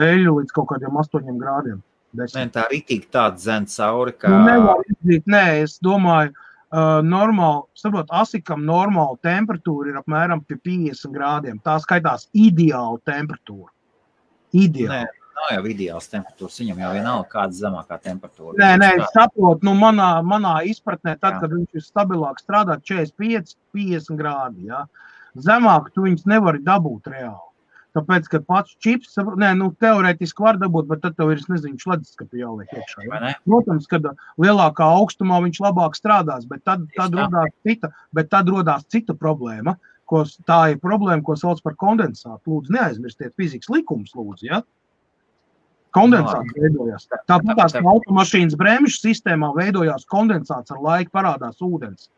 eļu līdz kaut kādiem 8 grādiem. Nē, tā ritīgi tāda zem cauri, kā... Nē, es domāju, asikam normāla temperatūra ir apmēram pie 50 grādiem. Tā skaitās ideāla temperatūra. Ideāla. Nē, nav jau ideāls temperatūras, viņam jau vienalga kāda zemākā temperatūra. Nē, es saprotu, manā izpratnē, tad, kad viņš ir stabilāk strādāt 45-50 grādi, ja? Zemāk tu viņus nevari dabūt reāli. Tāpēc, ka pats čips, teorētiski var dabūt, bet tad tev ir, šledeskapi jāliek iekšā. Ja? Protams, kad lielākā augstumā viņš labāk strādās, bet tad rodās cita problēma, tā ir problēma, ko sauc par kondensātu. Lūdzu, neaizmirstiet fizikas likumus, lūdzu, ja? Kondensāts veidojās. Tāpat tās automašīnas bremžu sistēmā veidojās kondensāts, ar laiku parādās ūdens.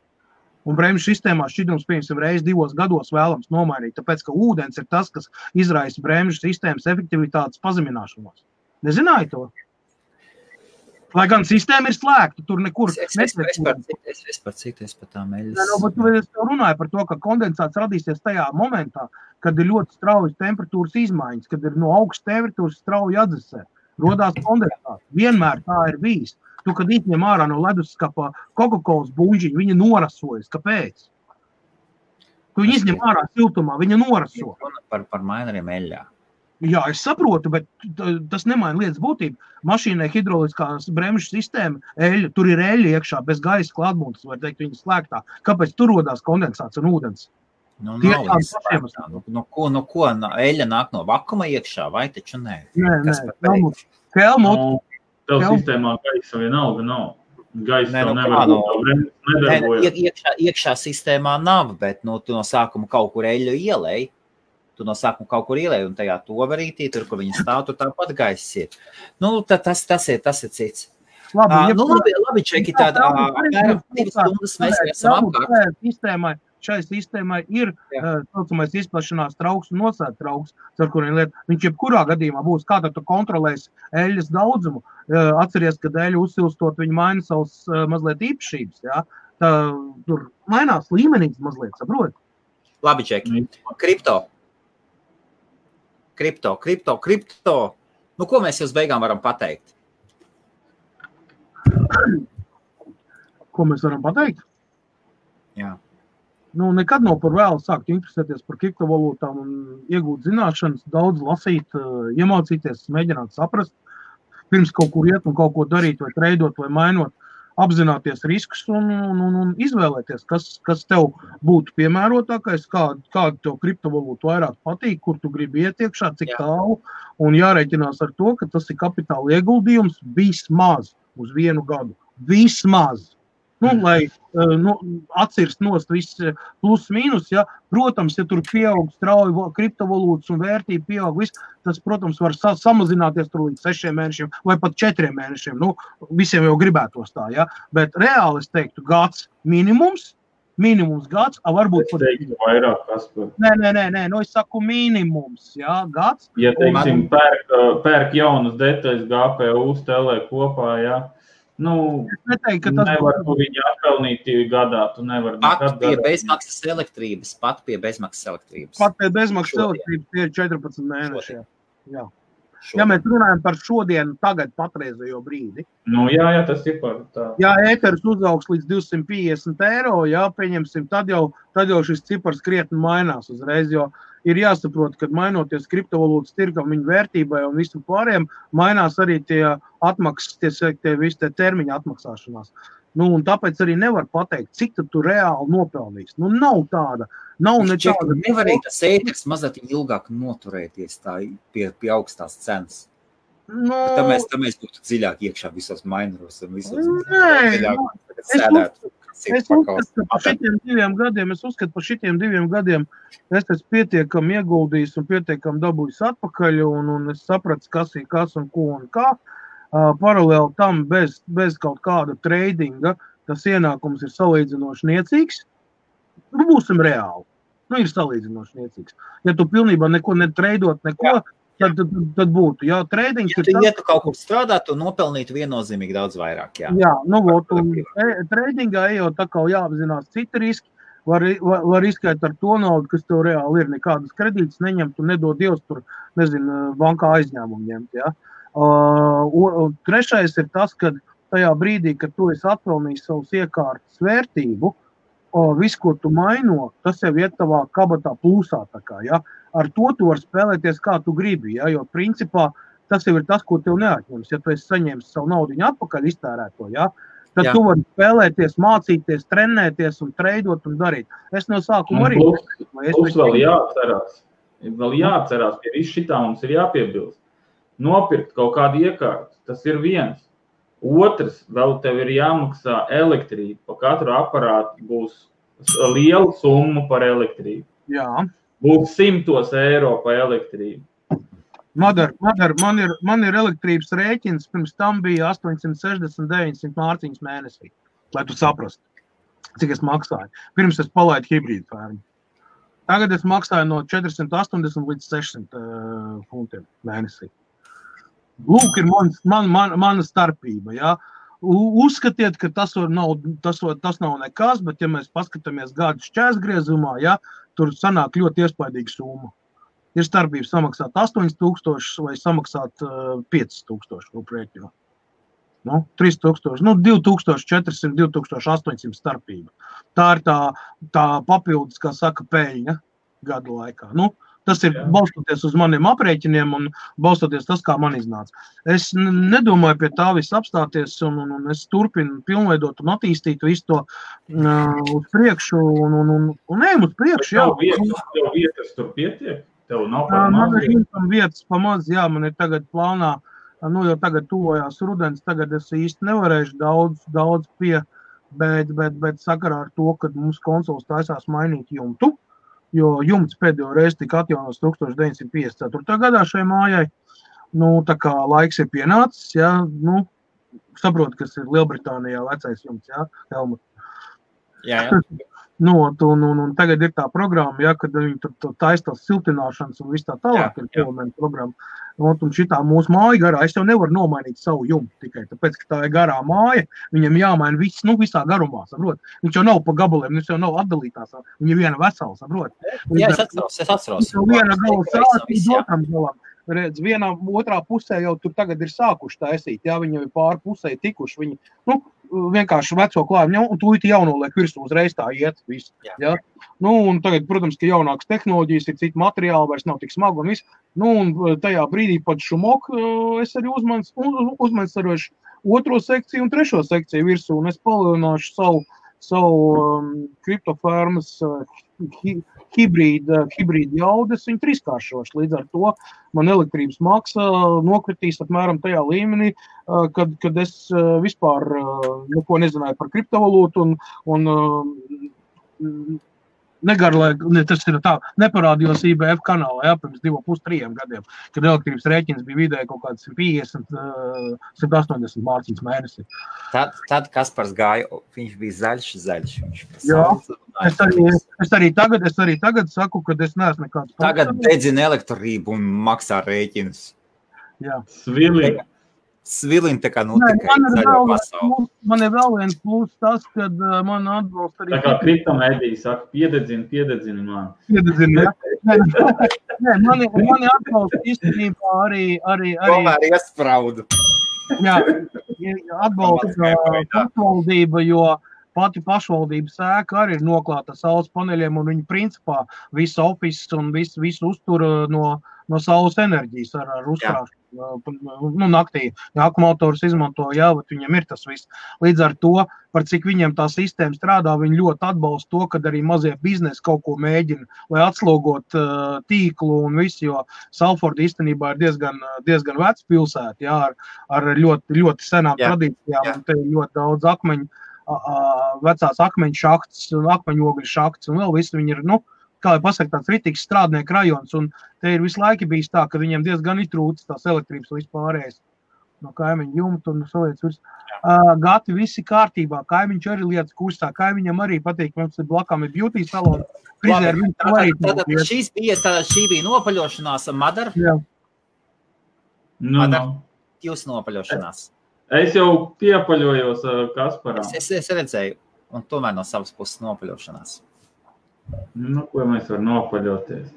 Un bremžu sistēmā šķidrums, piemēram, reiz 2 gados vēlams nomainīt, tāpēc, ka ūdens ir tas, kas izraisa bremžu sistēmas efektivitātes pazemināšanos. Nezināji to? Lai gan sistēma ir slēgta, tur nekur nesveicīt. Es par tām eļas. Bet es runāju par to, ka kondensāts radīsies tajā momentā, kad ir ļoti straujas temperatūras izmaiņas, kad ir no augstas temperatūras strauji atdzesē. Rodās kondensāts. Vienmēr tā ir bijis. Tu, kad izņem ārā no leduskapa Coca-Colas buļģiņu, viņa norasojas. Kāpēc? Tu viņu izņem ārā siltumā, viņa noraso. Par maineriem eļļā. Jā, es saprotu, bet tas nemaina lietas būtību. Mašīnai hidroliskās bremžu sistēma, eļļa, tur ir eļļa iekšā, bez gaisa klātbūtnes, var teikt, viņa slēgtā. Kāpēc tur rodās kondensāts un ūdens? Ko eļļa nāk no vakuma iekšā, vai taču nē? Nē. Helmut. Tev sistēmā gaisa vienalga nav. Gaisa tev nevar būt, nedarbojas. Iekšā sistēmā nav, bet tu no sākuma kaut kur eļļu ielēji. Tu no sākuma kaut kur ielēji, un tajā toverītī, tur, kur viņi stāv, tur tāpat gaiss ir. Tas ir cits. Labi, čeki, tāda apmēram 2 stundas mēs esam apkārt. Šai sistēmai ir saucamais izplašanās trauks un nosēta trauks, ar kuriem lieta. Viņš jebkurā gadījumā būs, kā tad tu kontrolēsi eļļas daudzumu. Atceries, kad eļļu uzsilstot, viņi maina savus mazliet īpašības. Ja? Tur mainās līmenīgs mazliet, saproti? Labi, čeki. Kripto. Ko mēs uz beigām varam pateikt? Ko mēs varam pateikt? Jā. Nekad nav par vēlu sākt interesēties par kriptovalūtām un iegūt zināšanas, daudz lasīt, iemācīties, mēģināt saprast, pirms kaut kur iet un kaut ko darīt, vai treidot, vai mainot, apzināties riskus un izvēlēties, kas tev būtu piemērotākais, kādu tev kriptovalūtu vairāk patīk, kur tu gribi iet iekšā, cik tālu, un jārēķinās ar to, ka tas ir kapitāla ieguldījums vismaz uz 1 gadu. Vismaz. Lai atcirst nost viss plus mīnus, ja. Protams, ja tur pieaug strauji kriptovalūtas un vērtība pieaug viss, tas, protams, var samazināties tur līdz 6 mēnešiem vai pat 4 mēnešiem. Visiem jau gribētos tā, ja. Bet reāli es teiktu gads minimums gads, varbūt pat... Es teiktu vairāk, Kaspar. Nē, es saku minimums, jā, gads. Ja, teiksim, pērk jaunas detaļas GPU stelē kopā, jā. Es neteiktu, ka tas nevar viņu atpelnīt gadā, tu nevar pat pie bezmaksas elektrības. Pat pie bezmaksas elektrības tie ir 14 mēneši. Jā. Ja mēs runājam par šodienu, tagad patreizējo brīdi. Jā, tas ir par tā. Ja ēteris uzaugs līdz 250 eiro, jā, pieņemsim, tad jau šis cipars krietni mainās uzreiz, jo ir jāsaprot, ka mainoties kriptovalūtas tirgam viņu vērtībai un visam pārējiem, mainās arī tie atmaksas, tie termiņa atmaksāšanās. Un tāpēc arī nevar pateikt, cik tu reāli nopelnīs. Nav tāda. Nevar arī tas ēteris mazliet ilgāk noturēties tā pie augstās cenas. Tā mēs būtu dziļāk iekšā visos maineros un visos Es uzskatu par šitiem 2 gadiem, es esmu pietiekami ieguldījis un pietiekami dabūjis atpakaļ, un es sapratu, kas ir kas un ko un kā. Paralēli tam bez kaut kāda tradinga, tas ienākums ir salīdzinoši niecīgs. Būsim reāli. Ir salīdzinoši niecīgs. Ja tu pilnībā neko netreidot, tad būtu. Jā, tradings ir ja tu kaut kur strādāt, tu nopelnītu viennozīmīgi daudz vairāk. Jā, tradingā jau tā kā jāapzinās citi riski. Var riskēt ar to naudu, kas tev reāli ir. Nekādas kredītas neņemt un nedod Dievs tur, bankā aizņēmumu ņemt, jā. Trešais ir tas, ka tajā brīdī, kad tu esi atpelnījis savus iekārtas vērtību, visu, ko tu maino, tas jau iet tavā kabatā plusā. Ja? Ar to tu vari spēlēties, kā tu gribi, ja? Jo principā tas jau ir tas, ko tev neatņems. Ja tu esi saņēmis savu naudiņu atpakaļ iztērēto, ja? Tad tu vari spēlēties, mācīties, trenēties un treidot un darīt. Es no sākuma arī... Plus vēl jāatcerās, pie visu šitā mums ir jāpiebilst. Nopirkt kaut kādu iekārtu, tas ir viens. Otrs, vēl tev ir jāmaksā elektrība. Pa katru aparātu būs liela summa par elektrību. Jā. Būs 100 eiro par elektrību. Madar, man ir elektrības rēķins, pirms tam bija 860-900 mārciņas mēnesī, lai tu saprastu, cik es maksāju. Pirms es palaidu hibrīdu fermu. Tagad es maksāju no 480 līdz 600 funtiem mēnesī. Lūk, ir mana starpība, jā. Uzskatiet, ka tas nav nekas, bet ja mēs paskatāmies gadu šķērsgriezumā, jā, tur sanāk ļoti iespaidīga summa. Ir starpība samaksāt 8,000 vai samaksāt 5,000 rūprēķinā. 3,000, 2,400, 2,800 starpība. Tā ir tā papildus, kā saka, peļņa gadu laikā. Tas ir balstoties uz maniem aprēķiniem un balstoties tas, kā man iznāca. Es nedomāju pie tā viss apstāties un es turpinu pilnveidot un attīstīt visu to uz priekšu un ejam uz priekšu. Tev vietas tur pietiek? Tev nav par maz? Man ir vietas pamaz, jā, man ir tagad plānā, jau tagad tuvojās rudens, tagad es īsti nevarēšu daudz bet sakarā ar to, ka mums konsoles taisās mainīt jumtu. Jo jumts pēdējo reizi tika atjaunos 1954. gadā šai mājai. Tā kā laiks ir pienācis, jā, saprotu, kas ir Lielbritānijā vecais jumts, jā, Helmut. Jā. Un tagad ir tā programma, jā, kad viņi tur taistās siltināšanas un viss tā tālāk ir elementa programma. Un šitā mūsu māja garā, es jau nevaru nomainīt savu jumtu tikai, tāpēc, ka tā ir garā māja, viņam jāmaina viss, visā garumā, saprot. Viņš jau nav pa gabaliem, viņš jau nav atdalītās, viņa ir viena vesela, saprot. Jā, es atceros. Viena gala sācis, otram galam. Redz, vienā otrā pusē jau tur tagad ir sākuši taisīt, jā, viņi jau ir pāri pusē tikuši, viņi, vienkārši veco klājumu, un tūlīt jaunoliek virsū uzreiz tā iet visu, jā. Un tagad, protams, ka jaunākas tehnoloģijas ir citi materiāli, vairs nav tik smagi un viss, un tajā brīdī pat šumok es arī uzmansarošu otro sekciju un trešo sekciju virsū, un es palielināšu savu kriptofarmas hibrīda jaudas, viņi trīskāršoši. Līdz ar to man elektrības maksa nokritīs apmēram tajā līmenī, kad es vispār neko nezināju par kriptovalūtu un tas ir tā, neparādījos IBF kanālā, pirms 2,5-3 gadiem, kad elektrības rēķins bija vidēji kaut kāds 150, 180 mārciņas mēnesi. Tad Kaspars gāja, viņš bija zaļš. Jā, es arī tagad saku, ka es neesmu nekāds. Tagad dedzina elektrību un maksā rēķinus. Jā. Svilina tā kā tikai zaļo pasauli. Man ir vēl viens plus tas, kad man atbalsta arī... Tā kā kriptomēdija saka, piededzini man. Piededzini, jā. Nē, mani atbalsta īstenībā arī... Tomēr iespraudu. Jā, atbalsta pašvaldība, jo pati pašvaldības ēka arī ir noklāta saules paneļiem, un viņi principā visu office un visu uztur no saules enerģijas ar uzkrāšanu. Naktī, ja akumulātors izmanto, viņam ir tas viss. Līdz ar to, par cik viņiem tā sistēma strādā, viņi ļoti atbalsta to, kad arī mazie biznesi kaut ko mēģina, lai atslogot tīklu un visu, jo Salforda īstenībā ir diezgan vecs pilsēta, ar ļoti, ļoti senām tradīcijām, un te ir ļoti daudz vecās akmeņu šahts, akmeņogļu šahts, un vēl visi viņi ir, kā lai pasaka, tāds ritīgs strādnieku rajons, un te ir visu laiku bijis tā, ka viņiem diezgan ir trūcis tās elektrības vispārējais no kaimiņu jumta un salietas virs. Gati visi kārtībā, kaimiņš arī lietas kustā, kaimiņam arī patīk, mums ir blakām ir beauty salon. Šī bija nopaļošanās, Madara? Jā. Madara, jūs nopaļošanās? Es jau piepaļojos Kasparam. Es redzēju, un tomēr no savas puses nopaļošanās. Ko mēs varam nopaļoties?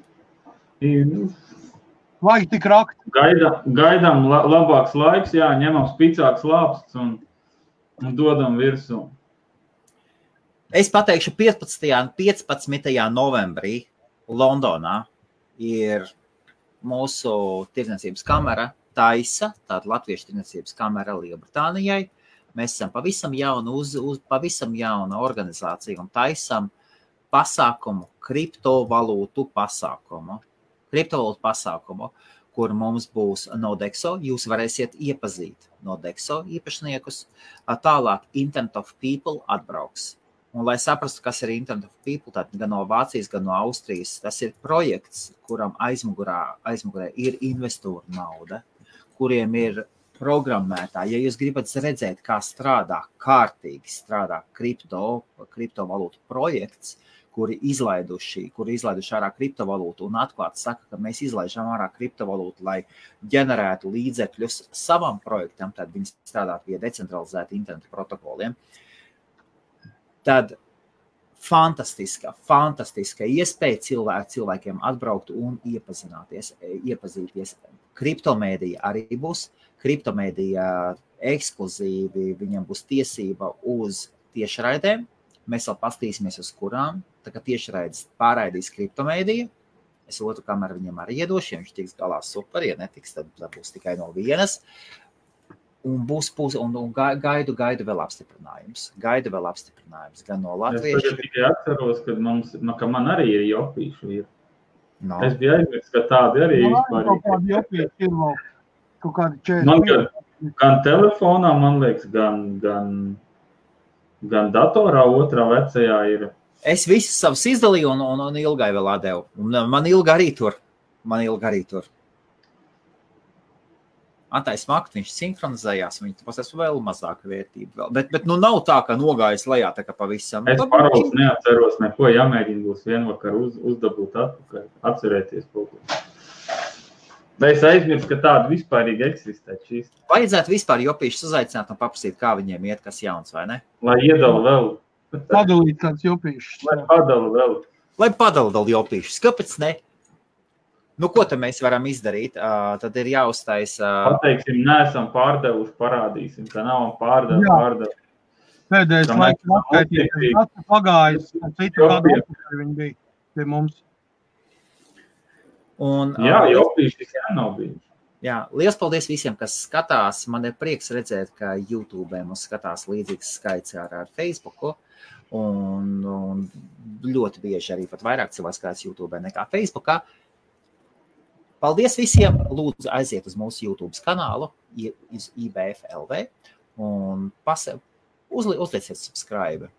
Vajag tik rakt. Gaidām labāks laiks, ņemam spicāks lāpsts un dodam virsū. Es pateikšu 15. novembrī Londonā ir mūsu tirdzniecības kamera Taisa, tāda latviešu tirdzniecības kamera Lielbritānijai. Mēs esam pavisam jauna organizācija un taisam pasākumu, kriptovalūtu pasākumu, kur mums būs Nodexo. Jūs varēsiet iepazīt Nodexo īpašniekus. Tālāk Internet of People atbrauks. Un, lai saprastu, kas ir Internet of People, tad gan no Vācijas, gan no Austrijas, tas ir projekts, kuram aizmugurē ir investoru nauda, kuriem ir programmētāji. Ja jūs gribat redzēt, kā kārtīgi strādā kriptovalūtu projekts, kuri izlaiduši ārā kriptovalūtu un atklāti saka, ka mēs izlaižam ārā kriptovalūtu, lai ģenerētu līdzekļus savam projektam, tad viņi strādāt pie decentralizēta interneta protokoliem. Tad fantastiska iespēja cilvēkiem atbraukt un iepazīties. Kriptomēdija arī būs. Kriptomēdija ekskluzīvi, viņam būs tiesība uz tiešraidēm. Mēs vēl pastīsimies uz kurām. Tā kā tiešraides pārraidīs kriptomēdija. Es otru kameru viņam arī iedošu, ja viņš tiks galā super. Ja netiks, tad būs tikai no vienas. Un gaidu vēl apstiprinājums. Gan no latviešu. Es tikai atceros, ka man arī ir jopīšu. No. Es biju aizmirst, ka tādi arī vispār ir. Kādi jopīši ir vēl? Kaut kādi 40. Man gan telefonā, man liekas, gan datorā otrā vecajā ir. Es visus savus izdalīju un Ilgai vēl atdevu. Man Ilga arī tur. Antais Makt, viņš sinhronizējās, viņš pasēs vēl mazāka vērtība. Bet nav tā, ka nogājas lejā tā kā pavisam. Es parols neatceros neko, jāmēģina būs vienvakar uzdabūt atpakaļ, atcerēties kaut ko. Es aizmirstu, ka tāda vispārīgi eksistē šīs. Vajadzētu vispār jopīšus uzaicināt un paprasīt, kā viņiem iet, kas jauns, vai ne? Lai iedala vēl. Padalīt kāds jopīšus. Lai padala vēl jopīšus. Kāpēc ne? Ko te mēs varam izdarīt? Tad ir jāuztaisa... Pateiksim, neesam pārdevuši, parādīsim, ka nav pārdevu. Pēdējais laiks atskaitīties. Pagājis, citu kādu atpakaļ viņi bija pie mums. Jā, jopīši tikai nav bijuši. Jā, liels paldies visiem, kas skatās. Man ir prieks redzēt, ka YouTube mums skatās līdzīgs skaits ar Facebooku. Un ļoti bieži arī pat vairāk cilvēku skatās YouTube nekā Facebookā. Paldies visiem. Lūdzu, aiziet uz mūsu YouTube kanālu, uz IBF.LV un uzlieciet subscribe.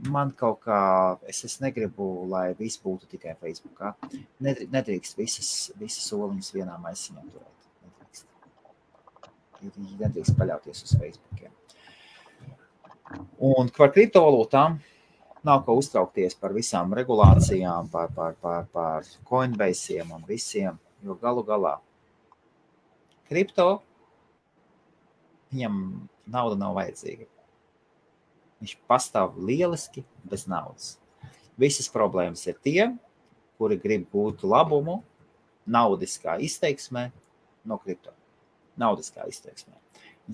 Man kaut kā, es negribu, lai viss būtu tikai Facebookā. Nedrīkst visas soliņas vienā maisiņā turēt. Nedrīkst paļauties uz Facebookiem. Un par kriptovalūtām nav ko uztraukties par visām regulācijām, par Coinbase'iem un visiem, jo galu galā kripto, viņam nauda nav vajadzīga. Viņš pastāv lieliski bez naudas. Visas problēmas ir tie, kuri grib gūt labumu naudiskā izteiksmē no kripto. Naudiskā izteiksmē.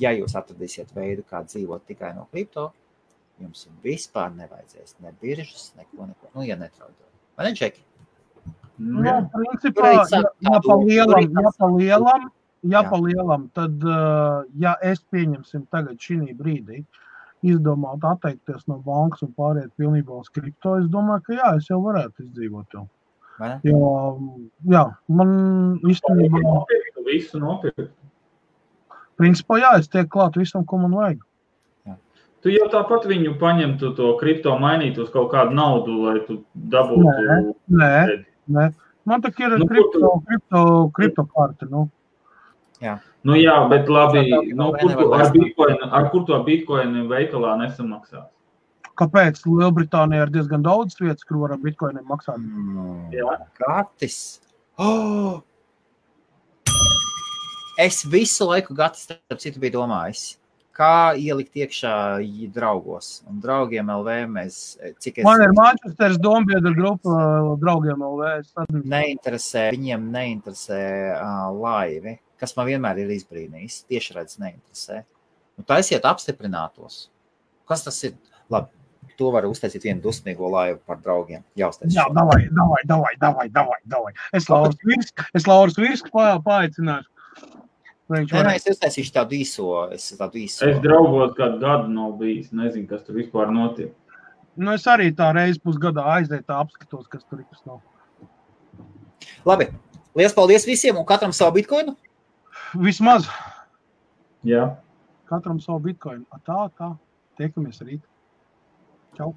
Ja jūs atradīsiet veidu, kā dzīvot tikai no kripto, jums vispār nevajadzēs ne biržas, neko. Nu, ja netraudot. Vai ne, Džeki? Jā, principā, ja pa lielam, tad, ja es pieņemsim tagad šī brīdī, izdomāt atteikties no bankas un pāriet pilnībā uz kripto, es domāju, ka jā, es jau varētu izdzīvot jau. Jo, jā, man īstenībā... Visu nopirkt. Principā, jā, es tiek klāt visam, ko man vajag. Jā. Tu jau tāpat viņu paņemtu to kripto mainīt uz kaut kādu naudu, lai tu dabūtu... Nē. Man tak ir kripto karte, nu. Jā. Nu jā, bet labi, ar kur to bitcoinu veikalā nesamaksās? Kāpēc? Lielbritānijā ir diezgan daudz vietas, kur var ar bitcoiniem maksāt. Jā. Gatis. Oh! Es visu laiku Gatis, starp citu, biju domājis, kā ielikt iekšā draugos. Un draugiem LV mēs... Man ir Manchesteras dombiedra grupa draugiem LV. Viņiem neinteresē laivi, kas man vienmēr ir izbrīnījis. Tieši redz neinteresē. Nu, taisiet apstiprinātos. Kas tas ir? Labi, to var uztaisīt vienu dusmīgo laivu par draugiem. Jā, davai. Es Lauras Virsku paaicināšu. Es uztaisīšu tādu īso. Es draugos kādu gadu nav bijis. Nezinu, kas tur vispār notiek. Nu, es arī tā reizi pusgadā aiziet apskatos, kas tur ir, kas nav. Labi. Liels paldies visiem un katram savu bitcoinu? Vismaz. Jā. Katram savu bitcoinu. Tā. Tiekamies rīt. Čau.